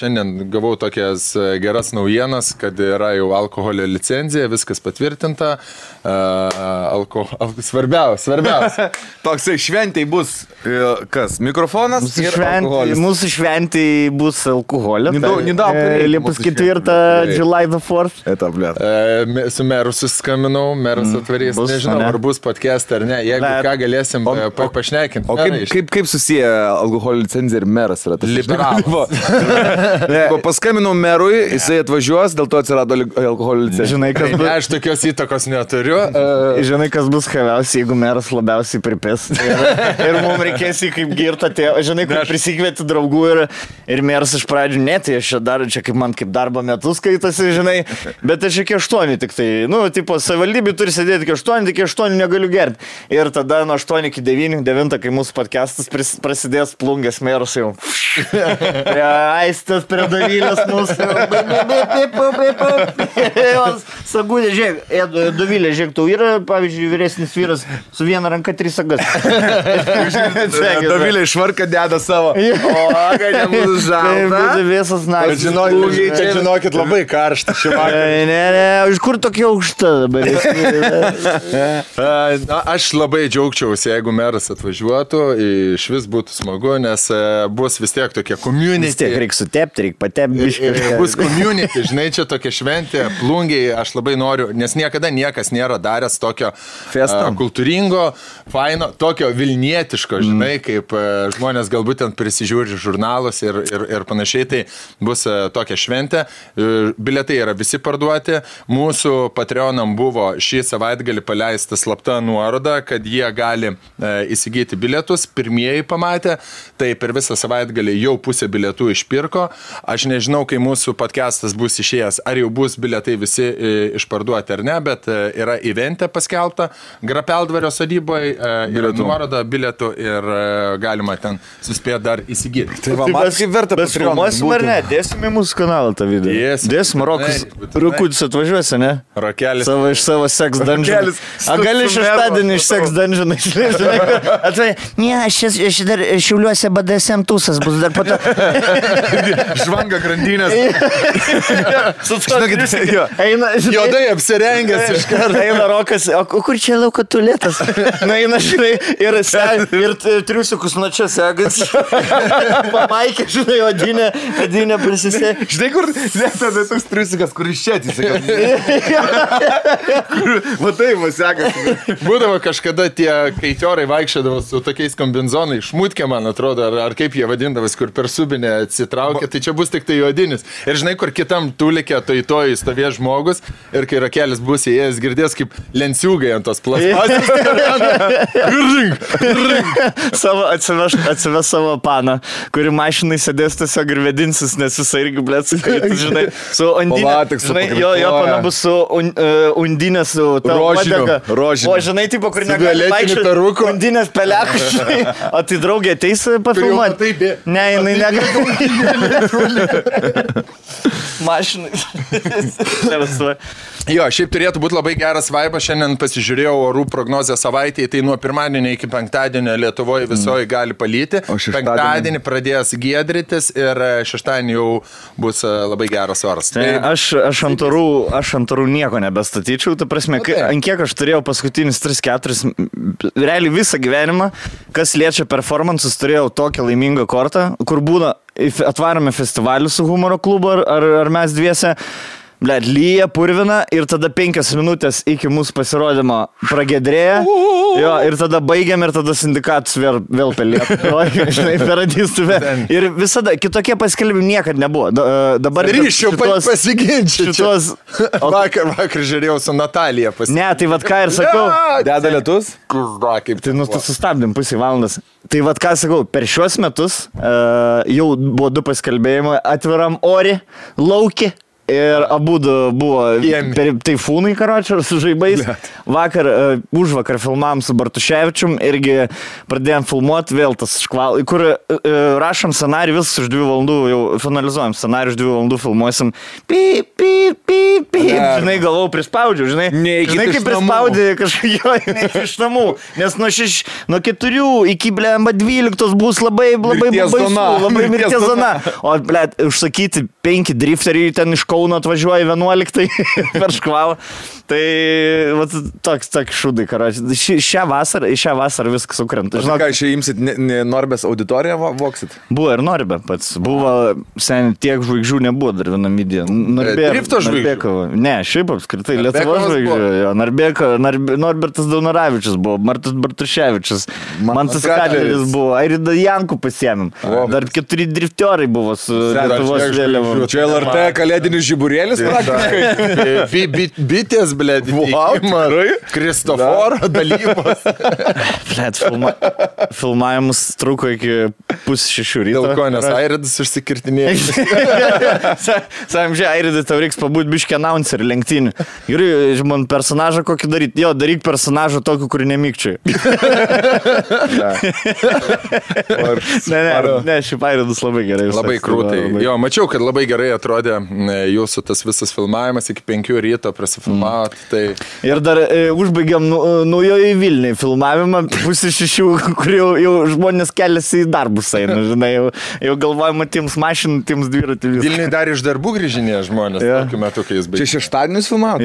Šiandien gavau tokias geras naujienas, kad yra jau alkoholio licenzija, viskas patvirtinta. Svarbiausia. Toksai šventėj bus kas? Mikrofonas ir alkoholis. Mūsų šventėj bus alkoholio. Liepos 4, July the 4th. Su meru suskambinau, meras atvarys. Nežinau, ar bus podcast ar ne. Jeigu ką galėsim pašnekinti. O kaip susiję alkoholio licenzija ir meras yra? Liberalas. Paskambinau merui, jisai atvažiuos, dėl to atsirado alkoholio licenzija. Žinai, kas bus... Aš tokios įtakos neturiu. Žinai, kas bus chaviausiai, jeigu meras labiausiai pripės. Ir mums reikės į kaip girtą tėvą. Žinai, kur prisikvieti draugų ir meras iš pradžių, ne, tai aš čia kaip man kaip darbo metus skaitasi, žinai, bet aš iki 8 tik tai. Tipo, savivaldybė turi sėdėti iki 8, iki 8 negaliu gerti. Ir tada nuo 8 iki 9, kai mūsų podcastas prasidės, plungės meras jau. Aistas prie Dovilės mūsų. Sagūdė, žiūrėk, Dovilė, žiūrėk, tau yra, pavyzdžiui, vyresnis vyras su viena ranka 3 sagas. Dovilė išvarka deda savo. O, kad nebūtų žalta. Visas naktis. Žinokit, labai karšta šį vakarą. Ne, iš kur tokia aukšta dabar? Aš labai džiaugčiausi, jeigu meras atvažiuotų, iš vis būtų smagu, nes bus vis tiek tokie community. Vis tiek reikia sutepti, reikia patepti. Bus community, žinai, čia tokia šventė, plungiai, aš labai noriu, nes niekada niekas nėra daręs tokio kultūringo, faino, tokio vilnietiško, žinai, kaip žmonės galbūt ten prisižiūri žurnalus ir panašiai, tai bus tokia šventė. Bilietai yra visi parduoti. Mūsų Patreonam buvo šį savaitgalį paleista slapta nuoroda, kad jie gali įsigyti bilietus. Pirmieji pamatė, tai per visą savaitgalį jau pusė bilietų išpirko. Aš nežinau, kai mūsų podcastas bus išėjęs, ar jau bus bilietai visi išparduoti ar ne, bet yra eventė paskelbta Grapeldvario sodyboje, yra nuoroda bilietų ir galima ten suspėti dar įsigyti. Tai va, man kaip verta Filmuosim ar ne? Dėsim į mūsų kanalą tą video. Dėsim, Rukudis atvažiuosi, ne? Rokelis. Iš savo sex dungeon. A gali šeštadienį iš sex dungeon išleisi? Ne, aš dar Šiauliuose BDSM tūsas bus dar po to. Žvanga grandinės. Juodai apsirengęs iš karto. Eina Rokas, o kur čia lauko tualetas? Eina, žinai, ir triusiukus nuo čia segas. Pamaikė, žinai, odinė prisisė. Žinai, kur tada toks triusiukas, kur iš čia atsisakė. Matai, va segas. Būdavo kažkada tie kaitiorai vaikščiodavo su tokiais kombinzonai, šmutkė, man atrodo, ar kaip jie vadindavas, kur per subinę atsitraukė, tai čia bus tik tai juodinis. Ir žinai, kur kitam tulikė, toj stovės žmogus, ir kai Rakelis bus įėjęs, girdės kaip lenciūgai ant tos plasmasės. Atsives savo paną, kuri mašinai sėdės tiesiog ir vedinsis, nes visai irgi blėt, žinai, su undinė. Žinai, jo pana bus su undinė, su rožiniu. O žinai, tipo, kur negali vaikščioti, undinės pelekus, žinai. O tai draugė ateis pafilmuoti? Ne, jinai negali. Mašinai. Jo, šiaip turėtų būti labai geras vaibas. Šiandien pasižiūrėjau orų prognozę savaitėje, tai nuo pirmadienio iki penktadienio Lietuvoje visoje gali palyti. Penktadienį pradės giedrytis ir šeštadienį jau bus labai geras oras. Tai aš ant orų nieko nebestatyčiau, ta prasme, ant kiek aš turėjau paskutinius 3-4, realiai visą gyvenimą, kas liečia performances, turėjau tokią laimingą kortą, kur būna atvarome festivalį su humoro klubu ar mes dviese. Blet, lyja, purvina ir tada 5 minutės iki mūsų pasirodymo pragedrėja. Jo, ir tada baigiam ir tada sindikatus vėl pelėt. Žinai, peradistų vėl. Ir visada, kitokie paskelbimai niekad nebuvo. Dabar ryšiu pasiginčiu. Vakar žiūrėjau su Natalija Ne, tai vat ką ir sakau. Deda lietus? Tai sustabdėm pusę valandas. Tai vat ką sakau, per šiuos metus jau buvo 2 paskelbėjimai atviram ori, lauki. Ir abudu buvo taifūnai, karočią, su žaibais. Užvakar filmavom su Bartuševičium, irgi pradėjom filmuoti vėl tas škval, kur rašom scenarijų, viskas už 2 valandų, jau finalizuojam scenarijų, už 2 valandų filmuosim. Pip. Žinai, galvau, prispaudžiu, žinai. Žinai, kaip prispaudė kažkokio iš namų. Nes nuo 4 iki 12 bus labai baisu, labai mirties zona. O, blėt, užsakyti 5 drifteriai ten iš Kauno atvažiuoja 11 per škvalą. Tai toks šūdai, karoči. Šią vasarą viskas sukrenta. Žinau, ką, čia imsit Norbės auditoriją voksit? Buvo ir Norbė pats. Buvo, seniai, tiek žvaigždžių nebuvo dar vienam video. Drifto žvaigždžių? Ne, šiaip apskritai, Lietuvos žvaigždžių. Norbertas Daunoravičius buvo, Martas Bartuševičius, Mantas Kadleris buvo, Airida Jankų pasiėmėm. Dar 4 driftiorai buvo su Lietuvos vėliavom. Čia LRT kalėdinis žiburėlis praktiškai. Bitės, blėt, Kristoforo dalybos. Blėt, filmavimus truko iki 5:30 ryto. Dėl ko, nes Airidas užsikirtinėjo. Sakom, žiūrėjau, Airidai, tau reiks pabūt biškį announcerį lenktynių. Ir man personažą kokį daryti. Jo, daryk personažą tokį, kurį nemykčiai. Ne, šiaip Airidas labai gerai. Labai krūtai. Jo, mačiau, kad labai gerai atrodė jūsų tas visas filmavimas iki 5 ryto prasifilmavot. Tai... Ir dar užbaigiam naujoje Vilniuje filmavimą 5:30, kur jau žmonės keliasi į darbus eina, žinai, jau galvojama tiems mašinų, tiems dviratį viską. Vilniuje dar iš darbų grįžinė žmonės, tokiu metu, kai jis baigė. Čia šeštadienis filmavot?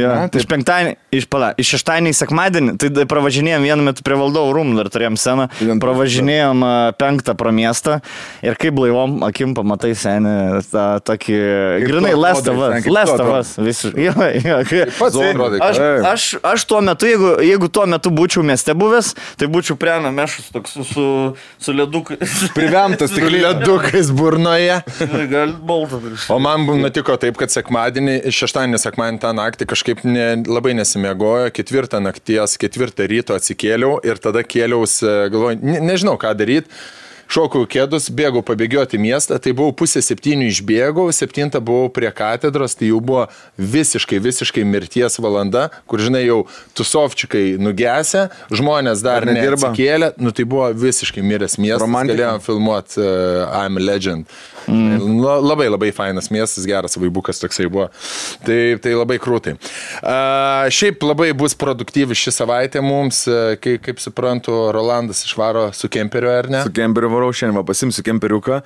Iš šeštadienį į sekmadienį, tai pravažinėjom vienu metu prie Valdovų rūmų, dar turėjom sceną, pravažinėjom 5 pro miestą ir kaip blaivom akim pamatai senį tą tokį, grinai, Lestovas visiškai. Aš tuo metu, jeigu tuo metu būčiau mieste buvęs, tai būčiau prie namešus toks su ledukais. Privemtas tik ledukais burnoje. Gal bolta. O man nutiko taip, kad šeštadienį, sekmadienį tą naktį kažkaip labai nesimiegojo, 4 nakties, 4 ryto atsikėliau ir tada kėliaus, galvoju, nežinau ką daryti. Šokau kėdus, bėgau pabėgioti miestą, tai buvau 6:30 išbėgau, 7 buvau prie katedros, tai jau buvo visiškai mirties valanda, kur, žinai, jau tusovčikai nugesę, žmonės dar neatsikėlė, tai buvo visiškai miręs miestas, galėjom filmuoti I'm a Legend. Labai fainas miestas, geras vaibukas toksai buvo. Tai labai krūtai. Šiaip labai bus produktyvi ši savaitė mums, kaip suprantu, Rolandas išvaro su kemperiu, ar ne? Su kemperiu varau, šiandien pasimsiu kemperiuką.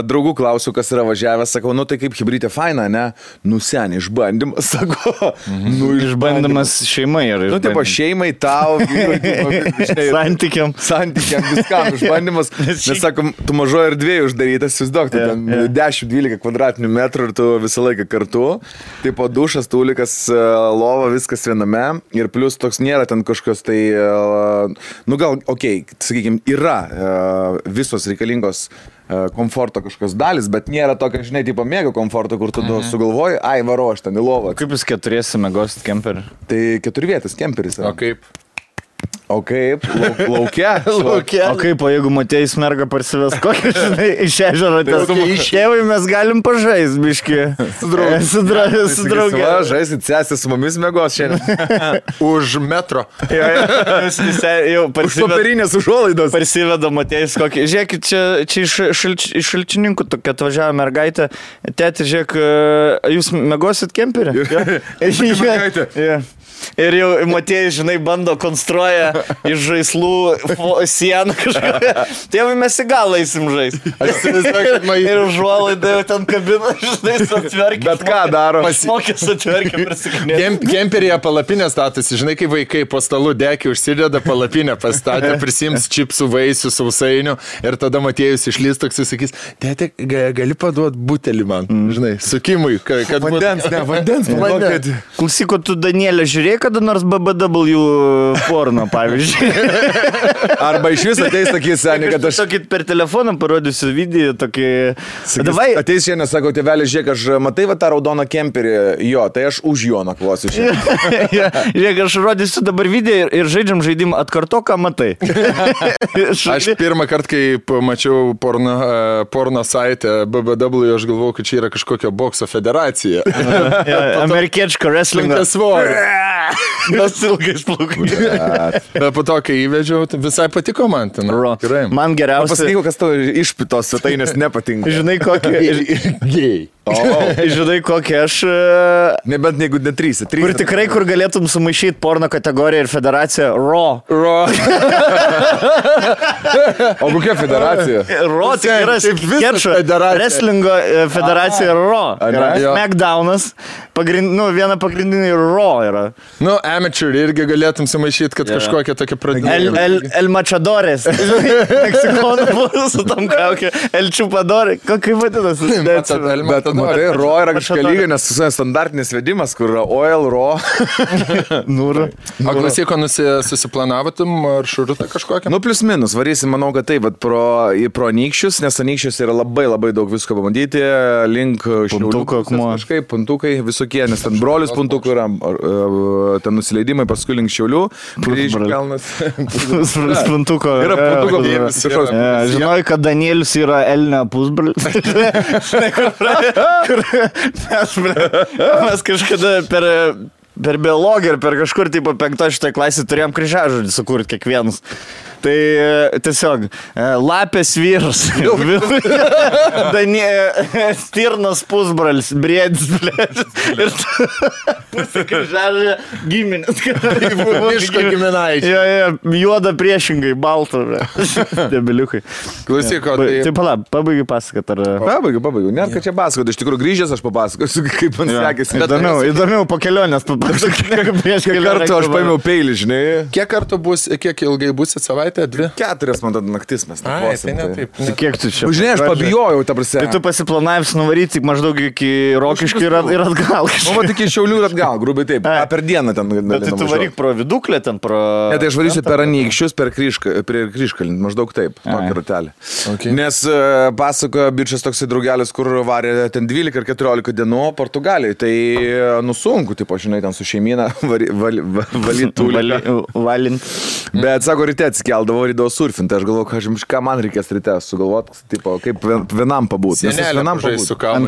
Draugų klausiu, kas yra važiavęs, sakau, tai kaip hibridė faina, ne? Seniai, išbandymas, sakau. Išbandymas šeimai. Tipo šeimai, tau, santykiam, viskam išbandymas. Nes, sakom, tu mažoje erdvėje uždarytas, įsivaizduok, 10-12 kvadratinių metrų ir tu visą laiką kartu. Taip, dušas, tūlikas, lova, viskas viename. Ir plus toks nėra ten kažkokios tai, gal, sakykime, yra visos reikalingos komforto kažkokios dalis, bet nėra tokio, žinai, tipo mėgo komforto, kur tu sugalvoji, varo aš ten į lovą. Kaip jūs 4 mėgosit kemperį? Tai 4 vietas kemperis. O kaip? Laukia. O kaip, o jeigu Matėjus merga parsives kokį, žinai, iš ežero, išėjai mes galim pažaist, biški. Su draugė. Žaisit, sesė su mumis mėgos šiandien. Už metro. Už popierinės užuolaidos. Parsiveda Matėjus kokį. Žiūrėkit, čia iš šalčininkų tokia atvažiavo mergaitė. Tėti, žiūrėk, jūs mėgosit kemperį? Ir jau Matėjus, žinai, bando konstruoja iš žaislų sieną kažką. Tėvai mes į galą eisim žais. Ir užuolaidai jau ten kabina, žinai, atverkė. Bet ką daro? Pasmokės atverkė, prisikinė. Kemperyje palapinė statosi, žinai, kai vaikai po stalu dekį užsideda palapinę pastatę, prisims čipsų, vaisių, sausainių ir tada Matėjus išlys toks ir sakys, tėti, gali paduoti butelį man, žinai, sukimui, kad vandens. Klausyk, tu Danielė žiūrėjai žiūrėjai kada nors BBW porno, pavyzdžiui? Arba iš vis ateis tokį senį, kad aš... Tokį per telefoną parodysiu video, tokį... Davai. Ateis šiandien, sako, tėvelis, žiūrėk, aš matai va tą raudoną kemperį, jo, tai aš už jo nakvosiu šiandien. Žiūrėk, aš rodysiu dabar video ir žaidžiam žaidimą atkarto, ką matai. Aš pirmą kartą, kai pamačiau porno saitę BBW, aš galvojau, kad čia yra kažkokia bokso federacija. Amerikiečko wrestlingo. Mes ilgais plaukai. Bet po to, kai įvedžiau, visai patiko man. Man geriausia... Pasakyk, kas tau išpitos svetainės nepatinka. Žinai, kokį... Gei. Žinai, kokį aš... Nebent jeigu ne 3. Kur tikrai, kur galėtum sumaišyti porno kategoriją ir federaciją Raw. O kokia federacija? Raw tik yra skečio. Wrestlingo federacija Raw. Smackdownas. Viena pagrindinė Raw yra. Amateur irgi galėtum sumaišyti, kad kažkokia tokia pradėja. El Machadores. Meksikonų buvo su tam kaukė. El Chupadore. Kaip vadinasi? Bet matai, Raw yra kažkokia lyga, nes standartinis vedimas, kur yra oil, Raw. Nūra. O klasiko susiplanavotum maršrutą kažkokią? Plius minus, varysim, manau, kad taip, bet pro Anykščius, nes Anykščius yra labai daug visko pabandyti, link Puntuko akmuo. Kažkaip, puntukai visokie, nes ten brolius puntukų yra, ten nusileidimai, paskui link Šiaulių. Puntuko. Yra puntuko. Žinojai, kad Danielius yra Elnio pusbrolis. Mes kažkada per biologiją ir per kažkur, tipo, 5-6 klasį turėjom kryžiažodį sukurti kiekvienas. Tai tiesiog lapės vyras, stirnos pusbralis, briedis, ir kryžiažodį giminės. Miško giminaičiai. Juoda priešingai, balta. Debiliukai. Klausyk, tai pala, pabaigiu pasakat. Pabaigiu. Net, kad čia pasakot, iš tikrųjų grįžęs aš papasakosiu, kaip man sekėsi. Įdomiau po kelionės papasakoti. Kiek kartų aš paėmiau peilį, žinai? Kiek ilgai būsit savaitę? 2? 4 man tada naktis mes taip. Kiek tu čia? Žinai, aš pabijojau, ta prasme. Tai tu pasiplanavęs nuvaryti maždaug iki Rokiškių ir atgal. Tik iki Šiaulių ir atgal, grubiai taip. Per dieną ten. Bet tai tu varyk pro Viduklę ten, pro... Ne, tai aš varysiu per Anykščius, per Kryžkalnį, maždaug taip, tokį ratelį. Nes pasakojo bičias toksai draugelis, kur varė ten 12 ar 14 dienų Portugalijai. Tai sunku, tipo, žinai, ten su šeimyna valint. Bet sako, ryte atsikeldavo, rydavo surfinti. Aš galvoju, ką man reikės ryte sugalvoti, tipo, kaip vienam pabūti. Ant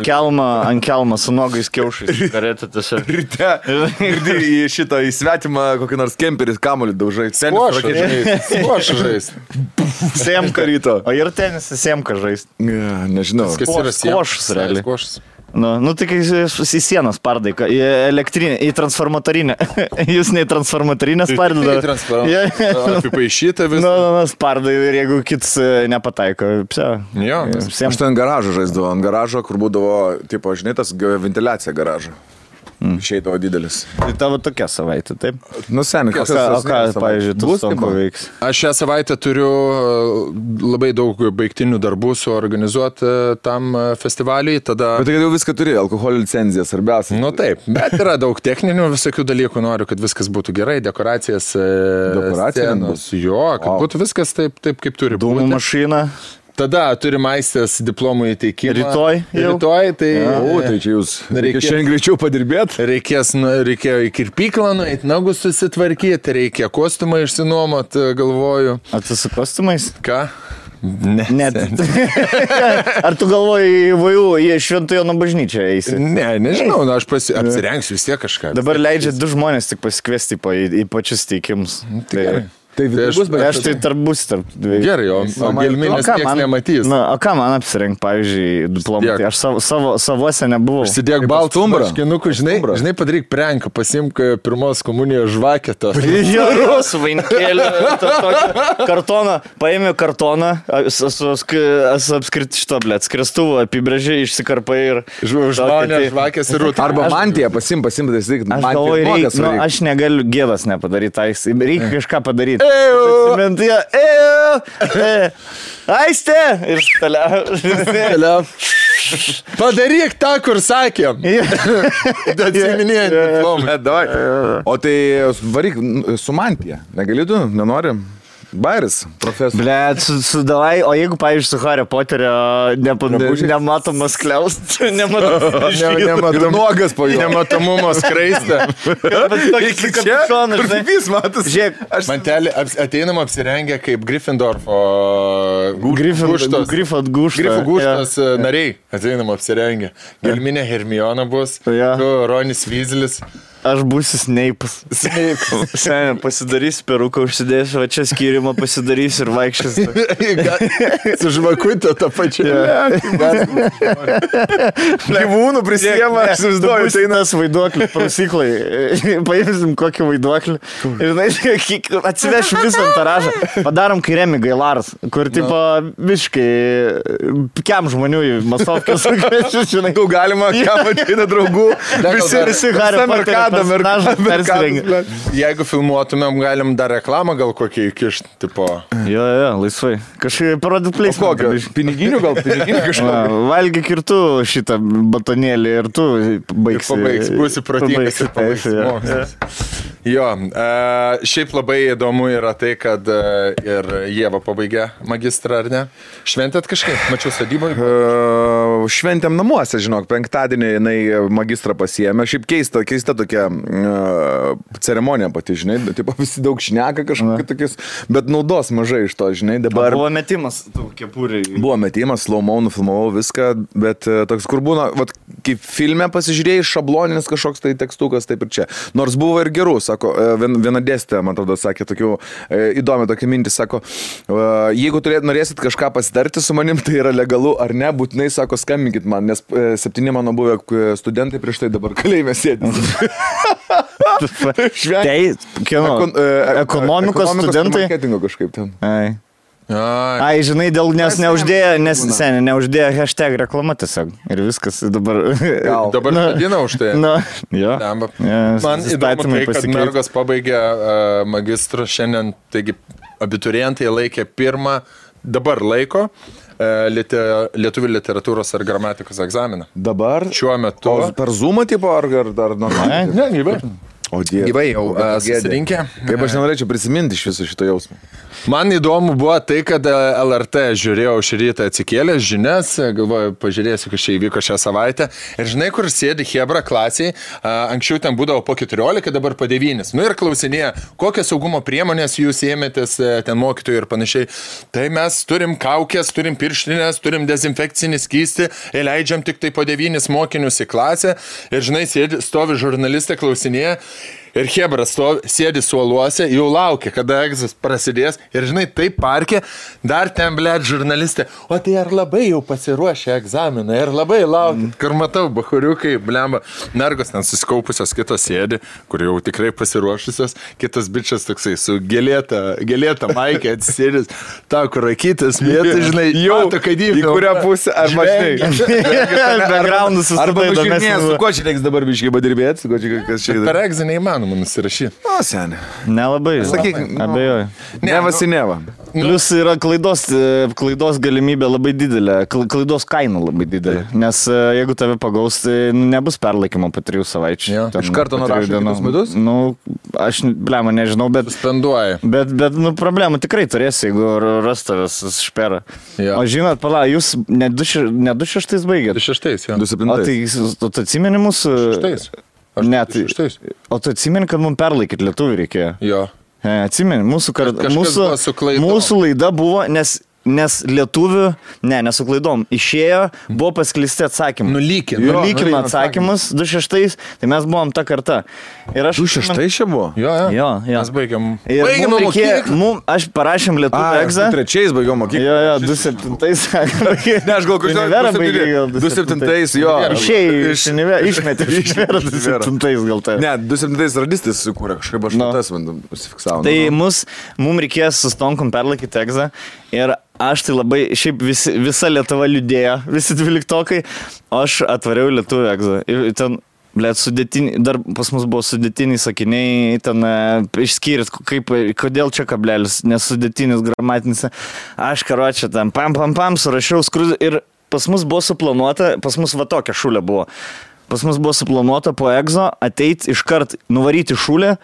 kelmo su nogais kiaušais. Ryte į šitą įsvetimą kokį nors kemperį kamuolį daužai. Skuošą žais. Semka ryto. O ir tenisą semka žais. Nežinau. Skuošus realiai. Tik į sieną spardai, į elektrinę, į transformatorinę. Jūs ne į transformatorinę spardai. Apipaišyta visą. Spardai ir jeigu kits nepataiko. Aš ten garažą žaisdavau, ant garažo, kur būdavo, tipo, žinai, tas ventiliacija garažo. Išeidavo didelis. Tai tavo tokia savaitė, taip? Seniai, o ką, pavyzdžiui, tu stonko veiks? Aš šią savaitę turiu labai daug baigtinių darbų suorganizuoti tam festivaliui, tada... Bet tai jau viską turi, alkoholio licenciją, svarbiausia. Taip, bet yra daug techninių visokių dalykų, noriu, kad viskas būtų gerai, dekoracijas, scenos, kad būtų viskas taip, kaip turi būti. Dūmų mašina. Tada turim aistės diplomų įteikimą. Rytoj, tai... Tai čia jūs reikia šiandien greičiau padirbėti. Reikėjo į kirpyklą nueiti, nagus susitvarkyti, reikia kostiumą išsinuomoti, galvoju. Ar tu su kostiumais? Ką? Ne. Ar tu galvoji į Šventojo bažnyčią eisi? Ne, nežinau, aš apsirengsiu vis tiek kažką. Dabar leidžia 2 žmonės tik pasikviesti į pačius teikimus. Tai aš tai tarp dviejų. Gerai, o gelminės nieks nematys. O ką man apsirengti, pavyzdžiui, diplomatį? Aš savose nebuvau. Užsidėk baltų marškinukų, žinai, padaryk prenką, pasimk pirmos komunijos žvaketą. Su vainikėliu, kartoną, paėmė kartoną, apskriti šito, skriestuvų apibrėžiai, išsikarpai ir... Žvakės ir rūtą. Arba mantiją pasim, aš galvoju, aš negaliu gėdas nepadaryti, reikia kažką padaryti. Aistė! Ir toliau. Padaryk tą, kur sakėm. Atsiminėjant diplomą. O tai varyk su mantija. Negali tu, nenorim? Bairis, profesorius. Blet, sudalai, o jeigu, pavyzdžiui, su Hario Poterio nematomas kliaust, nuogas po jo. Nematomumo skraistę. Vis matas. Žiūrėk, Mantelį ateinam apsirengę kaip Gryffindorfo Grifo gūštas nariai. Ateinam apsirengę. Gelminė Hermiona bus, tu Ronis Weaselis. Aš būsiu Sneipas. Šiandien pasidarysiu peruką, užsidėsiu, va čia skyrimą pasidarysiu ir vaikščiosiu. Su žvakutė tą pačią. Gyvūnų prisijėma, aš įsivaizduoju. Tai nas vaiduoklį, prausyklai. Paimsim kokį vaiduoklį. Ir atsivešim visą antaražą. Padarom kairėmi Gailaras, kur tipo visiškai kiam žmonių į masovkės. Žinau, galima, kam ateina draugų. Visi Hario Poterio personažai. Jeigu filmuotumėm, galim dar reklamą gal kokį įkišti, tipo. Jo, laisvai. Kažkaip parodyt pleismą. Kokio? Piniginių kažkokio? Valgyk ir tu šitą batonėlį ir tu baigsi. Pabaigs, būsi protingas ir pabaigs. Jo, šiaip labai įdomu yra tai, kad ir Ieva pabaigė magistrą, ar ne? Šventėt kažkaip? Mačiau sadybą? Šventėm namuose, žinok, penktadienį jinai magistrą pasiėmė. Šiaip keista tokia ceremonija pati, žinai, taip visi daug šneka kažkokie tokius, bet naudos mažai iš to, žinai, dabar. Buvo metimas tų kepuriai. Buvo metimas, slow-mo, nufilmavau viską, bet toks, kur būna, vat, kaip filme pasižiūrėjai, šabloninis kažkoks tai tekstukas, taip ir čia. Nors buvo ir gerų, sako, viena dėstė, man atrodo, sakė, tokių įdomi tokia mintis, sako, jeigu norėsit kažką pasitarti su manim, tai yra legalu ar ne, būtinai, sako, skambinkit man, nes 7 mano buvę studentai prieš tai dabar kalėjime sėdi. Ekonomikos studentai. Marketingo kažkaip ten. Ai, žinai, nes neuždėjo hashtag reklama tiesiog. Ir viskas dabar. Dabar vadina už tai. Jo. Man įdomu tai, kad mergos pabaigė magistrą šiandien, taigi abiturientai laikė pirmą, dabar laiko lietuvių literatūros ar gramatikos egzaminą. Dabar? Šiuo metu. Per Zoomą tipo ar normaliai? Ne, gyvai. O Dieve. Gyvai jau susirinkę. Kaip aš nenorėčiau prisiminti iš viso šito jausmo. Man įdomu buvo tai, kad LRT žiūrėjau šį rytą atsikėlęs žinias, galvoju, pažiūrėsiu, kas čia įvyko šią savaitę. Ir žinai, kur sėdi Hebra klasiai, anksčiau ten būdavo po 14, dabar po 9. Nu ir klausinėja, kokias saugumo priemonės jūs ėmėtės ten mokytojų ir panašiai. Tai mes turim kaukės, turim pirštinės, turim dezinfekcinį skystį ir leidžiam tik tai po 9 mokinius į klasę. Ir žinai, stovi žurnalistė, klausinėja. Ir Hebra sėdi suoluose, jau laukia, kada egzas prasidės. Ir žinai, taip parkė, dar ten, blėt, žurnalistė. O tai ar labai jau pasiruošė egzaminą? Ir labai laukia. Kur matau, bahuriukai, blemba, mergos ten susikaupusios, kitos sėdi, kur jau tikrai pasiruošusios. Kitas bičias toksai su gėlėta maikė atsisėdis. Ta, kur rakytis, mėtai, žinai, jau tokia dybė. Į kurią pusę, ar backgroundus arba nužiūrėjęs, su kuo čia reiks dabar biškai padirbėti, kas čia. Per egzą neįmanoma nusirašyti. O, senė. Nelabai. Sakyk, abejoju. Neva. Plius yra klaidos galimybė labai didelė, klaidos kaina labai didelė, nes jeigu tave pagaus, tai nebus perlaikymo po 3 savaičių. Iš karto nurašo kitus metus? Nu, aš, blema, nežinau, bet... Suspenduoja. Bet, problemų tikrai turėsi, jeigu ras tavęs šperą. O žinot, jūs ne 26 baigėt? 26, jo. 27. O tai atsimeni mūsų... 26. Ne, o tu atsimeni, kad mums perlaikyti lietuvių reikėjo? Jo. Atsimeni, mūsų laida buvo, nes lietuvių, nesu klaidom, išėjo, buvo pasklisti atsakymai. Nulykino atsakymus 26, tai mes buvom ta karta. 26 čia buvo? Jo. Mes baigėm mokyklą. Aš parašėm lietuvių egzą. 23 baigėm mokyklą. Jo, 27. Ne, aš gal kažkaip 27, jo. Išmetė iš Univero 27 gal tai. Ne, 27 radistis sukūrė, kažkaip aš tas užsifiksavau. Tai mums reikės su Stonkom perlaikyti egzą ir aš tai labai, šiaip visa Lietuva liūdėjo, visi 12-okai, aš atvariau lietuvių egzą. Ten, dar pas mus buvo sudėtiniai sakiniai, ten išskyrėt, kodėl čia kablelis, nes sudėtinis gramatinis. Aš karočią ten pam, surašiau skrūdį ir pas mus buvo suplanuota, pas mus va tokia šulė buvo. Pas mus buvo suplanuota po egzo ateiti iškart nuvaryti šulę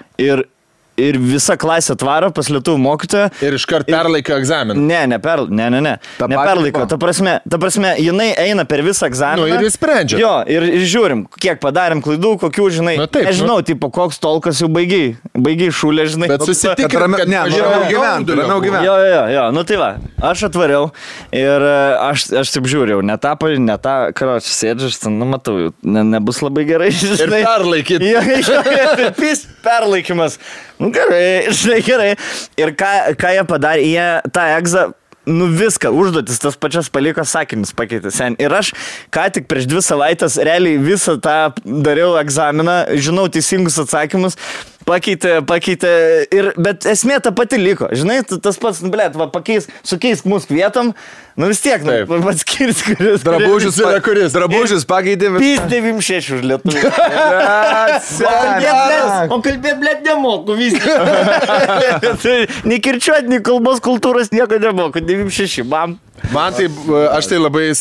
ir visa klasė atvaro pas lietuvių mokytoją. Ir iškart perlaiko egzaminą. Ne. Neperlaiko. Ta prasme, jinai eina per visą egzaminą. Ir jis sprendžia. Jo, ir žiūrim, kiek padarėm klaidų, kokių, žinai. Nežinau, tipo, koks tolkas jau baigiai šulė, žinai. Bet susitikrim, kad ramiau gyventi. Jo, nu tai va, aš atvariau ir aš taip žiūrėjau, ne tą, karočią sėdžiu, aš ten, matau, nebus labai gerai, žinai. Ir perlaikyti. Jo, perlaikymas. Nu gerai, žinai, gerai. Ir ką jie padarė, jie tą egzą, viską, užduotis, tas pačias paliko sakinius pakeitė sen. Ir aš ką tik prieš 2 savaitės realiai visą tą dariau egzaminą, žinau teisingus atsakymus, pakeitė, bet esmė ta pati liko. Žinai, tas pats, sukeisk mūsų vietom, vis tiek, atskirs, kuris. Drabužius pakeitė. Pys 96 už lietuvių. O kalbėt, blėt, nemoku vis. Nei kirčiuot, nei kalbos kultūros nieko nemoku. 96, bam. Man tai, aš tai labai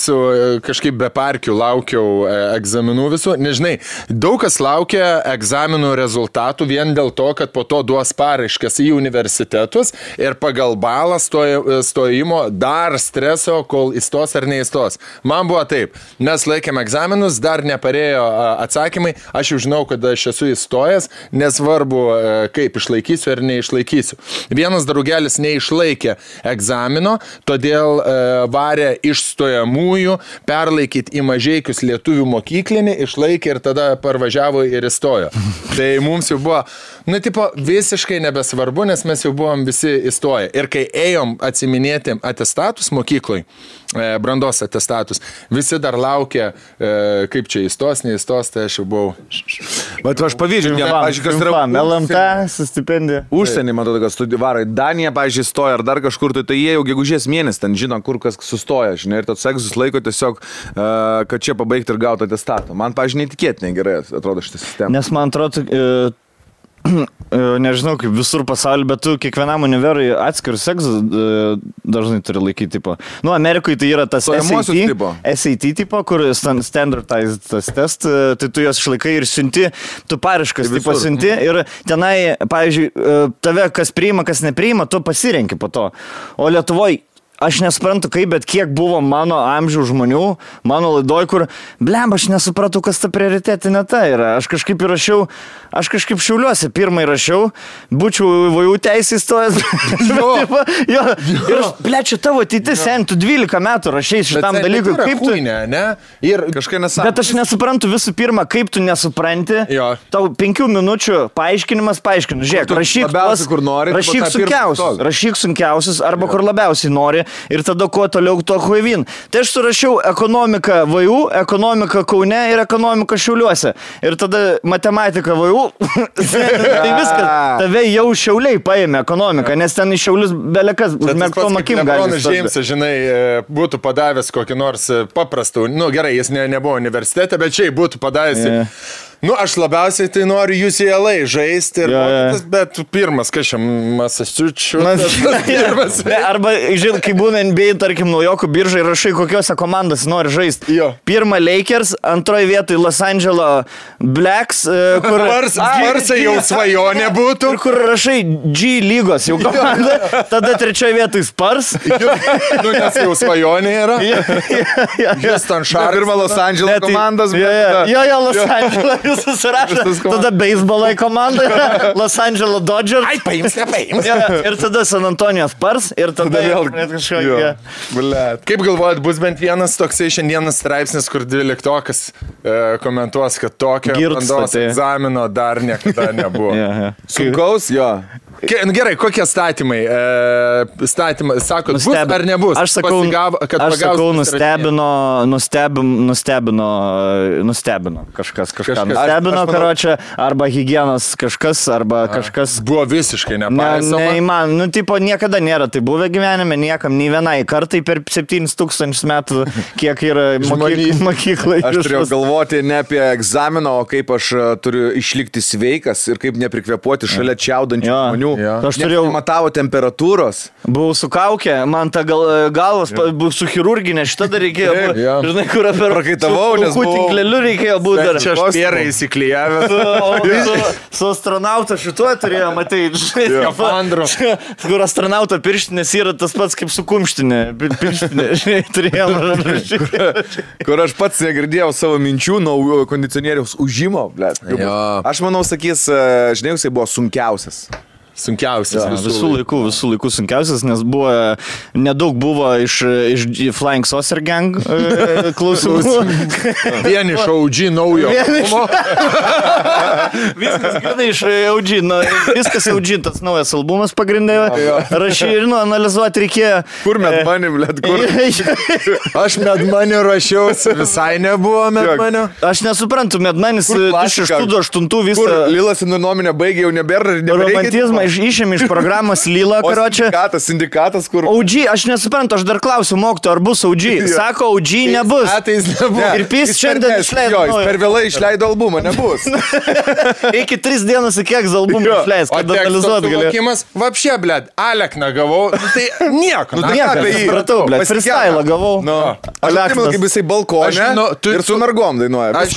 kažkaip be parkių laukiau egzaminų visų. Nežinai, daug kas laukia egzaminų rezultatų vien dėl to, kad po to duos paraiškas į universitetus ir pagal balą stojimo dar streso, kol įstos ar neįstos. Man buvo taip, mes laikėm egzaminus, dar neparėjo atsakymai, aš jau žinau, kad aš esu įstojęs, nesvarbu, kaip išlaikysiu ar neišlaikysiu. Vienas draugelis neišlaikė egzamino, todėl varė iš stojamųjų, perlaikyti į Mažeikius lietuvių mokyklinį, išlaikė ir tada parvažiavo ir įstojo. Tai mums jau buvo, visiškai nebesvarbu, nes mes jau buvom visi įstoję. Ir kai ėjom atsiminėti atestatus mokykloj, brandos atestatus, visi dar laukė, kaip čia įstos, neįstos, tai aš jau buvau. Bet aš pavyzdžiui, LMT su stipendija. Užsienį, matau, kad studijavai. Danija, pavyzdžiui, stoja ar dar kažkur, tai jie jau gegužės mėnesį ten žino, kur kas sustoja, žinai, ir tos egzus laiko tiesiog, kad čia pabaigti ir gauti atestatą. Man, pavyzdžiui, neįtikėtinai gerai atrodo šitą sistemą. Nes man atrodo, nežinau, kaip visur pasaulyje, bet tu kiekvienam univerui atskirus egzus dažnai turi laikyti, tipo. Amerikoje tai yra tas SAT tipo, kur standardized test, tai tu juos išlaikai ir siunti, tu paraiškas tipo siunti ir tenai, pavyzdžiui, tave kas priima, kas nepriima, tu pasirenki po to. O Lietuvoje aš nesuprantu kaip, bet kiek buvo mano amžių žmonių, mano laidoj, kur, aš nesupratau, kas ta prioritetinė ta yra. Aš kažkaip įrašiau, Šiauliuose pirmai rašiau, būčiau VU teisį įstojęs. Ir čia tavo ateitis, tu 12 metų rašiai šitam dalykui. Kaip tu, ne? Ir kažkai nesuprantu. Bet aš nesuprantu visų pirma, kaip tu nesupranti. Tau 5 minučių paaiškinimas. Žiūrėk, rašyk sunkiausius arba kur labiausiai nori. Ir tada kuo toliau to huivin. Tai aš surašiau ekonomiką VU, ekonomiką Kaune ir ekonomiką Šiauliuose. Ir tada matematika VU. Tai viskas. Tave jau Šiauliai paėmė ekonomiką, nes ten iš Šiaulius belekas užmerktom akim gali. Lebronas Džeimsas, žinai, būtų padavęs kokį nors paprastų, gerai, jis nebuvo universitete, bet šiaip būtų padavęs. Aš labiausiai tai noriu UCLA žaisti, bet pirmas, kažkaip Massachusetts. Arba, žinai, kai būna NBA, tarkim, naujokų biržai, rašai, kokiose komandas nori žaisti. Pirma Lakers, antroji vietoj Los Angeles Blacks, kur... Sparsai jau svajonė būtų. Kur rašai G lygos jau komanda, tada trečioji vietoj Spurs. Nes jau svajonė yra. Houston Sharks. Pirma Los Angeles komandas. Los Angeles. Susirašo, tada beisbolo komanda, Los Angeles Dodgers. Ai, paims. Ir tada San Antonijos Spurs, ir tada vėl kažkokia. Kaip galvojat, bus bent vienas toksai šiandienas straipsnis, kur 12-okas komentuos, kad tokio brandos egzamino dar niekada nebuvo. Sunkaus? Gerai, kokie statymai? Sakot, bus ar nebus? Aš sakau, nustebino kažkas. Stebino, karočią, arba higienos kažkas, arba kažkas. Buvo visiškai nepaisoma. Tipo, niekada nėra tai buvę gyvenime, niekam, nei vienai kartai per 7000 metų, kiek yra mokyklai. Aš turėjau galvoti ne apie egzaminą, o kaip aš turiu išlikti sveikas ir kaip neprikvėpuoti šalia čiaudančių žmonių. Ja. Aš turėjau... Matavo temperatūros. Buvau su kaukė, man ta galvas, buvau su chirurginė, šitą dar reikėjo, žinai, kur apie prakaitavau, nes buvau... tinkleliu reikėjo būti dar. Čia aš pierą įsiklijavęs. Su astronauto šituo turėjo, matai, žinai, kur astronauto pirštinės yra tas pats kaip su kumštinė, pirštinė, žinai, turėjom. Kur aš pats negirdėjau savo minčių nuo kondicionieriaus užimo, blėt. Aš manau, sakys, žinai, jisai buvo sunkiausias. Sunkiausias visų laikų sunkiausias, nes buvo, nedaug buvo iš Flying Saucer Gang klausimų. Vieni iš OG naujo. Viskas grinai iš OG, viskas OG, tas naujas albumas pagrindėjo. Rašyti ir analizuoti reikėjo. Kur Medmoney, blėt, kur? Aš Medmoney rašiausi, visai nebuvo Medmoney. Aš nesuprantu, Medmoney's 2008 visą... Kur Lilas nuomonę baigė, jau nebėra ir romantizmą išėmė iš programos Lila, karočią. Sindikatas, kur... OG, aš nesuprantu, aš dar klausiu mokyto, ar bus OG. Sako, OG nebus. Ir PIS šiandien išleido. Jo, jis per vėlai išleido albumą, nebus. Iki 3 dienas iki kiek albumą išleis, kad analizuot galėjau. Vapšė, blėd, Alekną gavau, tai nieko. Supratau, blėd, freestyle gavau. Aš atsimenu, kaip jisai balkonė ir su mergom dainuoja. Aš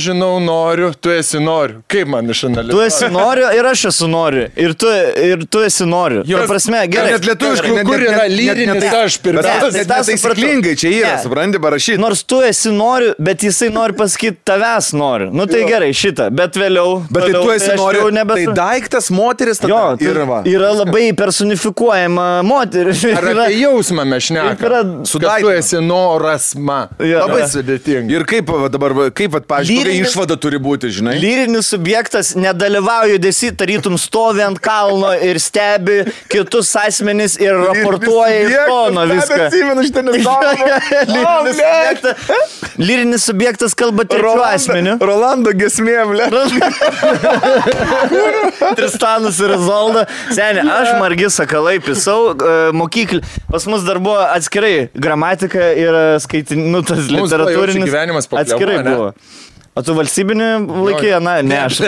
žinau, noriu, tu esi noriu. Kaip man išanalizuoti? Tu esi noriu ir aš esu noriu. Ir tu esi noriu. Jo, prasme, gerai. Net lietuviškai, kur yra lyrinis aš pirmiausia. Net taisyklingai čia yra, supranti, parašyti. Nors tu esi noriu, bet jisai nori pasakyti tavęs noriu. Nu tai gerai, šitą. Bet vėliau... Bet tai tu esi noriu, tai daiktas moteris tada yra labai personifikuojama moteris. Ar apie jausmą mes šnekame? Kad tu esi noras ma. Labai sudėtinga. Ir kaip dabar, pavyzdžiui, išvada turi būti, žinai? Lyrinis subjektas nedalyvauja judesy, tarytum stovi ant kalno ir stebi kitus asmenis ir raportuoja iš tono viską. Lyrinis subjektas kalba trečiu asmeniu. Rolando gesmė, ble. Tristanas ir Izolda. Seniai, aš Margis Sakalai pisau mokyklį. Pas mus dar buvo atskirai gramatika ir skaitinutas literatūrinis. Atskirai buvo. O tu valstybinį laikė? Na, ne, aš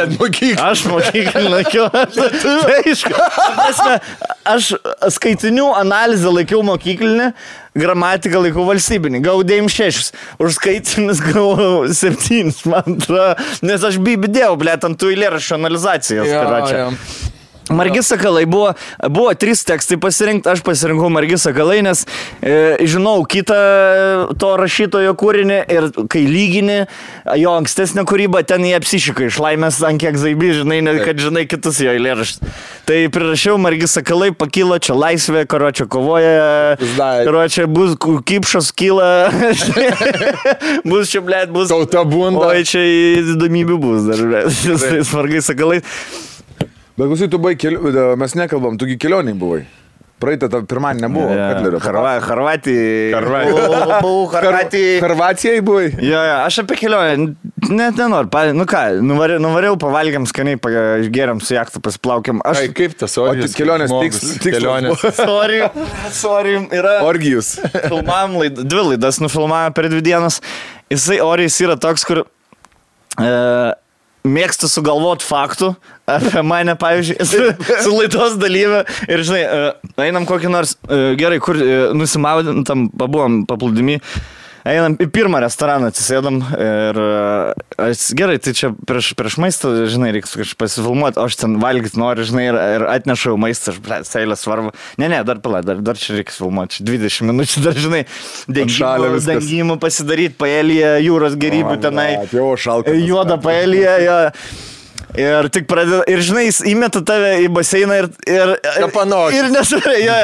mokyklį laikiau. Aš skaitinių analizę laikiau mokyklinį, gramatiką laikiau valstybinį. Gavau 9,6. Už skaitinius gavau 7, man atrodo. Nes aš bibidėjau, blėt, ant tų eilėraščių analizacijas. Margis Sakalai buvo 3 tekstai pasirinkti, aš pasirinkau Margis Sakalai, nes žinau kitą to rašytojo kūrinį ir kai lygini jo ankstesnę kūrybą, ten jie apsišika iš laimės ant kiek zaibi, žinai, kad žinai kitus jo eilėraščius. Tai prirašiau Margis Sakalai, pakilo, čia laisvė, karočią kovoja, karočią bus kipšas kyla, bus čia, blėt, bus tauta bunda. Oi, čia įdomybių bus dar, blėt, Margis Sakalai. Bet klausai, tu buvai mes nekalbam, tugi kelioniai buvai. Praeitą pirmanį nebuvo. Harvatijai buvai. Jo, aš apie kelionę net nenoriu. Nu ką, nuvariau, pavalgiam skaniai, išgeriam su jachtu, pasiplaukiam. Kaip tas orgijus? Kelionės tikslas. Sorry. Yra orgijus. Filmavom 2 laidas, nufilmavome per 2 dienas. Jisai orijas yra toks, kur... mėgstu sugalvot faktų apie mane, pavyzdžiui, su laidos dalyvė ir, žinai, einam kokį nors, gerai, kur nusimaudėm, tam pabuvom paplūdimy, einam į pirmą restoraną, atsisėdam ir gerai, tai čia prieš maistą, žinai, reikia kažkaip pasifilmuoti, o aš ten valgyti noriu, žinai, ir atnešau maistą, aš seilę svarbu. Ne, dar pala, dar čia reikia filmuoti, 20 minučių, dar, žinai, dengimų pasidaryti, paelyje, jūros gerybų tenai, juoda paelyje, jo. Ir tik pradeda, ir žinai, jis įmeta tave į baseiną ir nesvarė, jo.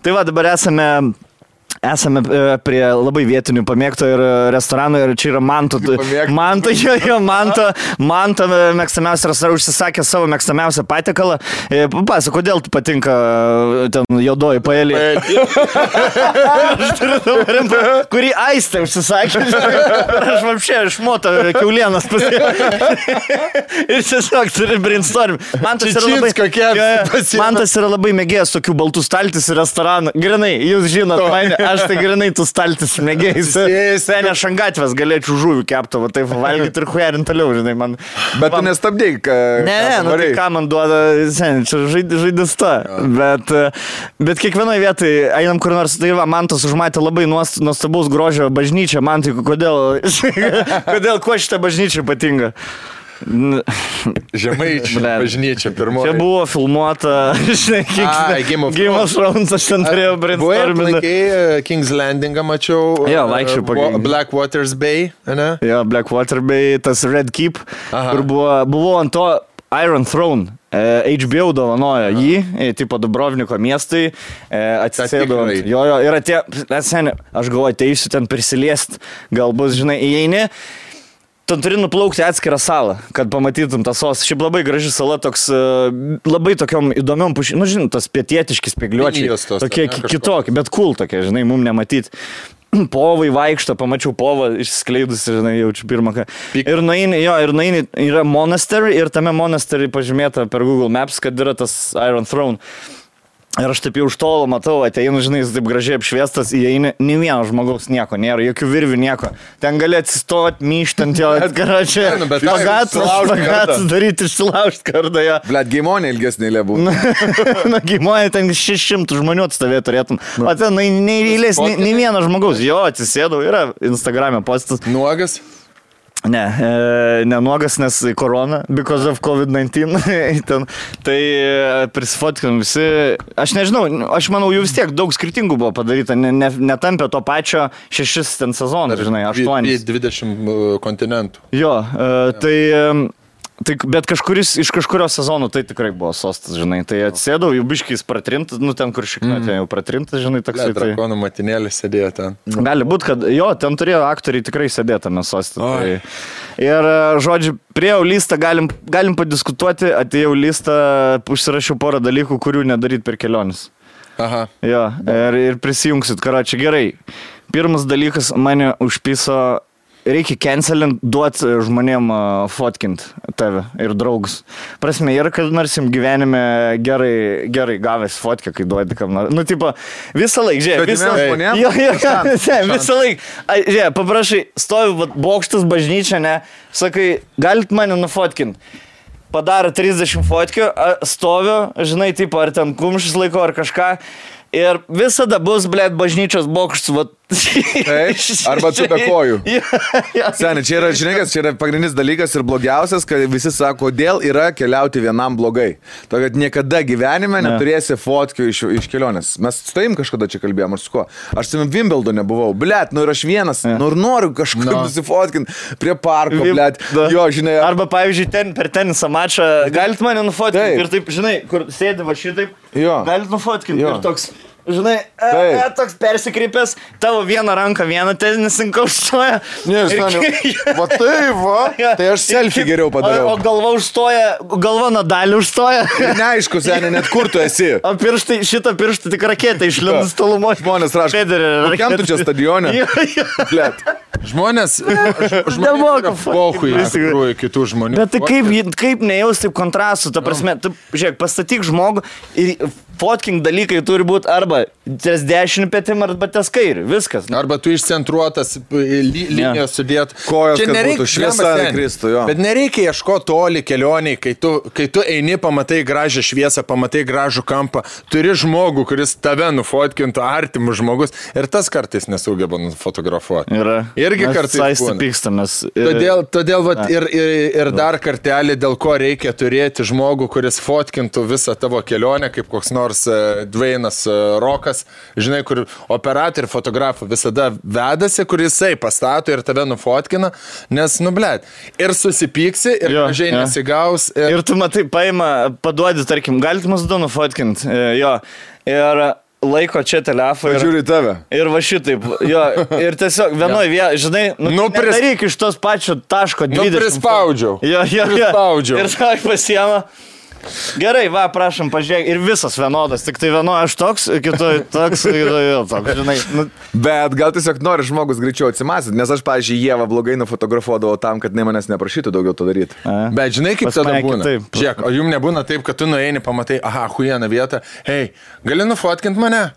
Tai va, dabar esame prie labai vietinių pamėgto ir restorano ir čia yra Manto mėgstamiausia restorano užsisakė savo mėgstamiausią patiekalą. Papasakok, kodėl tu patinka ten juodoji paelė? Kurį Aistė užsisakė. Aš vapšė išmoto kiaulienas ir tiesiog turi brainstorm. Mantas yra labai mėgėjęs tokių baltų staltis ir restoranų. Grinai, jūs žinot mane. aš tai grinai tu staltis mėgėjai. Sen aš ant gatvės galėčiau žuvių kepto, va taip valgyti ir huerint toliau, žinai, man. Bet tu nestabdėjai, Ne, nu tai ką man duoda, sen, čia žaidis ta. Bet kiekvienoje vietoje einam kur nors, tai va, man tas užmatė labai nuostabaus grožio bažnyčią, man tai kodėl kuo šitą bažnyčią ypatinga? Žemaičių bažnyčia pirmoji. Čia buvo filmuota, žinai, Game of Thrones, aš ten turėjau brainstorminti. Buvai King's Landingą mačiau. Jo, vaikščiau po Blackwaters Bay, ne? Jo, Blackwater Bay, tas Red Keep, kur buvo ant to Iron Throne. HBO dovanojo jį, tipo Dubrovniko miestui, atsisėdo. Jo, ir atėjo, aš galvoju, ateisiu ten prisiliest, gal bus, žinai, įeini. Ten turi nuplaukti atskirą salą, kad pamatytum tą sostą. Šiaip labai graži sala, toks labai tokiom įdomiom pušim, nu žinai, tas pietietiški spėgliuočiai, tokie kitokie, bet cool tokie, žinai, mum nematyti. Povai vaikšto, pamačiau povą išskleidusi, žinai, jaučiu pirmą ką. Ir nueini, yra monastery ir tame monastery pažymėta per Google Maps, kad yra tas Iron Throne. Ir aš taip jau už tolo matau, ateinu, žinai, jis taip gražiai apšviestas, įeini, nei vieno žmogaus nieko nėra, jokių virvių nieko. Ten gali atsistoti, myštant jo, atgaračiai, pagatus daryti, išsilaužti kartą jo. Blet, geimonė ilgesnė lėbų. Na, geimonė ten 600 žmonių atstovė turėtum. O ten nei eilės, nei vieno žmogaus. Jo, atsisėdau, yra Instagram'e postas. Nuogas? Ne nuogas, nes korona, because of COVID-19. Tai prisifotkinam visi. Aš nežinau, aš manau, jų vis tiek daug skirtingų buvo padaryta. Netampė to pačio 6 ten sezonų, žinai, 8. 20 kontinentų. Jo, bet iš kažkurio sezono tai tikrai buvo sostas, žinai. Tai atsėdau, jau biškiais pratrintas, nu ten kur šikna, ten jau pratrintas, žinai, toksai. Drakonų matinėlį sėdėjo ten. Gali būt, kad jo, ten turėjo aktoriai tikrai sėdėtame sostą. Tai. Ir, žodžiu, priejau listą, galim padiskutuoti, atėjau listą, užsirašiau porą dalykų, kurių nedaryt per kelionis. Aha. Jo, ir prisijungsit, karočią, gerai. Pirmas dalykas mane užpiso. Reikia cancelint, duoti žmonėm fotkint tave ir draugus. Prasme, yra, kad nors jums gyvenime gerai gavęs fotkę, kai duodi kam nors. Nu, tipo, visą laiką, žiūrėk, visą laiką. Žiūrėk, paprašai, stovi bokštas bažnyčia, ne, sakai, galit mane nufotkint. Padaro 30 fotkių, stoviu, žinai, tipo, ar ten kumštis laiko, ar kažką. Ir visada bus, blėt, bažnyčios bokštas, va. Arba čia be kojų. Seniai, čia yra, žinai, čia yra pagrindinis dalykas ir blogiausias, kad visi sako, kodėl yra keliauti vienam blogai. To, kad niekada gyvenime neturėsi fotkių iš kelionės. Mes su tavim kažkada čia kalbėjom, ar su kuo. Aš su Wimbledone buvau, blėt, nu ir aš vienas, nu ir noriu kažkaip nusifotkinti prie parko, blėt. Jo, žinai. Arba, pavyzdžiui, per tenisą mačą, galit mane nufotkinti ir taip, žinai, kur sėdi va šitaip, galit nufotkinti ir toks. Žinai, toks persikreipęs, tavo vieną ranką, vieną tenisininką užstoja. Va tai va, tai aš selfie geriau padariau. O galva užstoja, galva Nadalį užstoja. Neaišku, seniai, net kur tu esi. O pirštai, šitą pirštą tik raketą išlindus tolumos. Žmonės rašo, kokiam tu čia stadione? Blet. Žmonės yra pohui iš tikrųjų kitų žmonių. Bet tai kaip nejaus taip kontrastų, ta prasme, tu, žiūrėk, pastatyk žmogų ir fotking dalykai turi būti arba ties dešinį petim, arba ties kairį, viskas. Arba tu išcentruotas linijos sudėt. Kojas, kad būtų šviesa kristų, jo. Bet nereikia ieškoti toli kelioniai, kai tu eini, pamatai gražią šviesą, pamatai gražų kampą, turi žmogų, kuris tave nufotkintų, artimus žmogus, ir tas kartais nesugeba nufotografuoti. Irgi kartais pykstamės. Todėl vat, ir dar kartelį, dėl ko reikia turėti žmogų, kuris fotkintų visą tavo kelionę, kaip koks nors Dwaynas Rokas, žinai, kur operatorių fotografų visada vedasi, kur jisai pastato ir tave nufotkina, nes, nu, blėt, ir susipyksi, ir gražiai nesigaus. Ir tu matai, paduodi, tarkim, galit mus du nufotkinti, jo, ir laiko čia telefoną. Žiūri tave. Ir va šitaip, jo, ir tiesiog vienoj vietoje, žinai, nedaryk iš tos pačio taško 20. Prispaudžiau. Jo. Ir ką pasiema. Gerai, va, prašom, pažiūrėk, ir visas vienodas, tik tai vienoje aš toks, kitoj toks, kitoje toks, žinai. Bet gal tiesiog nori žmogus greičiau atsimasit, nes aš, pavyzdžiui, Ievą blogai nufotografuodavau tam, kad manęs neprašytų daugiau to daryti. Bet žinai, kaip tada būna? Žiūrėk, o jums nebūna taip, kad tu nueini, pamatai, aha, huijena vieta, hei, gali nufotkinti mane?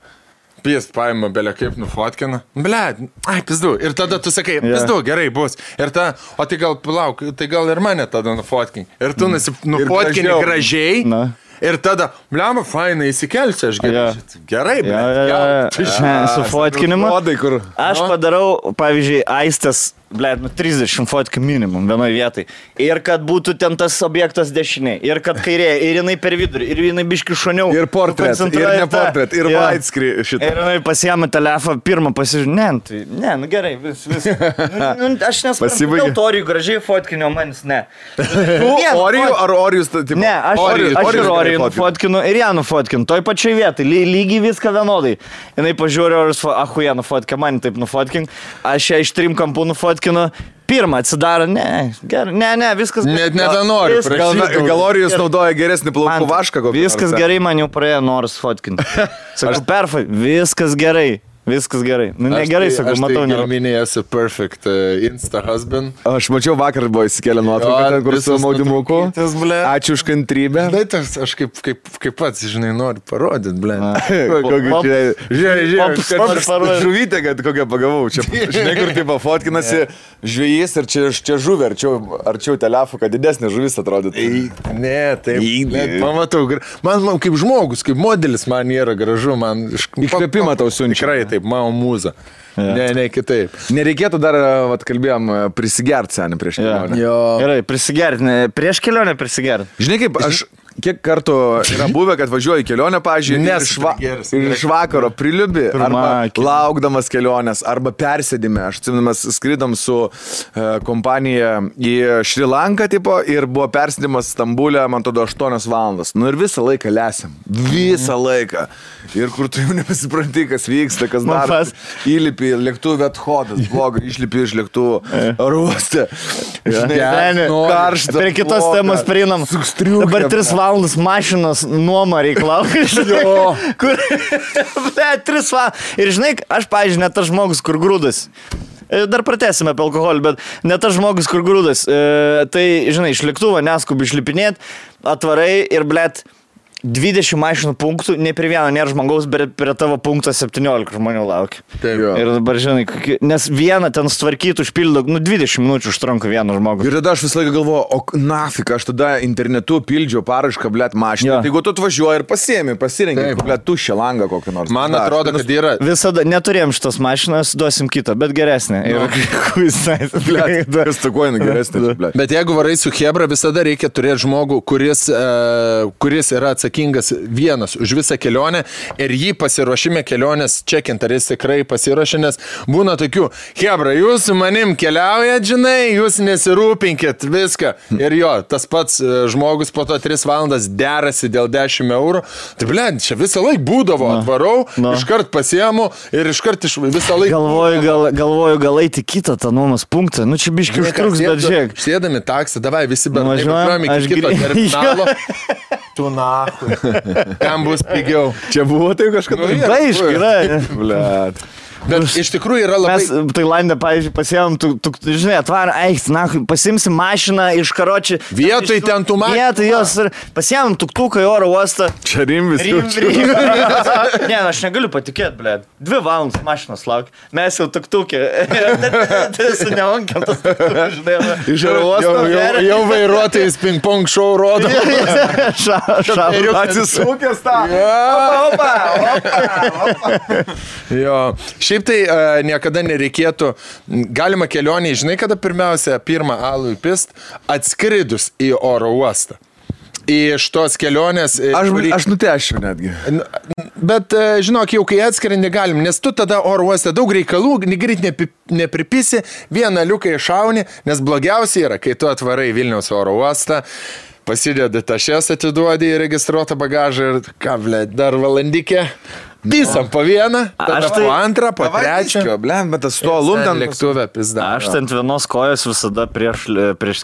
Jis paima belė kaip nufotkina. Blet, ai, pizdu. Ir tada tu sakai, pizdu, gerai bus. Ir ta, o tai gal, palauk, tai gal ir mane tada nufotkini. Ir tu nufotkini gražiai. Na. Ir tada, bliama, fainai, įsikelsi, aš gerai, bet. Su fotkinimu. Aš padarau, pavyzdžiui, Aistės, 30 fotkių minimum vienoje vietoje. Ir kad būtų ten tas objektas dešiniai, ir kad kairėje, ir jinai per vidurį, ir jinai biški šoniau. Ir portret, ir ne portret, ir widescreen šitą. Ir jinai pasiėmė telefoną, pirmą pasižiūrė, ne, nu gerai, vis. Aš nesuprantu, dėl Orijų gražiai fotkinio, manis ne. Orijų ar Orijus? Ne, aš ir Orijų nufotkinu, ir ją nufotkinu, toj pačioj vietai, lygiai viską vienodai. Jinai pažiūrė, ahuja nufotkė, man taip nufotkink, aš ją iš 3 kampų nufotkinu. Pirmą atsidaro, ne, viskas gerai. Net nebenoriu. Gal Orijus naudoja geresnį plaukų vašką? Viskas gerai, man jau praėjo noras fotkinti. Sakau, viskas gerai. Viskas gerai. Nu, negerai, sakau, matau. Aš tai minėjau, esu perfect insta husband. Aš mačiau vakar buvo įsikėlę nuotrauką, ten kur su maudimuku. Ačiū už kantrybę. Aš kaip pats, žinai, noriu parodyti, ble. Žiūrėk, žuvytė, kad kokią pagavau. Žinai, kur taip fotkinasi žvėjys ir čia žuvė, arčiau telefų, kad didesnė žuvis atrodytų. Ne, taip. Pamatau, man kaip žmogus, kaip modelis man yra gražu, man iškvėpimą tau siunčia. Mano mūza. Ne, kitaip. Nereikėtų dar, kalbėjom, prisigerti senį prieš kelionę. Gerai, prisigerti. Prieš kelionę prisigerti. Žinai kaip, aš kiek kartų yra buvę, kad važiuoju į kelionę, pavyzdžiui, iš vakaro priliubi, arba laukdamas kelionės, arba persėdime. Aš atsiminamas, skridom su kompanija į Šri Lanką, tipo, ir buvo persėdimas Stambulė, man tada 8 valandas. Nu ir visą laiką lesiam. Visą laiką. Ir kur tu jau nepasipranti, kas vyksta, kas daras. Įlipi lėktuvė athodas, blogai, išlipi iš lėktuvų ruostę. Karšta. Prie kitos temos prieinam. Dabar 3 valandas mašinos nuoma reikalauja. Kur, 3 valandas. Ir žinai, aš, pavyzdžiui, net tas žmogus, kur grūdas. Dar pratęsime apie alkoholį, bet net tas žmogus, kur grūdas. Tai, žinai, iš lėktuvo neskubi išlipinėt, atvarai ir, blet, 20 mašinų punktų, ne prie vieno nėra žmogaus, bet prie tavo punkto 17 žmonių laukia. Taip, jo. Ir dabar, žinai, nes vieną ten sutvarkytų, užpildo, 20 minučių užtrunka vieną žmogų. Ir tada aš visą laiką galvoju, o nafik, aš tada internetu pildžiau parašką, blet, mašiną. Tai jeigu tu atvažiuoji ir pasirengi, blet, tuščią langą kokį nors. Man atrodo, kad yra. Visada neturėjom šitos mašinos, duosim kitą, bet geresnė. Bet jeigu varai su Hebra, visada reikia turėti žmogų, kuris yra atsakingas vienas už visą kelionę ir jį pasiruošime kelionės čekint, ar jis tikrai pasiruošė, nes būna tokių, Hebra, jūs su manim keliaujat, žinai, jūs nesirūpinkit viską. Ir jo, tas pats žmogus po to 3 valandas derasi dėl 10 eurų. Tai blėd, čia visą laiką būdavo, atvarau, iškart pasiemu ir iškart visą laiką. Galvoju, gal eiti kitą tą nuomos punktą. Nu čia biškai užtruks, bet žiūrėk. Sėdami taksą, davai visi važiuojame iki kito terminalo. Tu nahui. Kam bus pigiau? Čia buvo tai kažkada. Aišku, yra. Blet. Bet iš tikrųjų yra labai... Mes Tailandė, pavyzdžiui, pasiėmėm, žinai, atvarą, pasimsim mašiną iš karočių. Vietoj ten tų mašinų. Vietoj jos ir pasiėmėm tuktuką į oro uostą. Čia rimvis. Ne, aš negaliu patikėti, blėd. 2 valandas mašinos laukia. Mes jau tuktukė. Tai su nevankiam tas tuktukas, žinai. Iš oro uostą. Jau vairuotojais ping-pong show rodo. Atsisukęs tą. Opa. Jo. Šiaip tai niekada nereikėtų, galima kelionį, žinai, kada pirmą alų įpist, atskridus į oro uostą. Iš tos kelionės... Aš nutešiu netgi. Bet, žinok, jau kai atskrendi galim, nes tu tada oro uoste daug reikalų, greit nepripisi, vieną liuką iššauni, nes blogiausia yra, kai tu atvarai Vilniaus oro uostą, pasidedi tašes, atiduodi į registruotą bagažą ir ką, blėt, dar valandikė. Pisam po vieną, tada po antrą, po trečią. Blem, bet tas to lundant lėktuvę pizda. Aš ant vienos kojos visada prieš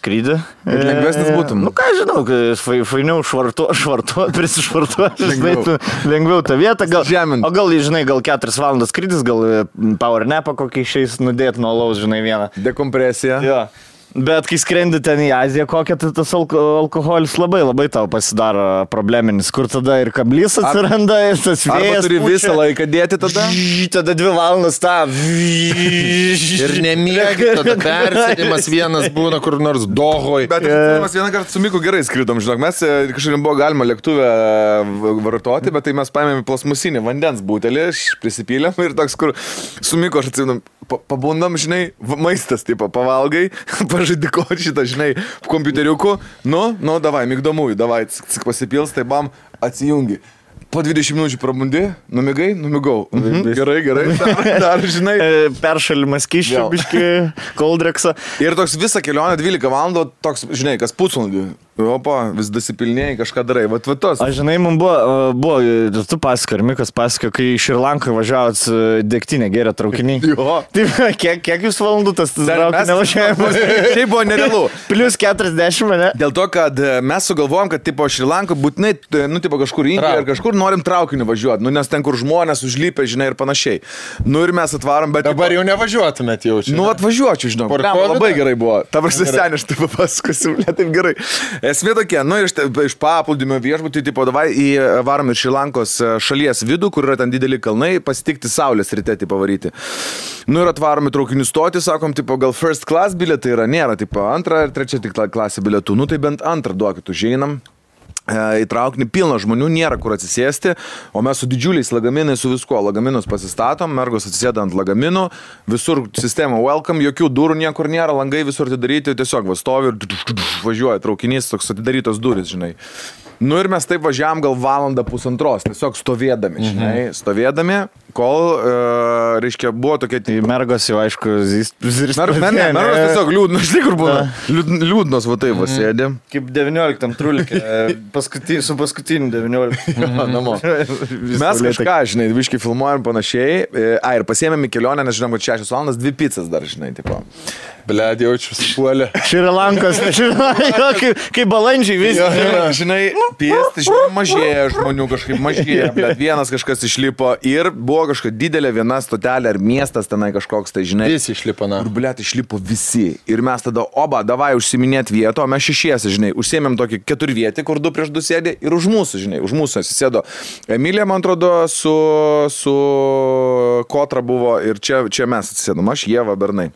skrydį. Ir lengvesnis būtum. Nu ką žinau, fainiau prisišvartuoti, lengviau tą vietą. O gal, žinai, gal 4 valandas skrydis, gal power napą kokį išeis nudėti nuo alaus, žinai, vieną. Dekompresija. Jo. Bet kai skrendi ten į Aziją, kokia tai tas alkoholis labai tau pasidaro probleminis, kur tada ir kablys atsiranda, ir tas vėjas. Arba turi visą laiką dėti tada. Tada 2 valandas tą. Ir nemiegi, tada persėdimas vienas būna kur nors Dohoj. Bet mes vieną kartą su Miku gerai skridom, žinok, mes kažkaip buvo galima lėktuvę vartoti, bet tai mes paėmėme plasmusinį vandens butelį, prisipylėm ir toks, kur su Miku aš atsimenu, pabundam, žinai, maistas, tipo, pavalgai, pažaidiko šitą, žinai, kompiuteriuku, nu, davai, migdomųjų, davai, pasipils, tai bam, atsijungi. Po 20 minučių prabundi, numigau. Gerai, dar, žinai. Peršalimas kiščio, biški, koldreksą. Ir toks visą kelionę 12 valandų, toks, žinai, kas pusvalandį. Opa, vis dasipilnėjai, kažką darai. Vat tos. Aš žinai, man buvo, tu pasako, ir Mikas pasako, kai iš Šrilankoje važiavot degtinę gerę traukinį. Jo. Taip, kiek jūs valandų tas traukinio važiavimas? Tai buvo nerealu. Plius 40, ne? Dėl to, kad mes sugalvojom, kad tipo Šrilanko būtinai, nu, tipo kažkur Indijoje ar kažkur norim traukiniu važiuoti, nu, nes ten, kur žmonės užlypė, žinai, ir panašiai. Nu, ir mes atvarom, bet... Dabar jau nevažiuotumėt jau čia. Nu, atvažiuočiau, žinau. Labai gerai buvo. Ta prasme, seniai, aš taip papasakosiu, ne taip gerai. Esmė tokia, nu, iš paplūdimio viešbutį, tipo, davai varom ir Šrilankos šalies vidų, kur yra ten dideli kalnai, pasitikti saulės ryte, tipo, varyti. Nu, ir atvarom į traukinių stotį, sakom, tipo, gal first class bilietai yra, nėra, tipo, 2 ir 3 tik klasė bilietų. Nu, tai bent 2 duokit, užeinam. Į traukinį pilna žmonių, nėra kur atsisėsti, o mes su didžiuliais lagaminais, su viskuo, lagaminus pasistatom, mergos atsisėda ant lagaminų, visur sistema welcome, jokių durų niekur nėra, langai visur atidaryti, tiesiog va stovi ir važiuoja traukinys, toks atidarytos durys, žinai. Nu ir mes taip važiavam gal 1.5 tiesiog stovėdami, žinai, stovėdami, kol, reiškia, buvo tokia... Tai mergos jau, aišku, mergos tiesiog liūdnos, žinai, kur buvo, liūdnos, va taip, va sėdė. Kaip 19 trulikė, su paskutiniu 19. Namo. Mes kažką, žinai, viškai filmuojam panašiai, ir pasiėmėm į kelionę, nes žinom, kad 6 valandas 2 pizzas dar, žinai, tipo. Bled, jaučiu supuolę. Šrilankos, kaip balandžiai vis. Žinai, piesti, žinai, mažėja žmonių, kažkaip mažėja, bet vienas kažkas išlipo ir buvo kažkokia didelė viena stotelė ar miestas tenai kažkoks, tai žinai. Visi išlipo, na. Ir bled, išlipo visi. Ir mes tada, davai užsiminėt vieto, o mes 6, žinai, užsiėmėm tokį 4 vietį, kur 2 prieš 2 sėdė ir už mūsų, žinai, už mūsų atsisėdo Emilija, man atrodo, su Kotra buvo ir čia mes atsisėdom, aš, Ieva, Bernai.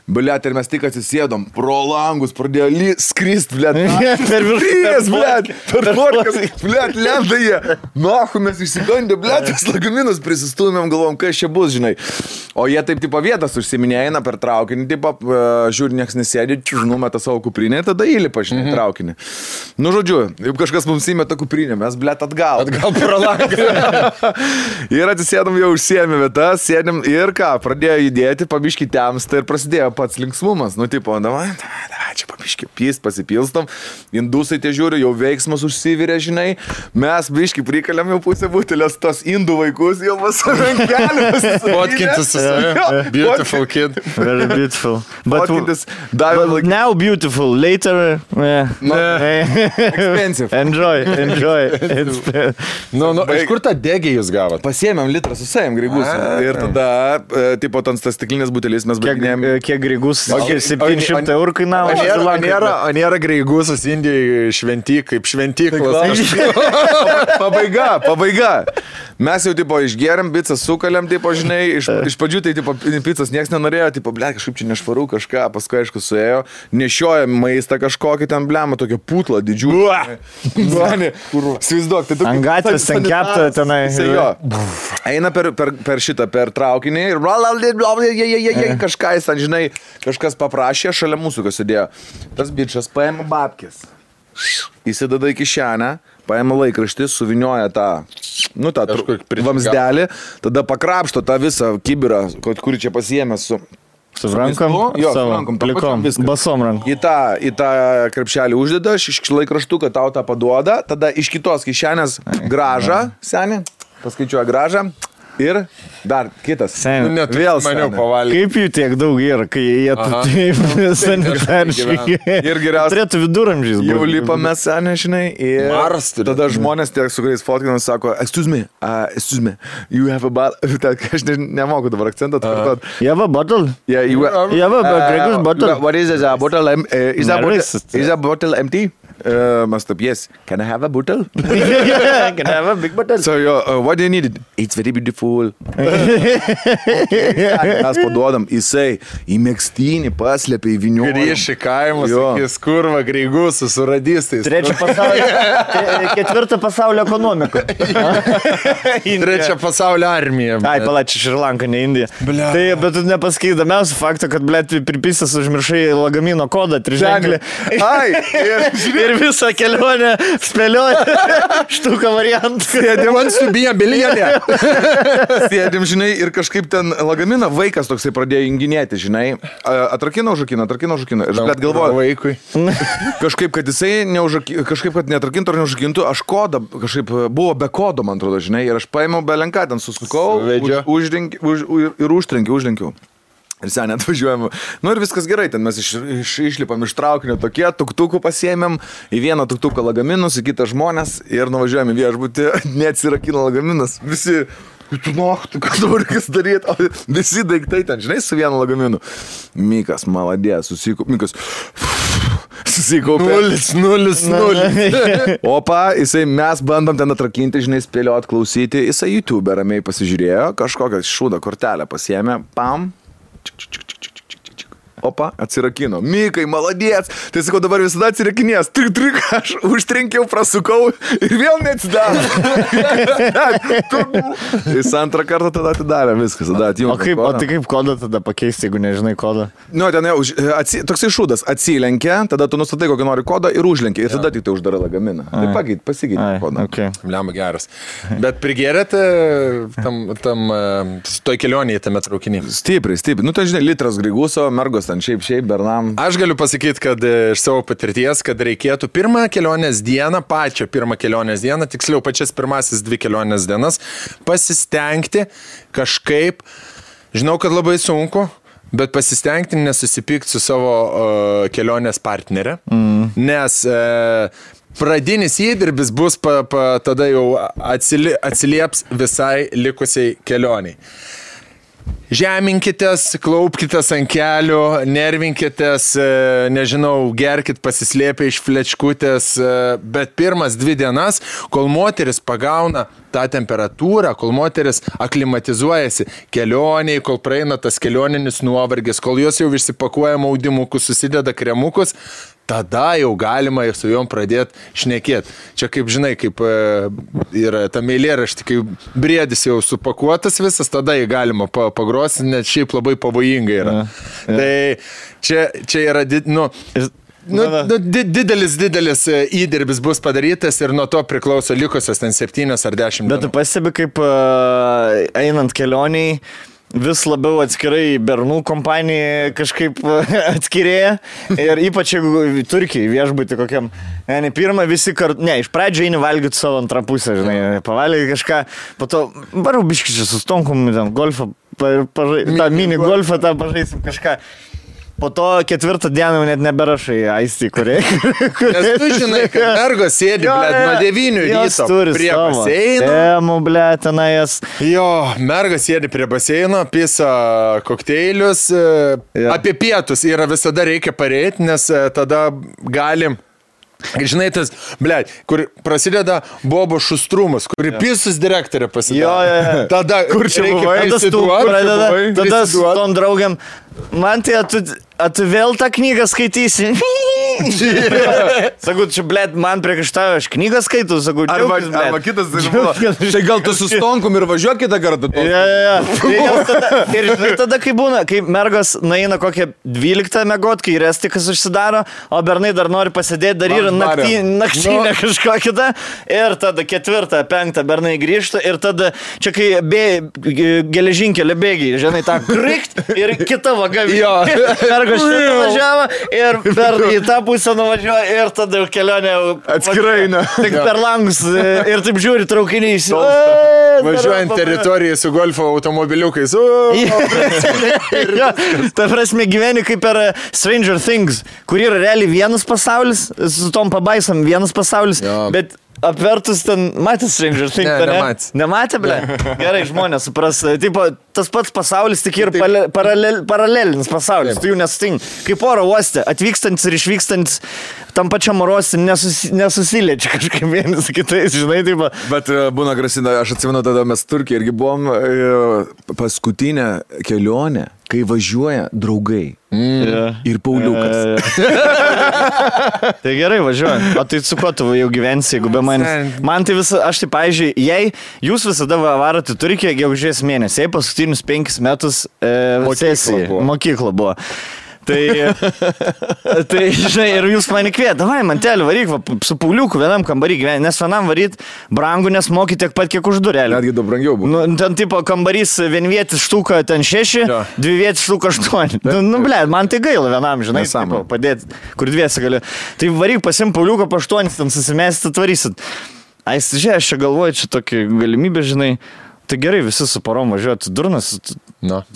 Bliat, ir mes tik atsisėdom, pro langus pradėjo skrist, bliat. Per viršūnes, bliat, per porkas, bliat, lenda jie. Nahu, mes išsigandė, bliat, tas lagaminus prisistūmėm, galvom, kas čia bus, žinai. O jie taip, tipo, vietas užsiminėja, eina per traukinį, tipo, žiūri, nieks nesėdė, numeta savo kuprinę, tada įlipa, žinai, traukinį. Nu, žodžiu, jeigu kažkas mums įmeta kuprinę, mes, bliat, atgal pro langą. Ir atsisėdom, jau užsiėmė vietas, sėdėm ir ką, pradėjo judėti, pabiški temsta ir prasidėjo pats linksmumas, nu, tipo, davai, čia pabiški pyst, pasipilstom, indusai tie žiūri, jau veiksmas užsivirė, žinai, mes biški prikalėm jau pusę butelės, tos indų vaikus jau pasirankelius. Fotkintis su savimi. Beautiful kid. Very beautiful. But like... now beautiful, later, expensive. Enjoy. Nu, iš kur tą degį jūs gavot? Pasiėmėm litrą su savim graigus. Ir tada, tipo, tas stiklinės butelis mes baiginėjom. Kiek graigus? 700 eurų kainavo. O nėra graigusas Indijoje kaip šventyklos. Pabaiga. Mes jau, tipo, išgeriam, pizzą sukalėm, tipo, žinai, iš pradžių tai, tipo, pizzas nieks nenorėjo, tipo, ble, kažkaip čia nešvaru kažką, paskui, aišku, suėjo, nešiojam maistą kažkokį ten, blema, tokią putlą didžiulį. Svaizduok, tai tu... Ant gatvės ten kepta tenai. Eina per šitą, per traukinį ir kažką jis ten, žinai, kažkas paprašė, šalia mūsų kas sėdėjo. Tas bičas paėmė babkės. Įsideda į kišenę, paėmė laikraštį, suvinioja tą vamsdelį, tada pakrapšto tą visą kibirą, kurį čia pasiėmė su rankom, plikom, basom rankom. Į tą krepšelį uždeda, iš laikraštuką tau tą paduoda, tada iš kitos kišenės gražą, senį, paskaičiuoja gražą, Ir dar kitas. Sen, Vėl maniau seniai. pavalgyti. kaip jų tiek daug yra, kai jie taip sanitariškai. Ir geriausia. Turėtų viduramžiais Jau būti. lipame senė, žinai, ir Maras turi. tada žmonės tiek su kuriais fotkinam sako, excuse me, you have a bottle. Aš nemoku dabar akcentą atkartot. You have a bottle? Yeah, You have a Gregor's bottle? What is it? A bottle? Is Nervous. a bottle empty? Must have, yes. Can I have a bottle? Can I have a big bottle? So, what do you need? It's very beautiful. Mes paduodam, jisai į mėgstinį paslėpė į vinių. Grįš į kaimus, Jo. sakys, kurva, greigus, su radistais. Ketvirtą pasaulio ekonomiką. Trečia pasaulio armija. Ai, palačiai, Šrilanka, ne Indija. Bля. Tai, bet tu nepasakai įdomiausią faktą, kad, blėt, pripisęs užmiršai lagamino kodą, triženklį. Ai, Ir visą kelionę spėlioja štuką variantą. Wants to be a billionaire. sėdim, žinai, ir kažkaip ten lagaminą vaikas toksai pradėjo junginėti, žinai. Atrakino užrakino. Ir bet galvoju, Vaikui. kažkaip, kad jisai kažkaip, kad neatrakintų ar neužrakintų, aš kodą, kažkaip buvo be kodo, man atrodo, žinai, ir aš paėmiau belenką, ten susukau Suvedžio. ir užtrenkiau. Ir sen atvažiuojam. Nu ir viskas gerai, ten mes išlipam iš traukinio tokie, tuktukų pasiėmėm, į vieną tuktuką lagaminus, į kitą žmonės ir nuvažiuojam į viešbutį, neatsirakino lagaminas. Visi, tu ką dabar reikės daryti, o visi daiktai ten, žinai, su vienu lagaminu. Mikas, maladės, susikaupė. 0. Opa, mes bandom ten atrakinti, žinai, spėliot, klausyti, jisai YouTube ramiai pasižiūrėjo, kažkokią šūdą kortelę pasiėmė, pam. Opa, atsirakino. Mikai, maladės. Tai sakau, dabar visada atsirakinės. Trik, aš užtrenkiau, prasukau ir vėl neatsidaro. Jis antrą kartą tada atidarė viskas. Tada O tai kaip kodą tada pakeisti, jeigu nežinai kodą? Nu, ten jau, toksai šūdas, atsilenkia, tada tu nustatai, kokį nori kodą ir užlenkia. Ir tada tik tai uždara lagaminą. Tai pasigyti kodą. Okay. Bliam geras. Bet prigėrėte tam toj kelionėje tame traukinį? Stipriai. Nu, tai žinai, litras griguso, mergos ten šiaip, bernam. Aš galiu pasakyti, kad iš savo patirties, kad reikėtų pačią pirmą kelionės dieną, tiksliau pačias pirmasis 2 kelionės dienas, pasistengti kažkaip, žinau, kad labai sunku, bet pasistengti nesusipykti su savo kelionės partnerė, nes pradinis įdirbis bus tada jau atsilieps visai likusiai kelioniai. Žeminkitės, klaupkitės ant kelių, nervinkitės, nežinau, gerkit pasislėpę iš flečkutės, bet pirmas 2 dienas, kol moteris pagauna tą temperatūrą, kol moteris aklimatizuojasi kelioniai, kol praeina tas kelioninis nuovargis, kol jos jau išsipakuoja maudimukus, susideda kremukus, tada jau galima su jom pradėti šnekėti. Čia kaip žinai, kaip yra ta eilėraštė, kai briedis jau supakuotas visas, tada jį galima pagrosti, net šiaip labai pavojingai yra. Tai čia yra didelis įdirbis bus padarytas ir nuo to priklauso likusios ten 7 ar 10 dienų. Bet tu pastebi, kaip einant kelioniai, vis labiau atskirai bernų kompanija kažkaip atskirėja ir ypač jeigu Turkijai viešbutį kokiam, ne pirmą visi kartu, iš pradžio eini valgyti savo antrą pusę, žinai, pavalgyti kažką, po to varau biškičiai su stonkum, ten golfą, tą mini golfą, tą pažaisim kažką. Po to 4 dieną net neberašai aistį, kuriai. Nes tu žinai, kad mergos sėdi, nuo 9 ryto prie baseino. Temų, tenais. Jo, mergos sėdi prie baseino, pisa kokteilius. Apie pietus yra visada reikia pareiti, nes tada galim. Žinai, tas, kur prasideda Bobo šustrumas, kur pisus direktorė pasidaro. Tada, kur čia buvai? Tada su tom draugiam, man tai, tu vėl tą knygą skaitysi. Sakau, čia, man priekaištauja, aš knygą skaitau, sakau, džiaugis, arba kitas, tai gal tu su stonkum ir važiuok kitą kartą. Ir tada, kai būna, kai mergos naina kokią 12 megot, kai restikas užsidaro, o bernai dar nori pasidėti, dar yra naktinė kažko kita, ir tada 4, 5 bernai grįžta, ir tada čia kai geležinkelio bėgiai, žinai, tą krikt ir kita vaga. Mergos šitą važiavo ir per į tą pusę nuvažiuoja ir tada jau kelionė Atskirai, ne. Tik per langus ir taip žiūri traukiniais. Važiuojant teritoriją su golfo automobiliukais. Ta prasme gyveni kaip per Stranger Things, kur yra realiai vienas pasaulis, su tom pabaisom vienas pasaulis, bet apvertus ten, matė Stranger Things, ne? Nematė, ble? Gerai, žmonės supras. Tipo, tas pats pasaulis tik ir paralelinis pasaulis, tu jų nesutink. Kaip oro uoste, atvykstantis ir išvykstantis tam pačiam oro uoste nesusiliečia kažkaip vienas kitais, žinai, taip. Bet būna grasina, aš atsimenu, tada mes Turkijoje irgi buvom paskutinę kelionę, kai važiuoja draugai. Ir Pauliukas. Tai gerai, važiuoju. O tai su kuo tu jau gyvensi, jeigu be manęs? Man tai visą, aš tai, pavyzdžiui, jei jūs visada varote į Turkiją gegužės mėnesį, jei paskutinius 5 metus mokykla buvo. Tai, žinai, ir jūs mane kviet, davai, mantelį, varyk, va, su Pauliuku vienam kambarį gyventi, nes vienam varyt brangu, nes moki tiek pat, kiek už durelį. Netgi daug brangiau buvo. Nu, ten tipo kambarys vienvietis štuka ten 6, dvivietis štuka 8. Ble, man tai gaila vienam, žinai, tipo, padėti, kur dviesi gali. Tai varyk, pasim Pauliuką po 8, ten susimėsit, atvarysit. Ais, žiūrėjau, aš čia galvoju, čia tokia galimybė, žinai. Tai gerai, visi su parom važiuoja, durnas,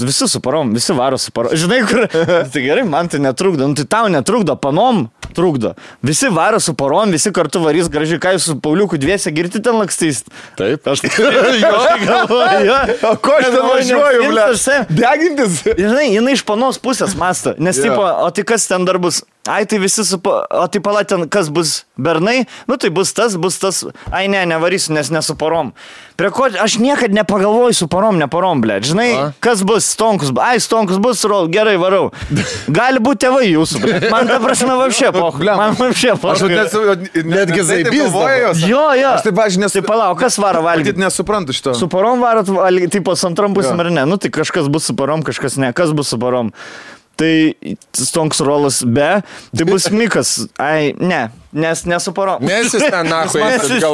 visi su parom, visi varo su parom. Žinai, kur, tai gerai, man tai netrukdo, tai tau netrukdo, panom trukdo. Visi varo su parom, visi kartu varys gražiai, ką jūs su Pauliuku dviese girti ten lakstys. Taip, aš galvoju, O ko aš ten važiuoju, ble? Degintis? Žinai, jinai iš panos pusės mąsto, nes tipo, o tai kas ten dar bus? Ai, tai visi o tai pala ten, kas bus bernai, nu tai bus tas, ai ne, nevarysiu, nes nesu parom. Prie ko, aš niekad nepagalvoju su parom, ble, žinai, kas bus, stonkus, stonkus bus, gerai, varau. Gali būti tėvai jūsų, ble. Man ta prasme vapšė, man vapšė, Aš netgi zaibys. Jo. Aš taip, aš nesu. Tai palauk, kas varo valgyti? Matyt, nesuprantu šito. Su parom varot, tipo, su antram pusėm ar ne, nu tai kažkas bus su parom, kažkas ne, kas bus su parom. Tai stonks rolas be, tai bus Mikas. Ai, ne, nes nesu parom. Nes jis ten nahui.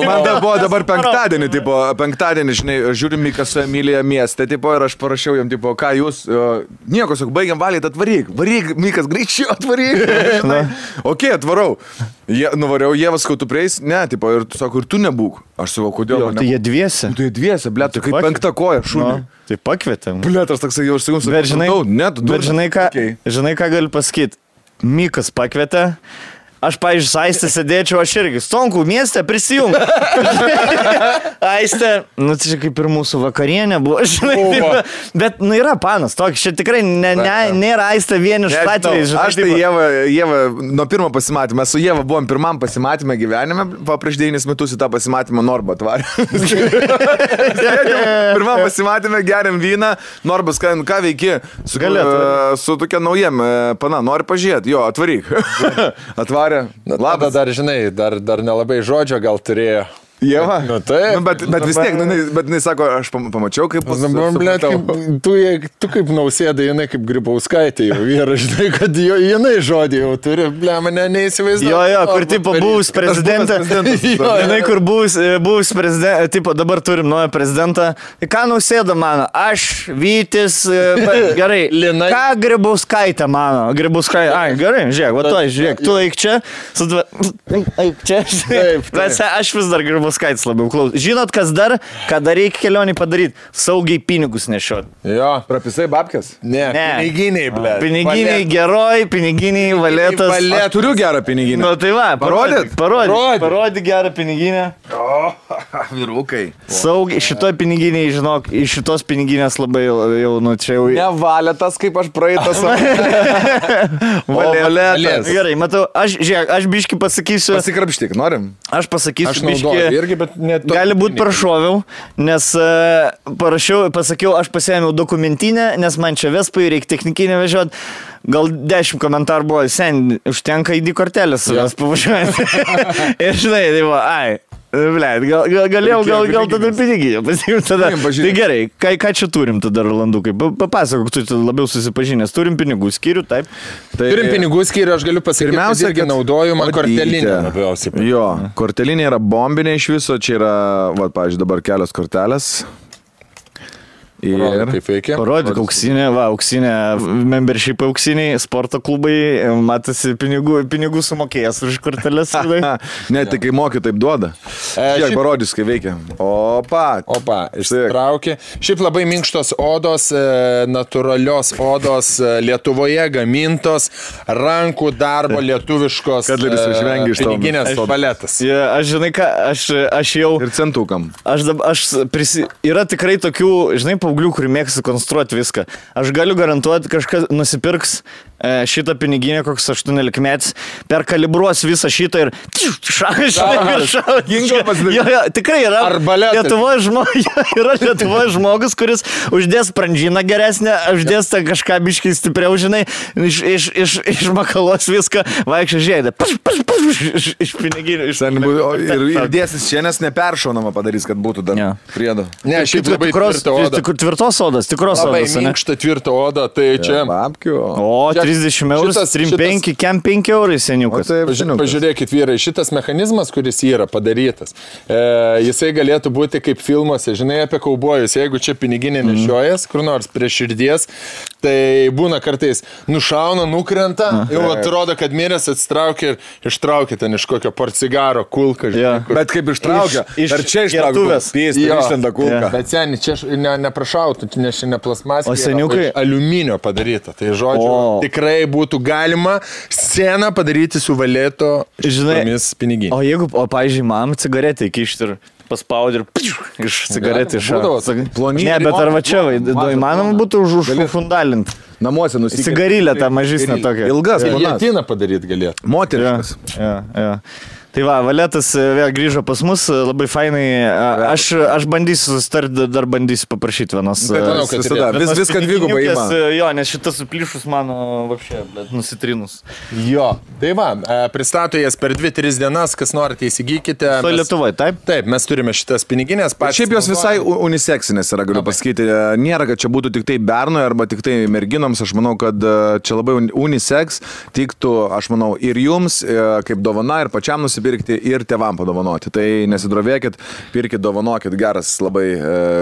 Man buvo dabar penktadienį, žinai, žiūrim Mikas su Emilija mieste, tipo, ir aš parašiau jam, tipo, ką jūs, nieko, sakau, baigiam valyti, atvaryk, Mikas, greičiau atvaryk. Ok, atvarau. Nuvariau, Jėvas, kai tu prieis, ne, tipo, ir tu sako, ir tu nebūk. Aš sakau, kodėl? Tai jie dviese. Tai jie dviese, ble, tai kaip penkta koja, šūnį. Tai pakvietėm. Ble, aš toksai jau sakau, bet žinai, ką galiu pasakyti. Mikas pakvietė. Aš, pavyzdžiui, su Aiste sėdėčiau, aš irgi. Stonkų mieste prisijung. Aiste, nu tai čia kaip ir mūsų vakarienė buvo, žinai. Bet, nu yra panas, toks, čia tikrai nėra Aiste vieniš atvejais. Aš tai Jėva, nuo pirmo pasimatymą, su Jėva buvom pirmam pasimatymę gyvenime, prieš 9 metus į tą pasimatymą Norba atvarė. Pirmam pasimatymę geriam vyną, Norbas, ką veiki? Su tokia naujiem, pana, nori pažiūrėti, jo, atvaryk. Atvarė. Labas, dar žinai, dar nelabai žodžio gal turėjo. Jėva? Nu, taip. Bet vis tiek, bet jis sako, aš pamačiau, kaip... Tu kaip Nausėda, jinai kaip Grybauskaitė jau yra, žinai, kad jinai žodį jau turi, mane neįsivaizduoju. Jo, kur tipo buvus prezidentą. Jinai, kur buvus prezidentą, tipo dabar turim naują prezidentą. Ką Nausėda mano? Aš, Vytis, gerai. Ką Grybauskaitė mano? Grybauskaitė, ai, gerai, žiūrėk, va to, žiūrėk, tu eik čia. Eik čia. Bet aš vis dar Grybauskaitė. Skaitis labiau klaus. Žinot, kas dar, ką dar reikia kelionį padaryti? Saugiai pinigus nešiot. Jo. Prapisai babkės? Ne. Piniginiai, ble. Piniginiai geroj, piniginiai valetas. Aš turiu gerą piniginę. Nu tai va, parodyk gerą piniginę. O, vyrukai. Saugiai, šitoj piniginiai, žinok, iš šitos piniginės labai jau, nu čia jau... Ne valetas, kaip aš praeitas. Valetas. Gerai, matau, aš biški pasakysiu... Pasikrapštyk, norim? Aš pasakysiu aš biški... Irgi, bet gali būti prašoviau, nes pasakiau, aš pasiėmiau dokumentinę, nes man čia Vespai reikia technikinę vežioti. Gal 10 komentarų buvo, sen, užtenka ID kortelės savęs pavažiuojant. Ir žinai, tai buvo, ai. Blėt, galėjau gal tada piniginę pasiimti tada. Tai gerai, ką čia turim tada, Rolandukai? Papasakok, tu labiau susipažinęs. Turim pinigų skyrių, taip? Turim pinigų skyrių, aš galiu pasakyti, pirmiausia, irgi naudoju man kortelinę labiausiai. Jo, kortelinė yra bombinė iš viso, čia yra, va, pavyzdžiui, dabar kelios kortelės. Ir kaip veikia. Parodyk auksinė, membership auksiniai, sporto klubai, matosi pinigų sumokėjęs už korteles. Ne, tai kai moki, taip duoda. Kiek parodys, kai veikia. Opa, ištraukė. Šiaip labai minkštos odos, natūralios odos, Lietuvoje gamintos, rankų darbo lietuviškos piniginės paletas. Aš žinai ką, aš jau... Ir centukam. Yra tikrai tokių, žinai, paauglių, kurį mėgsta konstruoti viską. Aš galiu garantuoti, kažkas nusipirks šitą piniginę, koks 18 metais, perkalibruos visą šitą ir tikrai yra Lietuvoje žmogus, kuris uždės sprandžiną geresnę, uždės kažką biškai stipriau, žinai, išmakalos viską, vaikščia žiedė, iš piniginių. Ir dėsis čia, nes neperšaunama padarys, kad būtų dar priedo. Ne, šiaip labai tvirta oda. Tvirtos odas, tikros odas. Labai minkšta tvirta oda, tai čia... O, 30 eurus, 3,5, kem 5 eurai seniukas. Pažiūrėkit, vyrai, šitas mechanizmas, kuris yra padarytas, jisai galėtų būti kaip filmuose, žinai, apie kaubojus. Jeigu čia piniginė nešiojas, kur nors prie širdies, tai būna kartais nušauna, nukrenta, jau atrodo, kad miręs atsitraukia ir ištraukia ten iš kokio porcigaro kulką. Bet kaip ištraukia, ar čia ištraukia, išlenda kulką. Bet seniai, čia neprašautų, nes čia ne plasmasė, seniukai aliuminio padaryta. Tai žodžiu, tikrai būtų galima sceną padaryti su valėto šitomis piniginėmis. O jeigu, pavyzdžiui, man cigaretę įkišti ir paspaudį ir iš cigaretį plonį. Ne, bet ar va čia, įmanoma būtų užfundalinti. Namuose nusikėlė. Cigarilę tą mažesnę tokią. Ilgas. Giljotiną padaryt galėtų. Moteriškas. Tai va, Valetas vėl grįžo pas mus, labai fainai. Aš bandysiu susitarti, dar bandysiu paprašyti vienos. Viską dvigubai ima. Jo, nes šitas suplyšus mano vapšė, bet nusitrinus. Jo, tai va, pristato jas per 2-3 dienas, kas norite įsigykite. So Lietuvoje, taip? Taip, mes turime šitas piniginės. Šiaip jos visai uniseksinės yra, galiu pasakyti. Nėra, kad čia būtų tik tai bernui arba tik tai merginoms. Aš manau, kad čia labai uniseks tiktų, aš manau, ir jums, kaip dovana, ir pačiam nusipirkti, ir tėvam padovanoti. Tai nesidrovėkit, pirkit, dovanokit, geras labai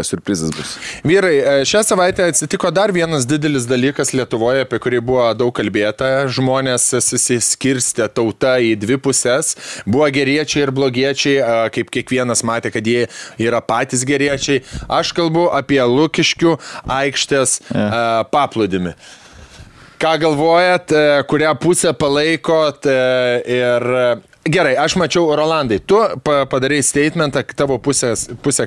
surprizas bus. Vyrai, šią savaitę atsitiko dar vienas didelis dalykas Lietuvoje, apie kurį buvo daug kalbėta. Žmonės susiskirstė tauta į dvi pusės. Buvo geriečiai ir blogiečiai, kaip kiekvienas matė, kad jie yra patys geriečiai. Aš kalbu apie Lukiškių aikštės paplūdimį. Ką galvojat, kurią pusę palaikot ir... Gerai, aš mačiau, Rolandai, tu padarai statementą, tavo pusė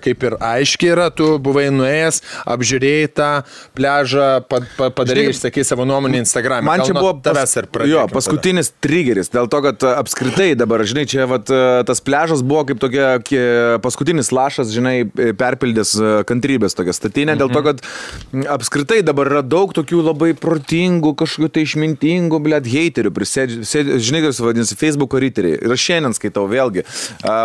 kaip ir aiškiai yra, tu buvai nuėjęs, apžiūrėjai tą pležą, padarai, išsakai savo nuomonę Instagram'e. Man čia buvo paskutinis triggeris, dėl to, kad apskritai dabar, žinai, čia tas pležas buvo kaip tokia paskutinis lašas, žinai, perpildęs kantrybės tokia statinė, dėl to, kad apskritai dabar yra daug tokių labai protingų, kažkokių tai išmintingų, heiterių, žinai, kas vadinasi, Facebook'o riteriai. Ir aš šiandien skaitau vėlgi,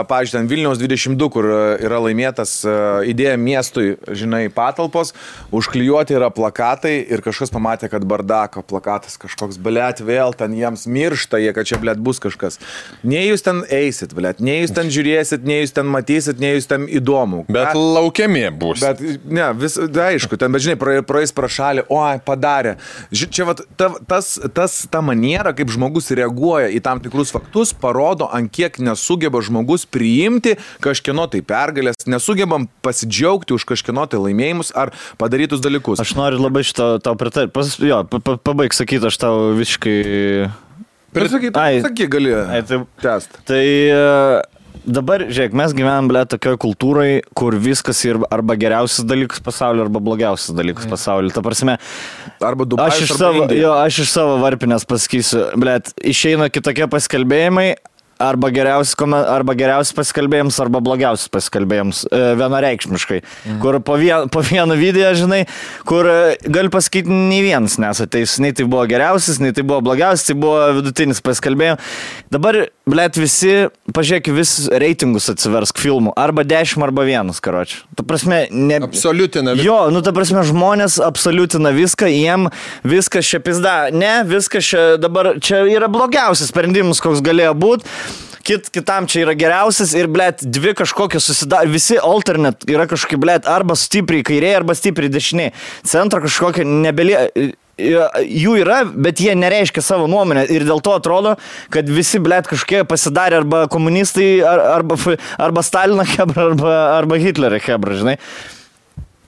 pavyzdžiui, ten Vilniaus 22, kur yra laimėtas idėja miestui, žinai, patalpos, užklijuoti yra plakatai ir kažkas pamatė, kad bardako plakatas kažkoks, blėt, vėl ten jiems miršta, jie, kad čia, blėt, bus kažkas. Nei jūs ten eisit, blėt, nei jūs ten žiūrėsit, nei jūs ten matysit, nei jūs ten įdomu. Bet laukiami bus. Bet, ne, aišku, ten, bet žinai, praeis pro šalį, padarė. Čia, ta maniera, kaip žmogus reaguoja į tam tikrus faktus, parodo, ant kiek nesugeba žmogus priimti kažkieno tai pergalės, nesugebam pasidžiaugti už kažkieno tai laimėjimus ar padarytus dalykus. Aš noriu labai šitą tau pritarti. Pabaig sakyti, aš tau visiškai... Sakyk, gali tęst. Tai... Dabar, žiūrėk, mes gyvenam, tokioj kultūrai, kur viskas yra arba geriausias dalykas pasaulyje, arba blogiausias dalykas pasaulyje. Ta prasme, arba Dubajus, arba Indija. Aš iš savo varpinės pasakysiu, išeina kitokie paskelbėjimai, arba geriausias pasikalbėjims, arba blogiausias pasikalbėjims, vienareikšmiškai. Kur po vieną video, žinai, kur gali pasakyti, nei vienas nesateis, nei tai buvo geriausias, nei tai buvo blogiausias, tai buvo vidutinis pasikalbėjimas. Dabar, visi, pažiūrėk, vis reitingus atsiversk filmų, arba 10, arba 1, karoči. Ta prasme, absoliutina viską. Jo, ta prasme, žmonės absoliutina viską, jiem viskas čia pizda. Ne, viskas čia dabar, čia yra blogiausias sprendimas, koks galėjo būti. kitam čia yra geriausias ir, blėt, dvi kažkokios susidaro, visi alternate yra kažkokie, blėt, arba stipriai kairiai, arba stipriai dešiniai. Centro kažkokia nebelie... Jų yra, bet jie nereiškia savo nuomonę ir dėl to atrodo, kad visi, blėt, kažkokie pasidarė arba komunistai, arba Stalino hebra, arba Hitlerio hebra, žinai.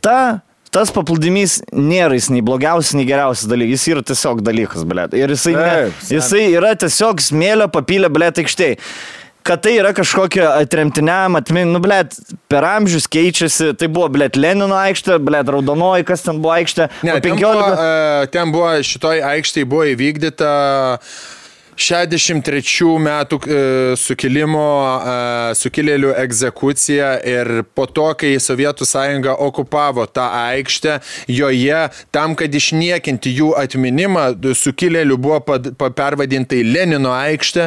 Tas paplūdimys nėra jis nei blogiausias, nei geriausias dalykas, jis yra tiesiog dalykas, blėt. Ir jisai yra tiesiog smėlio papylę, blėt, aikštėj. Kad tai yra kažkokia atremtiniam atmin, blėt, per amžius keičiasi, tai buvo, blėt, Lenino aikštė, blėt, Raudonoji, kas ten buvo aikštė? Ne, 15... ten buvo, šitoj aikštėje buvo įvykdyta 63 metų sukilėlių egzekucija ir po to, kai Sovietų sąjunga okupavo tą aikštę, joje tam, kad išniekinti jų atminimą, sukilėlių buvo pervadinta į Lenino aikštę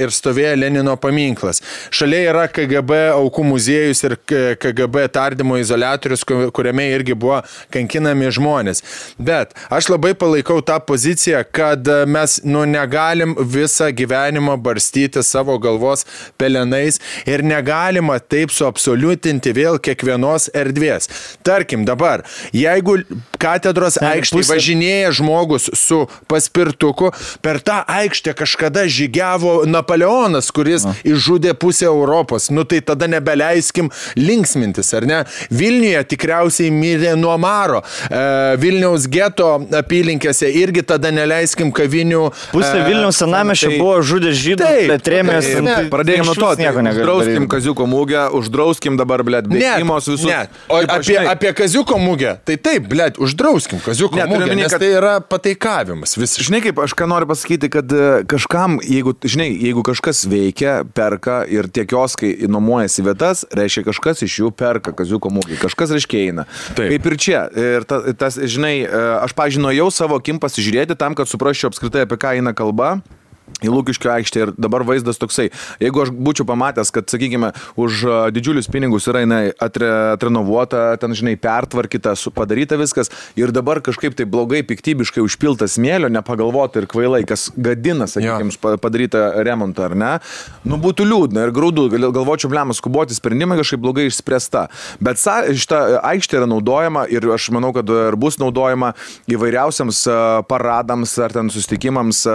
ir stovėjo Lenino paminklas. Šalia yra KGB aukų muziejus ir KGB tardymo izoliatorius, kuriame irgi buvo kankinami žmonės. Bet aš labai palaikau tą poziciją, kad mes negalim visą gyvenimą barstyti savo galvos pelenais ir negalima taip suabsoliutinti vėl kiekvienos erdvės. Tarkim dabar, jeigu katedros aikštėje važinėja žmogus su paspirtuku, per tą aikštę kažkada žygiavo Napoleonas, kuris išžudė pusę Europos. Nu tai tada nebeleiskim linksmintis, ar ne? Vilniuje tikriausiai mirė nuo maro. Vilniaus geto apylinkėse irgi tada neleiskim kavinių. Pusė Vilniaus senamiesčio buvo žudė žydų, bet trėmės. Pradėjome nuo to, uždrauskim Kaziuko mugę, uždrauskim dabar, blėt, bėgimos visus. Ne, o apie Kaziuko mugę, tai taip, blėt, uždrauskim Kaziuko mugę, nes tai yra pataikavimas. Žinai, kaip aš ką noriu pasakyti, kad kažkam, jeigu kažkas veikia, perka ir tie kioskai nuomojasi vietas, reiškia kažkas iš jų perka Kaziuko mugę, kažkas reiškia eina. Taip. Kaip ir čia. Ir tas, žinai, aš pažinojau savo akim pasižiūrėti tam, kad suprasčiau apskritai, apie ką eina kalba. Į Lukiškių aikštę ir dabar vaizdas toksai. Jeigu aš būčiau pamatęs, kad, sakykime, už didžiulius pinigus yra atrenovuota, ten, žinai, pertvarkyta, padaryta viskas ir dabar kažkaip tai blogai, piktybiškai užpilta smėlio, nepagalvota ir kvailai, kas gadina, sakykime, padarytą remontą, ar ne, nu būtų liūdna ir graudu, galvočiau, blemas, skuboti sprendimai kažkaip blogai išspręsta. Bet šita aikštė yra naudojama ir aš manau, kad ir bus naudojama įvairiausiams paradams ar ten susitikimams,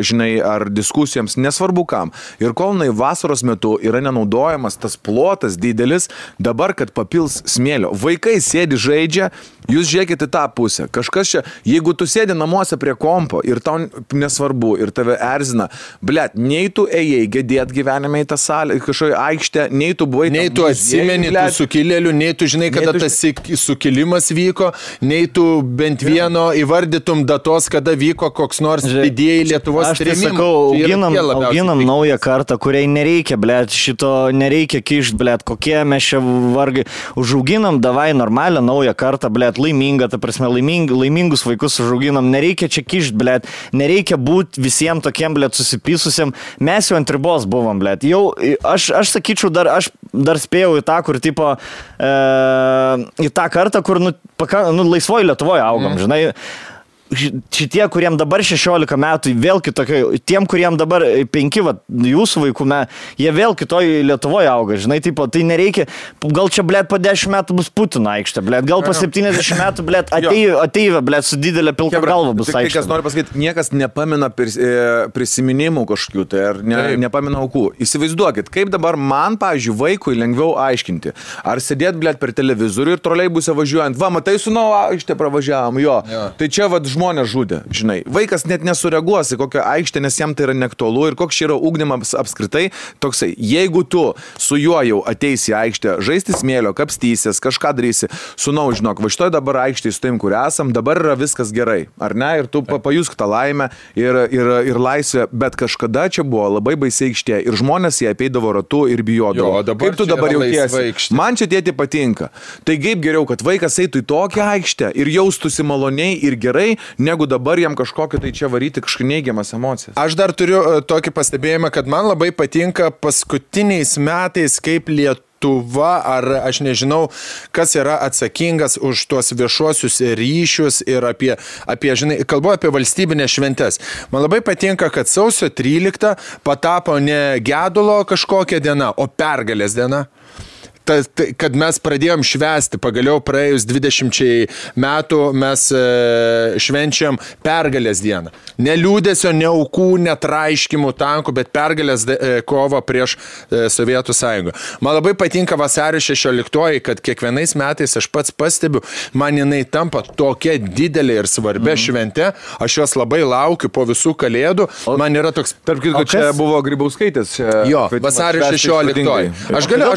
žinai, ar diskusijoms, nesvarbu kam. Ir kol vasaros metu yra nenaudojamas tas plotas didelis, dabar, kad papils smėlio. Vaikai sėdi žaidžia, jūs žiūrėkite tą pusę. Kažkas čia, jeigu tu sėdi namuose prie kompo ir tau nesvarbu ir tave erzina, blėt, nei tu ėjai gedėt gyvenime į tą salę, kažkoje aikštę, nei tu buvai... Nei tu atsimeni tų sukilėlių, nei tu žinai, kada tas sukilimas vyko, nei tu bent vieno įvardytum datos, kada vyko koks nors didieji Lietuvos trėmimai. Auginam naują kartą, kuriai nereikia, blėt, šito nereikia kišt, blėt, kokie mes čia vargai. Užauginam, davai normalią naują kartą, blėt, laimingą, ta prasme, laimingus vaikus užauginam, nereikia čia kišt, blėt, nereikia būti visiems tokiem, blėt, susipysusiam. Mes jau ant ribos buvom, blėt. Jau, aš sakyčiau, aš dar spėjau į tą, kur, tipo, į tą kartą, kur, laisvoj Lietuvoje augam, žinai. Šitie, kuriem dabar 16 metų, vėl kitokie, tiem, kuriem dabar 5, jūsų vaikų, jie vėl kitoj Lietuvoje auga, žinai, tipo, tai nereikia, gal čia, blėt, po 10 metų bus Putino aikštė, blėt, gal po 70 metų, blėt, ateivė, blėt, su didelė pilka galva bus aikštė. Kas nori pasakyti, niekas nepamina prisiminimų kažkokių, tai ar nepamina aukų. Įsivaizduokit, kaip dabar man, pavyzdžiui, vaikui lengviau aiškinti, ar sėdėt, blėt, per televizorių ir troleibuse važiuojant, matai, su aikštė pravažiavom, jo. Tai čia, žmonės žudė, žinai. Vaikas net nesureaguos į kokią aikštę, nes jam tai yra neaktualu ir koks čia yra ugdymas apskritai toksai. Jeigu tu su juo jau ateisi į aikštę, žaisti smėlio, kapstysies, kažką darysi, sunau, žinok, va šitoj dabar aikštėje su taim, kur esam, dabar yra viskas gerai, ar ne? Ir tu pajusk tą laimę ir laisvę, bet kažkada čia buvo labai baisiai aikštė ir žmonės jie apeidavo ratu ir bijodavo. Kaip tu dabar jautiesi? Man čia tėti patinka. Tai kaip geriau, kad vaikas eitų į tokią aikštę ir jaustųsi maloniai ir gerai, negu dabar jam kažkokio tai čia varyti kažkokią neigiamas emocijas. Aš dar turiu tokį pastebėjimą, kad man labai patinka paskutiniais metais, kaip Lietuva, ar aš nežinau, kas yra atsakingas už tuos viešuosius ryšius ir apie žinai, kalbu apie valstybinės šventes. Man labai patinka, kad sausio 13 patapo ne gedulo kažkokia diena, o pergalės diena. Kad mes pradėjom švęsti, pagaliau praėjus 20 metų mes švenčiam pergalės dieną. Ne liūdesio, ne aukų, ne traiškimų tankų, bet pergalės kovą prieš Sovietų sąjungą. Man labai patinka vasario 16, kad kiekvienais metais aš pats pastebiu, man jinai tampa tokia didelė ir svarbia švente, aš jos labai laukiu po visų kalėdų, man yra toks... Tarp kitko, čia buvo Grybauskaitės. Jo, vasario 16. Aš galiu...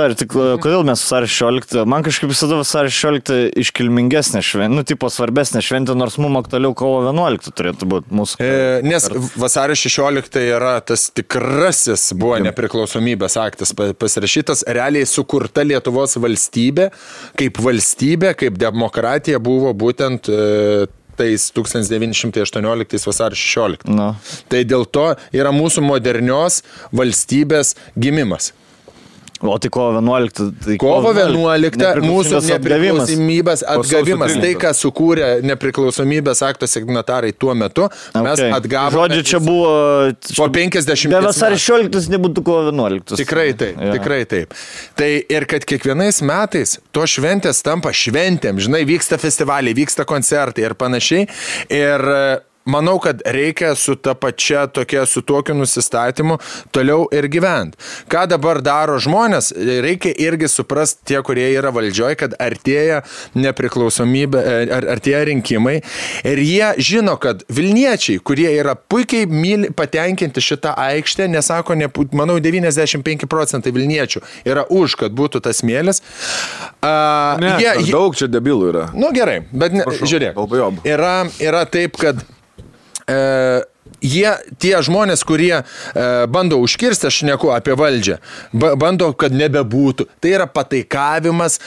Kodėl mes vasario 16? Man kažkaip visada vasario 16 iškilmingesnė šventė, tipo svarbesnė šventė, nors mums aktualiau kovo 11 turėtų būti mūsų. Nes vasario 16 yra tas tikrasis buvo nepriklausomybės aktas pasirašytas, realiai sukurta Lietuvos valstybė, kaip demokratija buvo būtent tais 1918 vasario 16. No. Tai dėl to yra mūsų modernios valstybės gimimas. O tai kovo 11. Tai kovo 11 mūsų nepriklausomybės atgavimas. Tai, ką sukūrė nepriklausomybės akto signatarai tuo metu, mes atgavome. Žodžiu, čia buvo... Po 50 be vasario 16 nebūtų kovo 11. Tikrai taip, tikrai taip. Tai ir kad kiekvienais metais to šventės tampa šventėm, žinai, vyksta festivaliai, vyksta koncertai ir panašiai. Ir... manau, kad reikia su ta pačia su tokiu nusistatymu toliau ir gyventi. Ką dabar daro žmonės, reikia irgi suprasti tie, kurie yra valdžioje, kad artėja nepriklausomybė, artėja rinkimai ir jie žino, kad Vilniečiai, kurie yra puikiai patenkinti šitą aikštę, nesako, manau, 95% Vilniečių yra už, kad būtų tas smėlis. Daug čia debilų yra. Nu gerai, bet žiūrėk, yra taip, kad tie žmonės, kurie bando užkirsti, aš šneku apie valdžią, bando, kad nebebūtų. Tai yra pataikavimas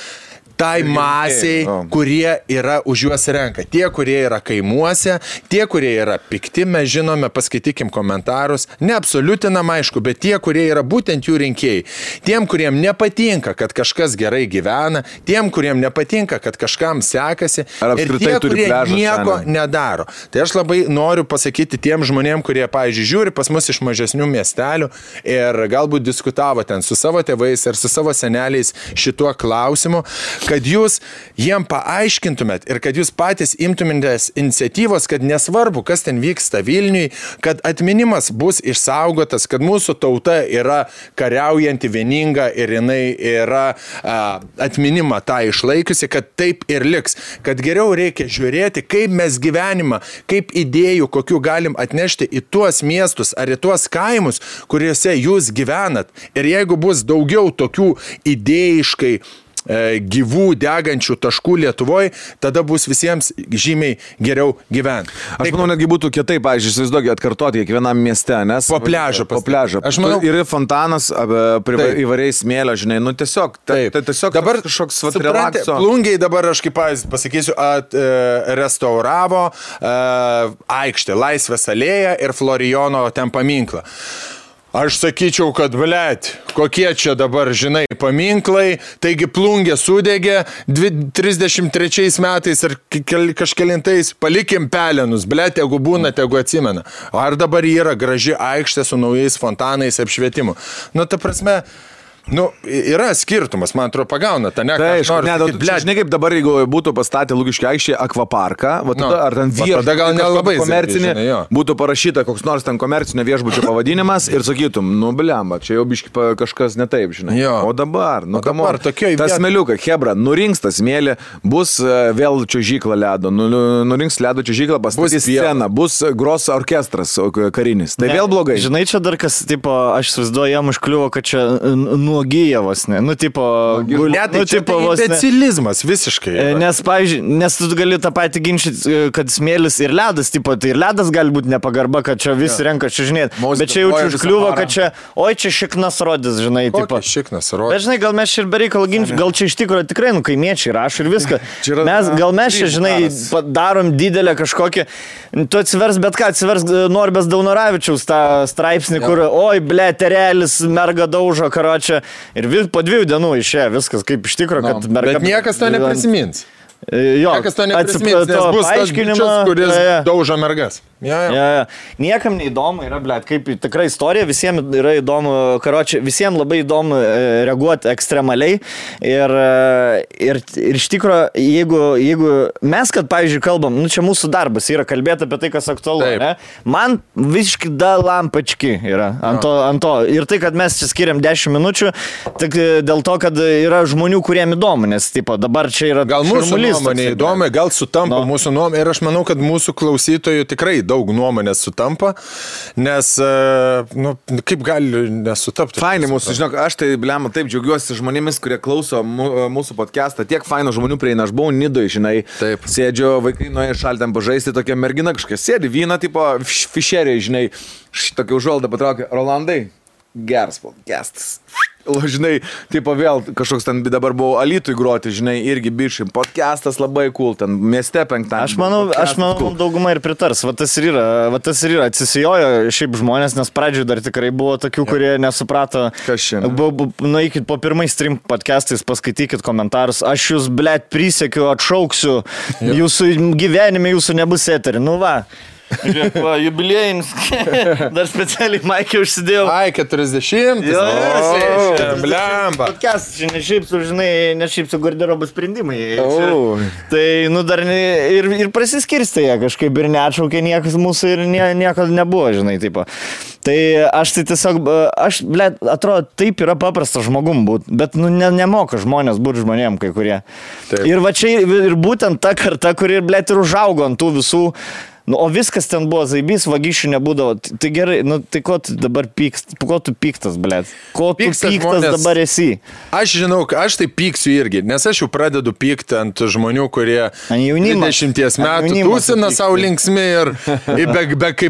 tai masiai, kurie yra už juos renka. Tie, kurie yra kaimuose, tie, kurie yra pikti, mes žinome, paskaitykim komentarus, neabsoliutinam aišku, bet tie, kurie yra būtent jų rinkėjai. Tiem, kuriem nepatinka, kad kažkas gerai gyvena, tiem, kuriem nepatinka, kad kažkam sekasi, ir tie, kurie nieko nedaro. Tai aš labai noriu pasakyti tiem žmonėm, kurie, pavyzdžiui, žiūri pas mus iš mažesnių miestelių ir galbūt diskutavo ten su savo tėvais ir su savo seneliais šituo klausimu, kad jūs jiem paaiškintumėt ir kad jūs patys imtumėtės iniciatyvos, kad nesvarbu, kas ten vyksta Vilniui, kad atminimas bus išsaugotas, kad mūsų tauta yra kariaujanti, vieninga ir jinai yra atminimą tą išlaikiusi, kad taip ir liks. Kad geriau reikia žiūrėti, kaip mes gyvenimą, kaip idėjų, kokių galim atnešti į tuos miestus ar į tuos kaimus, kuriuose jūs gyvenat. Ir jeigu bus daugiau tokių idėjiškai gyvų degančių taškų Lietuvoje, tada bus visiems žymiai geriau gyventi. Aš manau, netgi būtų kitaip, pavyzdžiui, įsivaizduokit, atkartoti kiekvienam mieste, nes... Po pliažą. Aš manau, yra fontanas, įvariai smėlio, žinai, nu tiesiog, tiesiog dabar kažkoks relakso. Plungiai dabar, aš kaip pasakysiu, restauravo aikštę, Laisvės alėją ir Florijono ten paminklą. Aš sakyčiau, kad, kokie čia dabar, žinai, paminklai, taigi Plungė sudegė 33 metais ir kažkelintais, palikim pelenus, jeigu būna, tegu atsimena. Ar dabar yra graži aikštė su naujais fontanais apšvietimu? Nu, ta prasme... Nu, yra skirtumas, man atrodo, pagauna tą žinai, kaip dabar, jeigu būtų pastatę Lukiškių aikštėje akvaparką, ar ten tada gal nelabai komercinė, būtų parašyta koks nors ten komercinio viešbučio pavadinimas ir sakytum, nu, blemba, čia jau biški kažkas ne taip, žinai. O dabar, tas smėliukas, hebra, nurinks tas smėlį, bus vėl čiuožykla ledo, nurinks ledo čiuožyklą, pastatys sceną, bus gros orkestras karinis. Tai vėl blogai. Žinai, čia dar kas, tipo, aš įsivaizduoju, jam užkliuvo, kad čia nuogyjavos, ne? Nu, tipo... Imbecilizmas visiškai. Nes, pavyzdžiui, nes tu gali tą patį ginčyti, kad smėlis ir ledas, tipo, tai ir ledas gali būti nepagarba, kad čia visi renka čiuožinėti. Bet čia jau užkliuvo, kad čia, čia šiknas rodys, žinai, tipo. Šiknas rodys. Bet, žinai, gal mes čia ir bereikal ginčyti, gal čia iš tikrųjų tikrai, kaimiečiai rašo ir viską. Gal mes čia, žinai, darom didelę kažkokią, tu atsivers bet ką, atsivers Norbės Daunoravičiaus tą straipsnį, kur, terelis, merga daužo, karočią, ir po 2 dienų išėjo viskas kaip iš tikro, kad merga... Bet niekas to neprisimins. Jo, niekas to neprisimins, nes bus tas bičias, kuris daužo mergas. Ja. Niekam neįdomu yra, blėt, kaip tikra istorija, visiems yra įdomu, karočią, visiems labai įdomu reaguoti ekstremaliai ir iš tikro, jeigu mes, kad, pavyzdžiui, kalbam, čia mūsų darbas yra kalbėti apie tai, kas aktualu, ne? Man visiškai lampački yra ant to. Ir tai, kad mes čia skiriam 10 minučių, tik dėl to, kad yra žmonių, kuriem įdomu, nes, tipo, dabar čia yra gal mūsų nuomonė įdomi, gal sutampa mūsų nuomonė ir aš manau, kad mūsų klausytojų tikrai daug nuomonės sutampa, nes, kaip gali nesutapti. Fainai mūsų, žinok, aš tai, blema, taip džiaugiuosi žmonėmis, kurie klauso mūsų podcastą. Tiek faino žmonių prieina, aš buvau Nidoj, žinai, taip. Sėdžiu, vaikai nuėjo šaltėm pažaisti, tokia mergina kažkokia sėdi, vyną, tipo, fišeriai, žinai, tokia užuolda patraukė, Rolandai, geras podcastas. Žinai, tipo vėl kažkoks ten dabar buvo Alytui groti, žinai, irgi bišai, podcastas labai cool, ten mieste penktadienį. Aš manau, dauguma ir pritars, va tas ir yra, atsisijojo šiaip žmonės, nes pradžioje dar tikrai buvo tokių, kurie nesuprato. Kas šiandien? Nueikit po pirmais stream podcastais, paskaitykit komentarus, aš jūs, blėt, prisiekiu, atšauksiu, jūsų gyvenime jūsų nebus eterį, nu va. Žiūrėk, va, jubiliejinis. Dar specialiai Maikė užsidėjau. Ai, 40. Blemba. Podcast, čia ne šiaip su garderobo sprendimai. Tai, dar ir prasiskirstė jie kažkaip ir neatšaukė niekas mūsų ir nieko nebuvo, žinai, tipo. Tai aš tai tiesiog, blėt, atrodo, taip yra paprasta žmogum būt, bet, nemoka žmonės būti žmonėm kai kurie. Taip. Ir va čia ir būtent ta karta, kuri, blėt, ir užaugo ant tų visų. O viskas ten buvo zaibys, vagysčių nebūdavo. Tai gerai, tai ko tu dabar pykst? Ko tu pyktas, blėt? Ko tu pyktas dabar esi? Aš žinau, aš tai pyksiu irgi, nes aš jau pradedu pykti ant žmonių, kurie 20 metų tūsina savo linksmi ir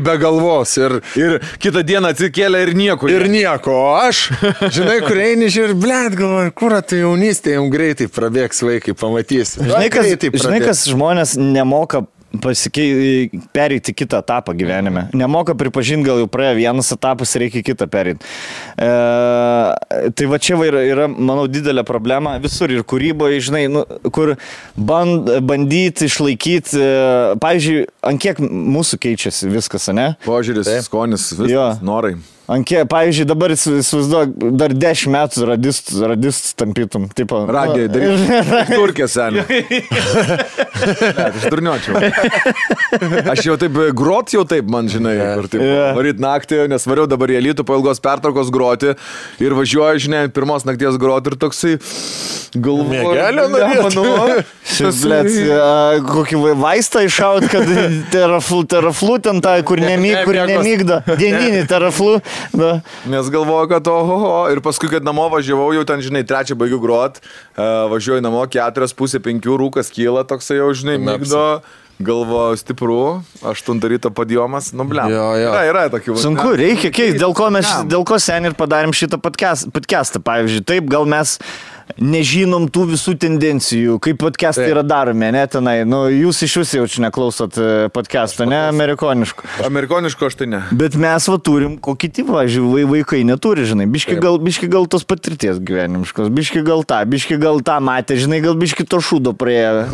be galvos. Ir kitą dieną atsikėlė ir nieko. Ir nieko. O aš, žinai, kur eini ir, blėt, galvoju, kur tai jaunystė, jums greitai prabėgs vaikai, pamatysi. Žinai, kas žmonės nemoka pereiti kitą etapą gyvenime. Nemoka pripažinti, gal jau praėjo vienas etapas, reikia kitą pereiti. Tai va čia yra, manau, didelė problema visur ir kūryboje, žinai, kur bandyti išlaikyti, pavyzdžiui, ant kiek mūsų keičiasi viskas, ne? Požiūris, skonis, viskas, norai. Pavyzdžiui, dabar įsivaizduok, dar 10 metų radistų tampytum. Radiją daryti. Turkė senė. Aš durniočiau. Aš jau taip, grot jau taip, man žinai, kur taip, varyt naktį, nes variau dabar į Alytų po ilgos pertraukos groti ir važiuoju, žinai, pirmos nakties groti ir toksai galvoju. Mėgelio norėt. Kokį vaistą išaut, kad teraflu ten tą, kur nemygdo. Dieninį teraflu. Da. Nes galvoju, kad ir paskui, kad namo važiavau, jau ten, žinai, 3 baigiu grot, važiuoju namo, 4:30 rūkas kyla, toksai jau, žinai, mygdo, galvoju stipru, 8 ryto padiomas, blem. Yra tokių. Sunku, reikia keisti, dėl ko seniai ir padarėm šitą podcastą, pavyzdžiui, taip, gal mes nežinom tų visų tendencijų, kaip podcastai yra daromi, ne tenai. Jūs iš jūsų jau čia neklausot podcastą, ne amerikoniškų. Amerikoniškų aš tai ne. Bet mes turim, ko kiti, vaikai neturi, žinai. Biški gal tos patirties gyvenimiškos, biški gal tą matė, žinai, gal biški to šūdo praėjo.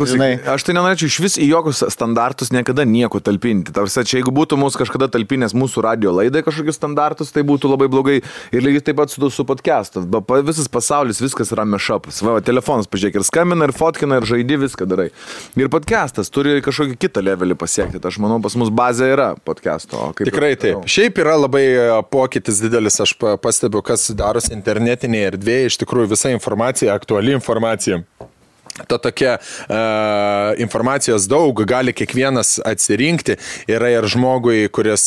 Aš tai nenorėčiau iš vis į jokius standartus niekada nieko talpinti. Tarsi, čia jeigu būtų mūsų kažkada talpinės mūsų radio laidai kažkokius standartus, tai būtų labai blogai. Ir lygiai taip pat su podcastu. Visas pasaulis, viskas yra šapas. Va, telefonas, pažiūrėk, ir skambina, ir fotkina, ir žaidži, viską darai. Ir podcastas turi kažkokį kitą levelį pasiekti. Aš manau, pas mus bazė yra podcasto. Tikrai taip. Šiaip yra labai pokytis didelis, aš pastebiu, kas darosi internetinėje erdvėje, iš tikrųjų visa informacija, aktuali informacija. Ta tokia informacijos daug, gali kiekvienas atsirinkti, yra ir žmogui, kuris,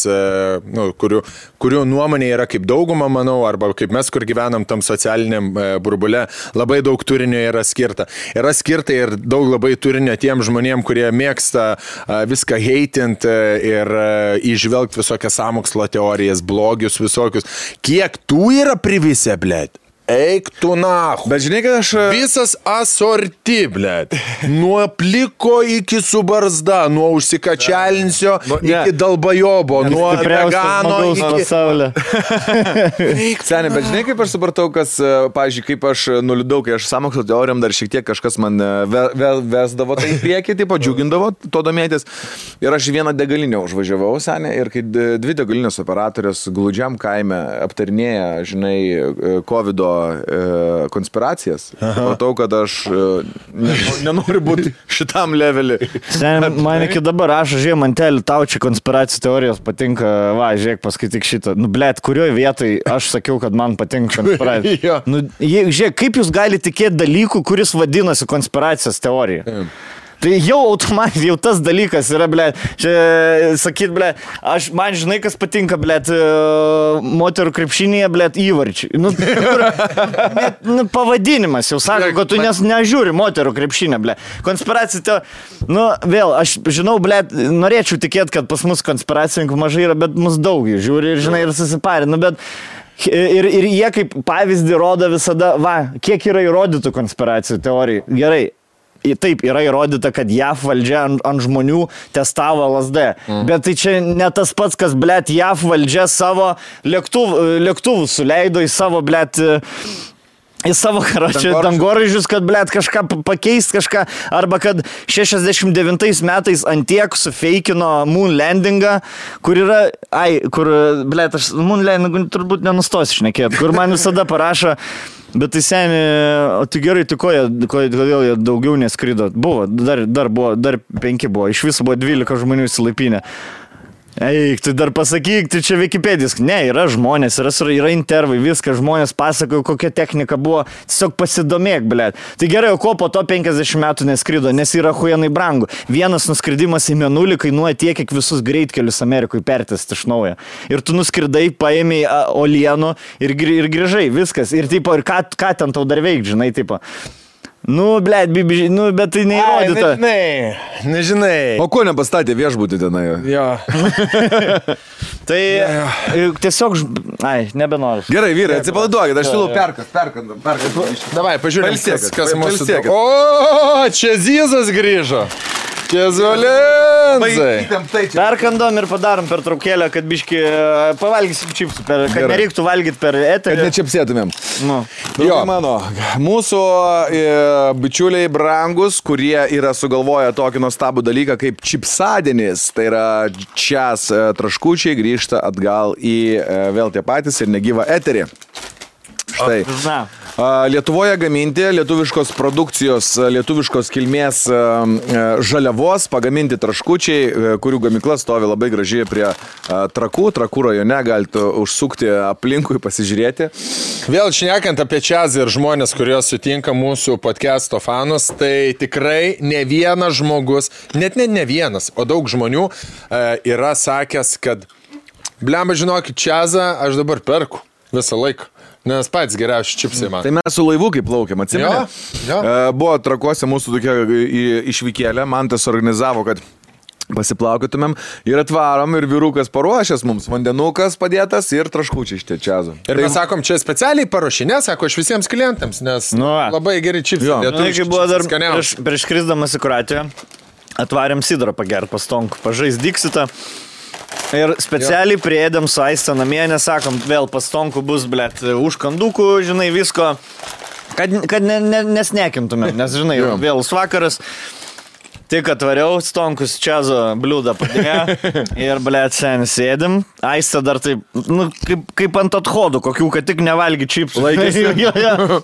kurių nuomonė yra kaip dauguma, manau, arba kaip mes, kur gyvenam tam socialiniam burbule, labai daug turinio yra skirta. Yra skirta ir daug labai turinio tiem žmonėm, kurie mėgsta viską heitinti ir įžvelgti visokias sąmokslo teorijas, blogius visokius. Kiek tų yra privisę, blėt? eik tu nahu. Bet žinai, kad aš... Visas asorti, blėt. Nuo pliko iki su barzda, nuo užsikačialinsio iki dalbajobo, nuo vegano iki... pasaulio. Seniai, bet žinai, kaip aš supratau, kas, pavyzdžiui, kaip aš nuliūdau, kai aš sąmokslo teorijom dar šiek tiek kažkas man vesdavo tai į priekį, taip džiugindavo to domėtis. Ir aš vieną degalinę užvažiavau, seniai, ir kai dvi degalinės operatorės glūdžiam kaime aptarinėja, žinai, COVID-o konspiracijas. Matau, kad aš nenoriu būti šitam levelį. Man iki dabar rašo, žiūrėjau, mantelį, tau čia konspiracijų teorijos patinka, va, žiūrėk, paskaityk šitą. Nu, blėt, kurioje vietoj aš sakiau, kad man patinka konspiracija. Nu, žiūrėk, kaip jūs galite tikėti dalykų, kuris vadinasi konspiracijos teorija? Tai jau automatiškai, jau tas dalykas yra, blėt, čia sakyt, blėt, man žinai, kas patinka, blėt, moterų krepšinėje, blėt, įvarčiai. Nu, pavadinimas jau sako, kad tu nežiūri moterų krepšinę, blėt. Konspiracija, nu, vėl, aš žinau, blėt, norėčiau tikėti, kad pas mus konspiracininkų mažai yra, bet mus daug jų žiūri ir, žinai, ir susiparė, nu, bet... Ir jie kaip pavyzdį rodo visada, va, kiek yra įrodytų konspiracijų teorijų. Gerai. Taip, yra įrodyta, kad JAV valdžia ant žmonių testavo LSD. Bet tai čia ne tas pats, kas, blėt, JAV valdžia savo lėktuvų suleido į savo, blėt, į savo dangoraižius, kad, blėt, kažką pakeist, kažką, arba kad 69 metais antiek sufeikino moon landingą, kur yra, blėt, aš moon landingą turbūt nenustosiu šnekėti, kur man visada parašo. Bet tai seniai, o tai gerai, tai kodėl jie daugiau neskrido? Buvo, dar 5 buvo, iš viso buvo 12 žmonių įsilaipinę. Eik, tai dar pasakyk, tai čia Wikipedijos. Ne, yra žmonės, yra intervai, viskas, žmonės pasakojo, kokia technika buvo, tiesiog pasidomėk, blėt. Tai gerai, o ko po to 50 metų neskrido, nes yra huijanai brangu. Vienas nuskridimas į Mėnulį kainuoja tiek, kiek visus greitkelius Amerikoje pertest iš naujo. Ir tu nuskridai, paėmei olienų ir grįžai, viskas. Ir tipo, ir ką ten tau dar veik, žinai, tipo. Nu, blėt, nu, bet tai neįrodyta. Nežinai. O ko nepastatė viešbutį tenai? Jo. Tai tiesiog, nebenoriu. Gerai, vyrai, atsipalaiduokit, aš siūlau perkas. Davai, pažiūrėm, kas mūsų. O, čia Zizas grįžo. Kezuolensai. Perkandom ir padarom per traukėlę, kad biški pavalgysim čipsų, kad nereiktų valgyti per eterį. Kad nečipsėtumėm. Nu. Jo, mano, mūsų bičiuliai brangus, kurie yra sugalvoję tokį nuostabų dalyką kaip čipsadienis, tai yra čias traškučiai grįžta atgal į vėl tie patys ir negyvą eterį. Štai. Lietuvoje gaminti lietuviškos produkcijos, lietuviškos kilmės žaliavos, pagaminti traškučiai, kurių gamykla stovi labai gražiai prie Trakų rajone, galite užsukti aplinkui, pasižiūrėti. Vėl šnekant apie čiazą ir žmonės, kurie sutinka mūsų podcast'o fanus, tai tikrai ne vienas žmogus, net ne vienas, o daug žmonių yra sakęs, kad blemba, žinokit, čiazą aš dabar perku visą laiką. Nes pats geriausi čipsai man. Tai mes su laivu kaip plaukėm, atsimeni? Jo. Buvo Trakuose mūsų tokia išvykėlė, man tas organizavo, kad pasiplaukėtumėm ir atvarom ir vyrukas paruošęs mums, vandenukas padėtas ir traškučiai iš čiazo. Ir mes sakom, čia specialiai paruošinė, sako, aš visiems klientams, nes labai geri čipsai. Tai buvo dar prieš skrisdamas į Kroatiją, atvarėm sidrą pagerti pas Tonku, pažais Dixitą. Ir specialiai priėdėm su Aiste namie, nesakom, vėl pas Tonku bus, blėt, užkandukų, žinai, visko, kad nesnekintumėm, nes, žinai, vėlus vakaras. Tik atvariau, Stonkus čiazo bliūdą padėjo ir, blėt, sen sėdim. Aiste dar taip, nu, kaip ant athodų, kokių, kad tik nevalgy čipsų. Laikėsi.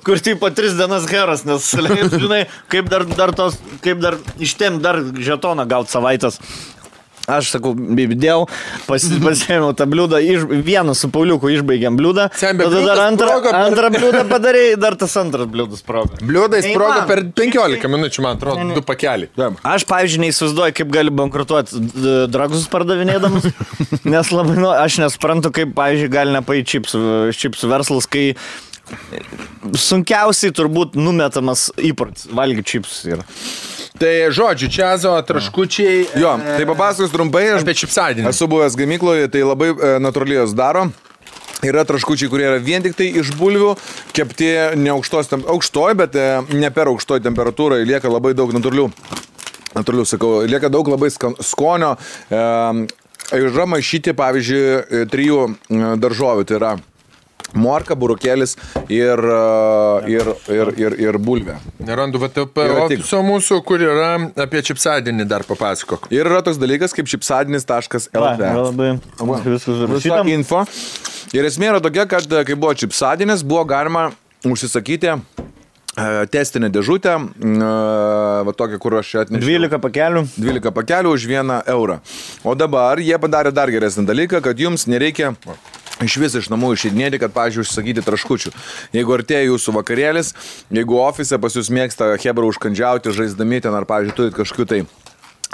Kur tipo 3 dienas heras, nes, žinai, kaip dar ištem dar žetoną gaut savaitės. Aš sakau, bibidėjau, pasėmiau tą bliūdą, vieną su Pauliuku išbaigėm bliūdą, tada dar antrą bliūdą padarėjai, dar tas antras bliūdas sprogo. Bliūdai sprogo per 15 minučių, man atrodo, 2 pakeliai. Aš, pavyzdžiui, neįsivaizduoju, kaip gali bankrutuoti dragus pardavinėdamas, nes labai, aš nesuprantu, kaip, pavyzdžiui, gali nepaėti čipsų verslas, kai sunkiausiai turbūt numetamas įprotis valgyti čipsus yra. Tai žodžiu, čiazo, traškučiai. Jo, tai papasakos trumpai, aš apie čipsadinį. Esu buvęs gamykloje, tai labai natūraliai jos daro. Yra traškučiai, kurie yra vien tik tai iš bulvių, kepti ne aukštoj, bet ne per aukštoj temperatūrai, lieka labai daug natūralių, sakau, lieka daug labai skonio. Yra maišyti, pavyzdžiui, 3 daržovių, tai yra morka, burukėlis ir bulvė. Nerandu VTP ofiso mūsų, kur yra apie čipsadienį dar papasakok. Ir yra toks dalykas kaip čipsadinis.lt. Visą info. Ir esmė yra tokia, kad kai buvo čipsadienis, buvo galima užsisakyti testinę dėžutę, va tokia, kur aš čia atnešiau. 12 pakelių už 1 eurą. O dabar jie padarė dar geresnį dalyką, kad jums nereikia iš vis iš namų išeidinėti, kad, pavyzdžiui, užsakyti traškučių. Jeigu artėja jūsų vakarėlis, jeigu ofise pas jūs mėgsta hebra užkandžiauti, žaisdami ten, ar, pavyzdžiui, turit kažkokių tai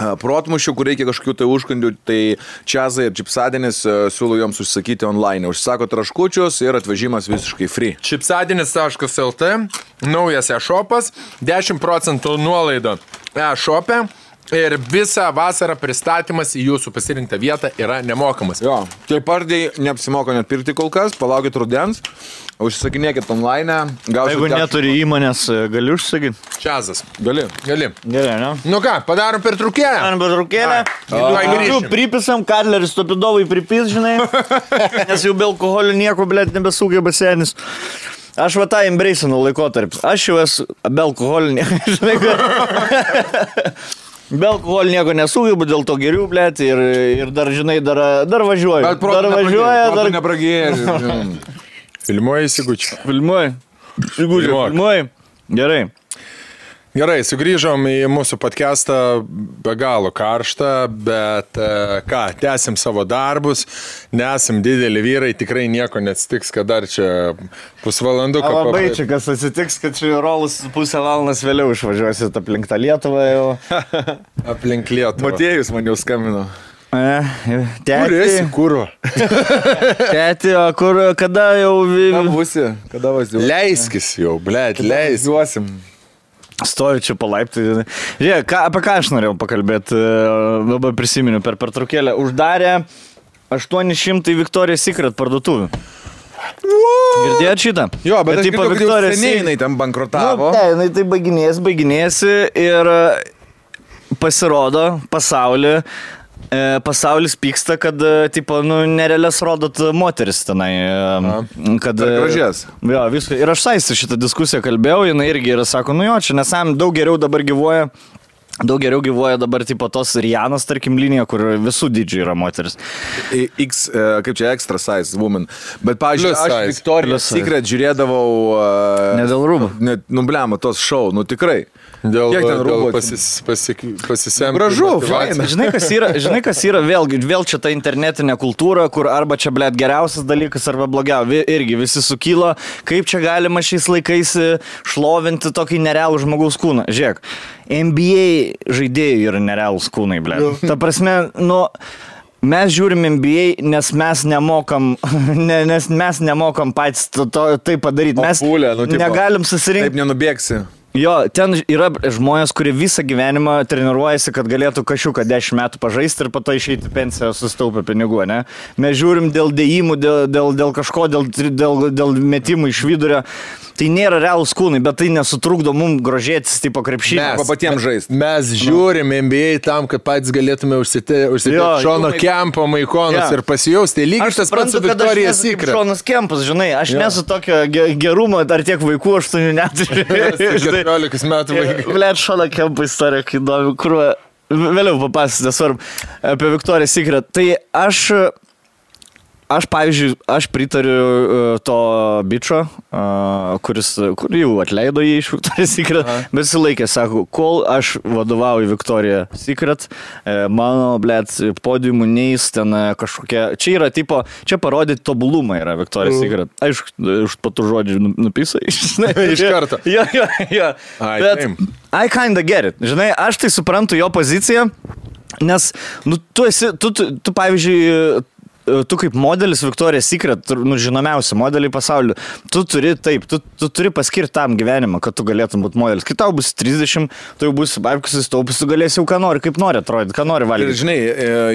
protmušių, kur reikia kažkokių tai užkandių, tai čiazai ir čipsadienis siūlau joms užsakyti online. Užsako traškučius ir atvežimas visiškai free. Čipsadienis.lt, naujas e-shopas, 10% nuolaida e-shop'e. Ir visą vasarą pristatymas į jūsų pasirinktą vietą yra nemokamas. Jo, tai pardai neapsimoka net pirkti kol kas, palaukit rudens, užsisakinėkit online. Jeigu neturi įmonės, gali užsakyti? Čiazas. Gali. Gerai, ne? Nu ką, padarom pertraukėlę? Pripisam, Kadleris Topidovai pripis, žinai, nes jau be alkoholio nieko, blėt, nebesugeba senis. Aš va tą embrace'inu laikotarpį. Aš jau esu be alkoholio, žinai, be alkoholio nieko nesugebu, dėl to geriu, blėt, ir dar, žinai, dar važiuoju. Bet protų nepragėri. Filmuoji įsigučiu. Filmuoji. Gerai, sugrįžom į mūsų podcastą, be galo karštą, bet ką, tęsim savo darbus, nesam dideli vyrai, tikrai nieko neatsitiks, kad dar čia pusvalanduką. Labai čia kas atsitiks, kad čia rolus pusę valandas vėliau išvažiuosit aplink tą Lietuvą jau. Aplink Lietuvą. Matėjus man jau skambino. Tėti. Kur esi, kurva? Tėti, o kur, kada jau... Kada važiuosi? Leiskis jau, blėt, Važiuosim. Stoju čia palaiptai. Žiūrėk, apie ką aš norėjau pakalbėti, dabar prisiminiu per pertraukėlę. Uždarė 800 Victoria's Secret parduotuvių. Girdėjot šitą? Jo, bet aš girdėjau, kad jau seniai jinai ten bankrutavo. Ne, jinai tai baiginėsi ir pasirodo pasaulis pyksta, kad, tipo, nerealias rodot moteris tenai. Kad gražias. Jo, viską. Ir aš saisi šitą diskusiją kalbėjau, jinai irgi yra, sako, jo, čia nesam, daug geriau dabar gyvuoja dabar, tipo, tos Rianos, tarkim, linija, kur visų dydžių yra moteris. Kaip čia, extra size woman. Bet, pavyzdžiui, aš Victoria's Secret žiūrėdavau... Ne dėl rūbų. Nubliamo, tos šou, tikrai. Dėl pasisemti. Gražu, faina. Žinai, kas yra vėl čia ta internetinė kultūra, kur arba čia, blėt, geriausias dalykas, arba blogiau. Irgi visi sukilo, kaip čia galima šiais laikais šlovinti tokį nerealų žmogaus kūną. Žiūrėk, NBA žaidėjų yra nerealūs kūnai, blėt. Ta prasme, mes žiūrim NBA, nes mes nemokam patys tai padaryti. Mes negalim susirinkti. Taip nenubėgsi. Jo, ten yra žmonės, kurie visą gyvenimą treniruojasi, kad galėtų kažką 10 metų pažaisti ir po to išeiti pensiją sustaupę pinigų, ne? Mes žiūrim dėl dėjimų, dėl kažko, dėl metimų iš vidurio. Tai nėra realūs kūnai, bet tai nesutrukdo mums grožėtis, tipo krepšinį. Mes patiems žaisti. Mes žiūrim NBA tam, kad patys galėtume užsidėti Šono Kempo maikonus ir pasijausti. Lygiai tas pats su Victoria's Secret. Šonas Kempas, žinai, aš nesu tokio gerumo, ar tiek vaikų 8 neturiu. 14 metų vaikų. Blet, Šono Kempo istorija, kai įdomi, kur vėliau papasakoti, svarbu, apie Victoria's Secret. Tai aš, pavyzdžiui, pritariu to bičo, kur jau atleido jį iš Victoria's Secret, bet jis laikė, sako, kol aš vadovauju Victoria's Secret, mano, blėt, podiumų neis ten kažkokie, čia yra tipo, čia parodyti tobulumą yra Victoria's Secret. Aišku, už patų žodžių nupisai. Iš karto. Jo. Bet I kinda get it. Žinai, aš tai suprantu jo poziciją, nes, tu pavyzdžiui, tu kaip modelis Victoria's Secret, žinomiausi modeliai pasaulyje, tu turi paskirti tam gyvenimą, kad tu galėtum būti modelis. Kai tau bus 30, tu jau bus babkusis taupus, tu galėsi jau ką nori, kaip nori atrodyti, ką nori valgyti. Ir žinai,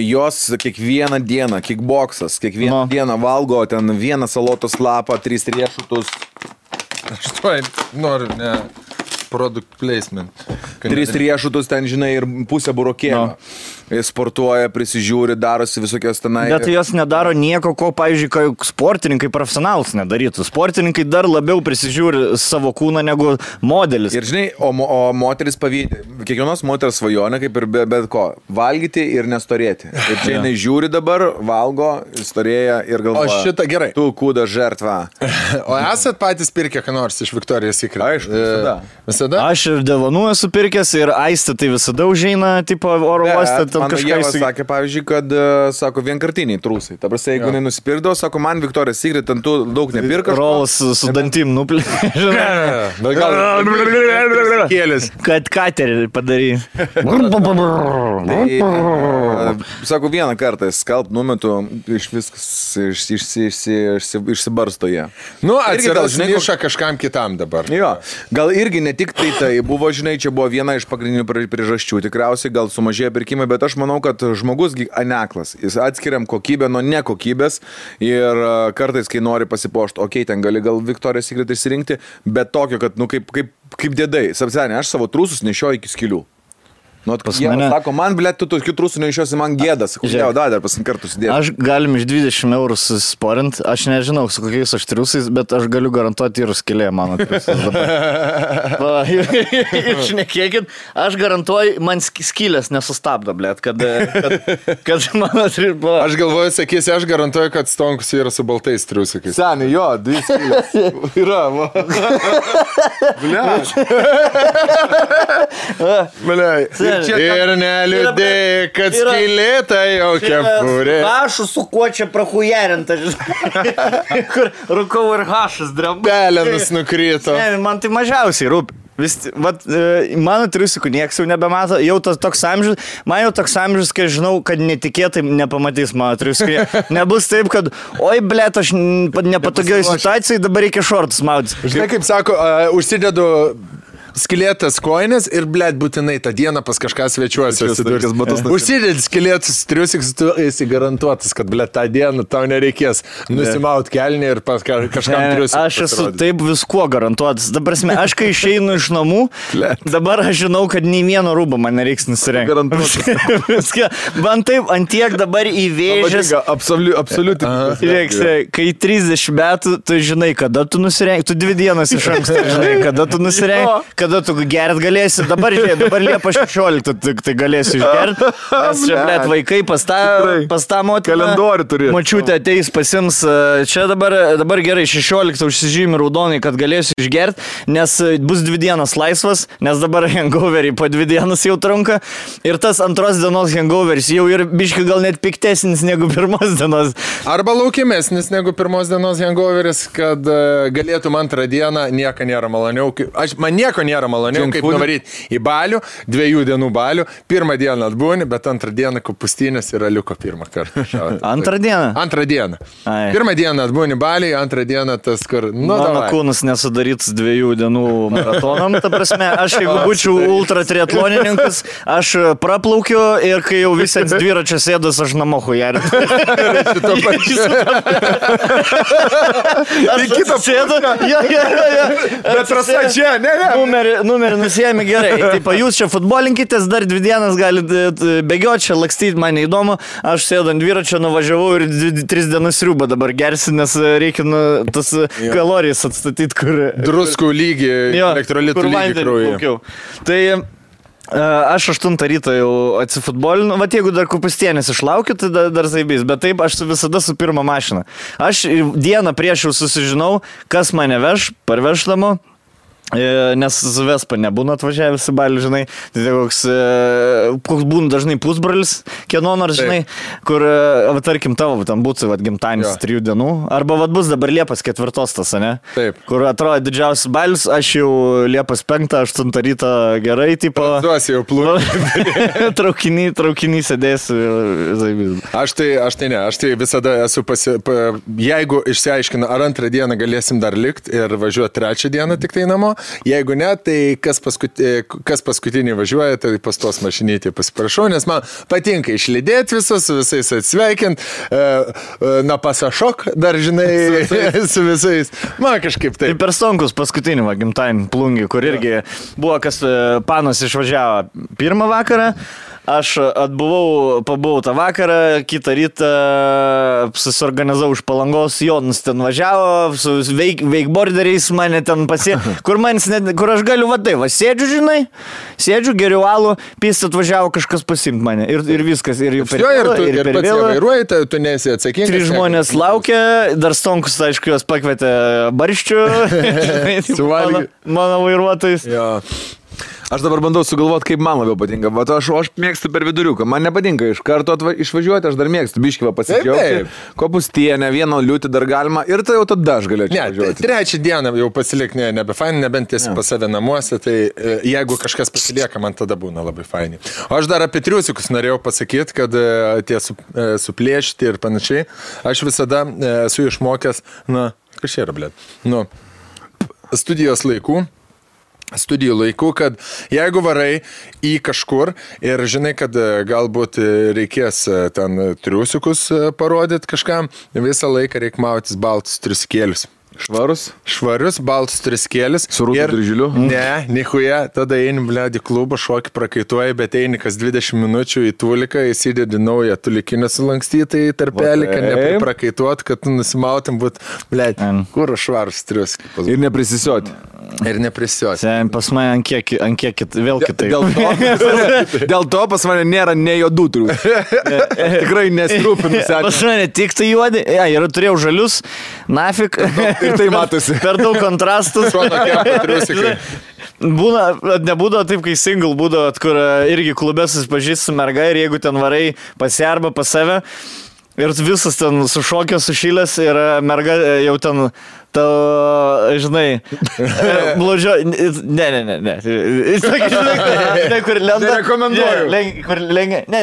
jos kiekvieną dieną, kickboxas, kiekvieną dieną valgo ten vieną salotos lapą, 3 riešutus. Aš to noriu, ne. Product placement. 3 riešutus ten, žinai, ir pusę burokėlio. Sportuoja, prisižiūri, darosi visokios tenai. Bet jos nedaro nieko, ko, pavyzdžiui, sportininkai profesionalus nedarytų. Sportininkai dar labiau prisižiūri savo kūną negu modelis. Ir žinai, o moteris pavydė. Kiekvienos moters svajonė, kaip ir bet ko, valgyti ir nestorėti. Ir čia jinai žiūri dabar, valgo, storėja ir galvoja. O šitą gerai. Tu kūda žertva. O esat patys pirkę ką nors iš Victoria's Secret? Aišku, visada. Aš ir dovanų esu pirkęs ir Aistė tai visada užeina, tipo, oro uostą. Mano Ieva sakė, pavyzdžiui, kad, sako, vienkartiniai trūsai. Ta prasme, jeigu nenusipirkdavo, sako, man Victoria's Secret, ten tu daug nepirka. Rolas su dantim nuplė. Kėlis. Kad katerį padary. Sako, vieną kartą skalp numetu, iš viskas išsibarsto jie. Nu, atsiras niša kažkam kitam dabar. Jo, gal irgi ne tik tai buvo, žinai, čia buvo viena iš pagrindinių priežasčių. Tikriausiai gal sumažėjo pirkimai, bet aš manau, kad žmogus aneklas. Jis atskiriam kokybę nuo nekokybės ir kartais, kai nori pasipošti, okei, ten gali gal Victoria's Secret išsirinkti, bet tokio, kad, nu, kaip dėdai. Sapsenė, aš savo trūsus nešioju iki skylių. Nu, jie sako, man, blėt, tu tokių trūsų neišiosi, man gėdas. Kodėl, dar pasinkartų sudėti. Aš galim iš 20 eurų susisporint, aš nežinau, su kokiais aš triusais, bet aš galiu garantuoti ir skylė mano triusais dabar. Išnekėkit, aš garantuoju, man skylės nesustabdo, blėt, kad mano triusai. Aš galvoju, sakysi, aš garantuoju, kad Stonkus yra su baltais triusikais. Seniai, jo, 2 skylės. Yra, va. Bliai. Ir neliūdė, kad skylėta jau kepurė. Hašų su kuo čia prahujarinta, kur rūkau ir hašas dramba. Pelenus nukrito. Ne, man tai mažiausiai rūpi. Mano triusikų nieks jau nebemato, jau toks amžius, man jau toks amžius, kai žinau, kad netikėtai nepamatys mano triusikai. Nebus taip, kad, oi, blėt, aš nepatogioj situacijai, dabar reikia šortus mautis. Žinai, kaip sako, užsidedu skylėtas koinės ir, blėt, būtinai tą dieną pas kažką svečiuosi. Užsidėt skylėtus triusikus, tu esi garantuotas, kad, blėt, tą dieną tau nereikės nusimaut kelnį ir pas kažkam triusikus. Aš esu taip viskuo garantuotas. Dabar, aš kai išeinu iš namų, dabar aš žinau, kad nei vieno rūbo man nereiks nusirengti. Man taip, antiek dabar įvėžęs. Absoliutinai. Žiūrėk, kai 30 metų, tu žinai, kada tu nusirengi, tu 2 dienas iš anksto žinai, kada tu nusirengi. Kada tu gert galėsi, dabar Liepa 16, tai galėsi išgert, nes čia, blėt, vaikai pas tą motiną, kalendorių turi. Mačiutė ateis pasims, čia dabar gerai, 16 užsižymi raudonai, kad galėsiu išgert, nes bus 2 dienas laisvas, nes dabar hangoverį po 2 dienas jau trunka ir tas antros dienos hangoveris jau ir biškai gal net piktesnis negu pirmos dienos. Arba laukimesnis negu pirmos dienos hangoveris, kad galėtum antrą dieną, nieko nėra maloniau. Man nieko nėra maloniau, kaip nuvaryti į balių, 2 dienų balių, 1 dieną atbūni, bet 2 dieną kupustynės ir aliuko 1 kartą. Antrą dieną? 2 dieną. 1 dieną atbūni baliai, 2 dieną tas, kur... Mano kūnas nesudarytas 2 dienų maratonam, ta prasme, aš jeigu būčiau ultra triatlonininkas, aš praplaukiu ir kai jau visi ant dviračio sėdas, aš namo hujarit. Aš sėdu, bet trasa čia, ne. Numerį nusijėmė gerai. Taip, jūs čia futbolinkitės, dar 2 dienas galite bėgioti, čia lakstyti, man neįdomu. Aš sėdu ant dviračio, nuvažiavau ir 3 dienas sriubą dabar gersi, nes reikia tas kalorijas atstatyti, kur... Druskų lygį, elektrolitų lygį kraujo. Tai... Aš 8 ryto jau atsifutbolinu, vat jeigu dar kupustienės išlaukiu, tai dar zaibys, bet taip aš visada su pirma mašina. Aš dieną prieš jau susižinau, kas mane veš, parveždamo. Nes su Vespa nebūna atvažiavęs į Balį, žinai, tai koks būna dažnai pusbralis, kieno nors, žinai, kur, tarkim, tavo, tam būtų, gimtadienis 3 dienų, arba bus dabar Liepos 4 tas, ne? Taip. Kur atrodo didžiausias Balis, aš jau Liepos 5-8 ryto gerai, tipo... Duosi jau plūnį. Traukinį sėdėsiu. Aš tai visada esu jeigu išsiaiškina, ar 2 dieną galėsim dar likti ir važiuoti 3 dieną tik tai namo, jeigu ne, tai kas paskutinį važiuoja, tai pas tos mašinytį pasiprašau, nes man patinka išlydėti visus, su visais atsveikint, na pasašok, dar žinai, su visais. Man kažkaip taip. Tai per stonkus paskutinį gimtadienį plungį, kur irgi buvo, kas panas išvažiavo 1 vakarą, aš pabuvau tą vakarą, kitą rytą susiorganizavau iš Palangos, Jonas ten važiavo, su veikborderiais mane ten kur aš galiu sėdžiu, žinai, geriau alų, pys atvažiavo kažkas pasiimti mane ir viskas, ir jau per vėlą, ir per vėlą. Vairuoji, tu nesi atsakingas. 3 žmonės laukia, dar stonkus, aišku, juos pakvietė barščių, mano vairuotojais. Jo. Aš dabar bandau sugalvoti, kaip man labiau patinka. Aš mėgstu per viduriuką. Man nepatinka iš karto išvažiuoti, aš dar mėgstu biškivą pasikliauti. Kopustienę, vieną liūtį dar galima ir tai jau tada aš galėčiau važiuoti. 3 dieną jau pasilik nebefaini, nebent tiesi pas save namuose, tai jeigu kažkas pasilieka, man tada būna labai faini. O aš dar apie triusikus norėjau pasakyti, kad tie suplėšti ir panašiai. Aš visada esu išmokęs, kas čia yra, blėt, studijų laikų, kad jeigu varai į kažkur ir žinai, kad galbūt reikės ten triusikus parodyti kažkam, visą laiką reikia mautis baltus triusikėlius. Švarius, baltus triusikėlius. Su rūtų dryžiliu? Ne, nichuja, tada eini, blėdi, klubą, šokį prakaituoji, bet eini kas 20 minučių į tuliką, įsidedi naują tulikinę sulankstytą į tarpelį, kad neprakaituot, kad nusimautum būt, blėdi, kur švarus triusikai. Ir neprisisioti. Pas mane ant kiek vėl kitai. Dėl to pas mane nėra ne juodų triusikų. Tikrai nesirūpinu. Pas mane tik tai juodi. Ir turėjau žalius, nafik. Ir tai matosi. Per daug kontrastus. Nebūdavo taip, kai single būdavo, kur irgi klube susipažįsti su merga ir jeigu ten varai pas ją arba pas save ir visas ten sušokęs, sušylęs ir merga jau ten žinai, blodžio, ne. Kur lenda. Nerekomenduoju. Kur lengia, ne.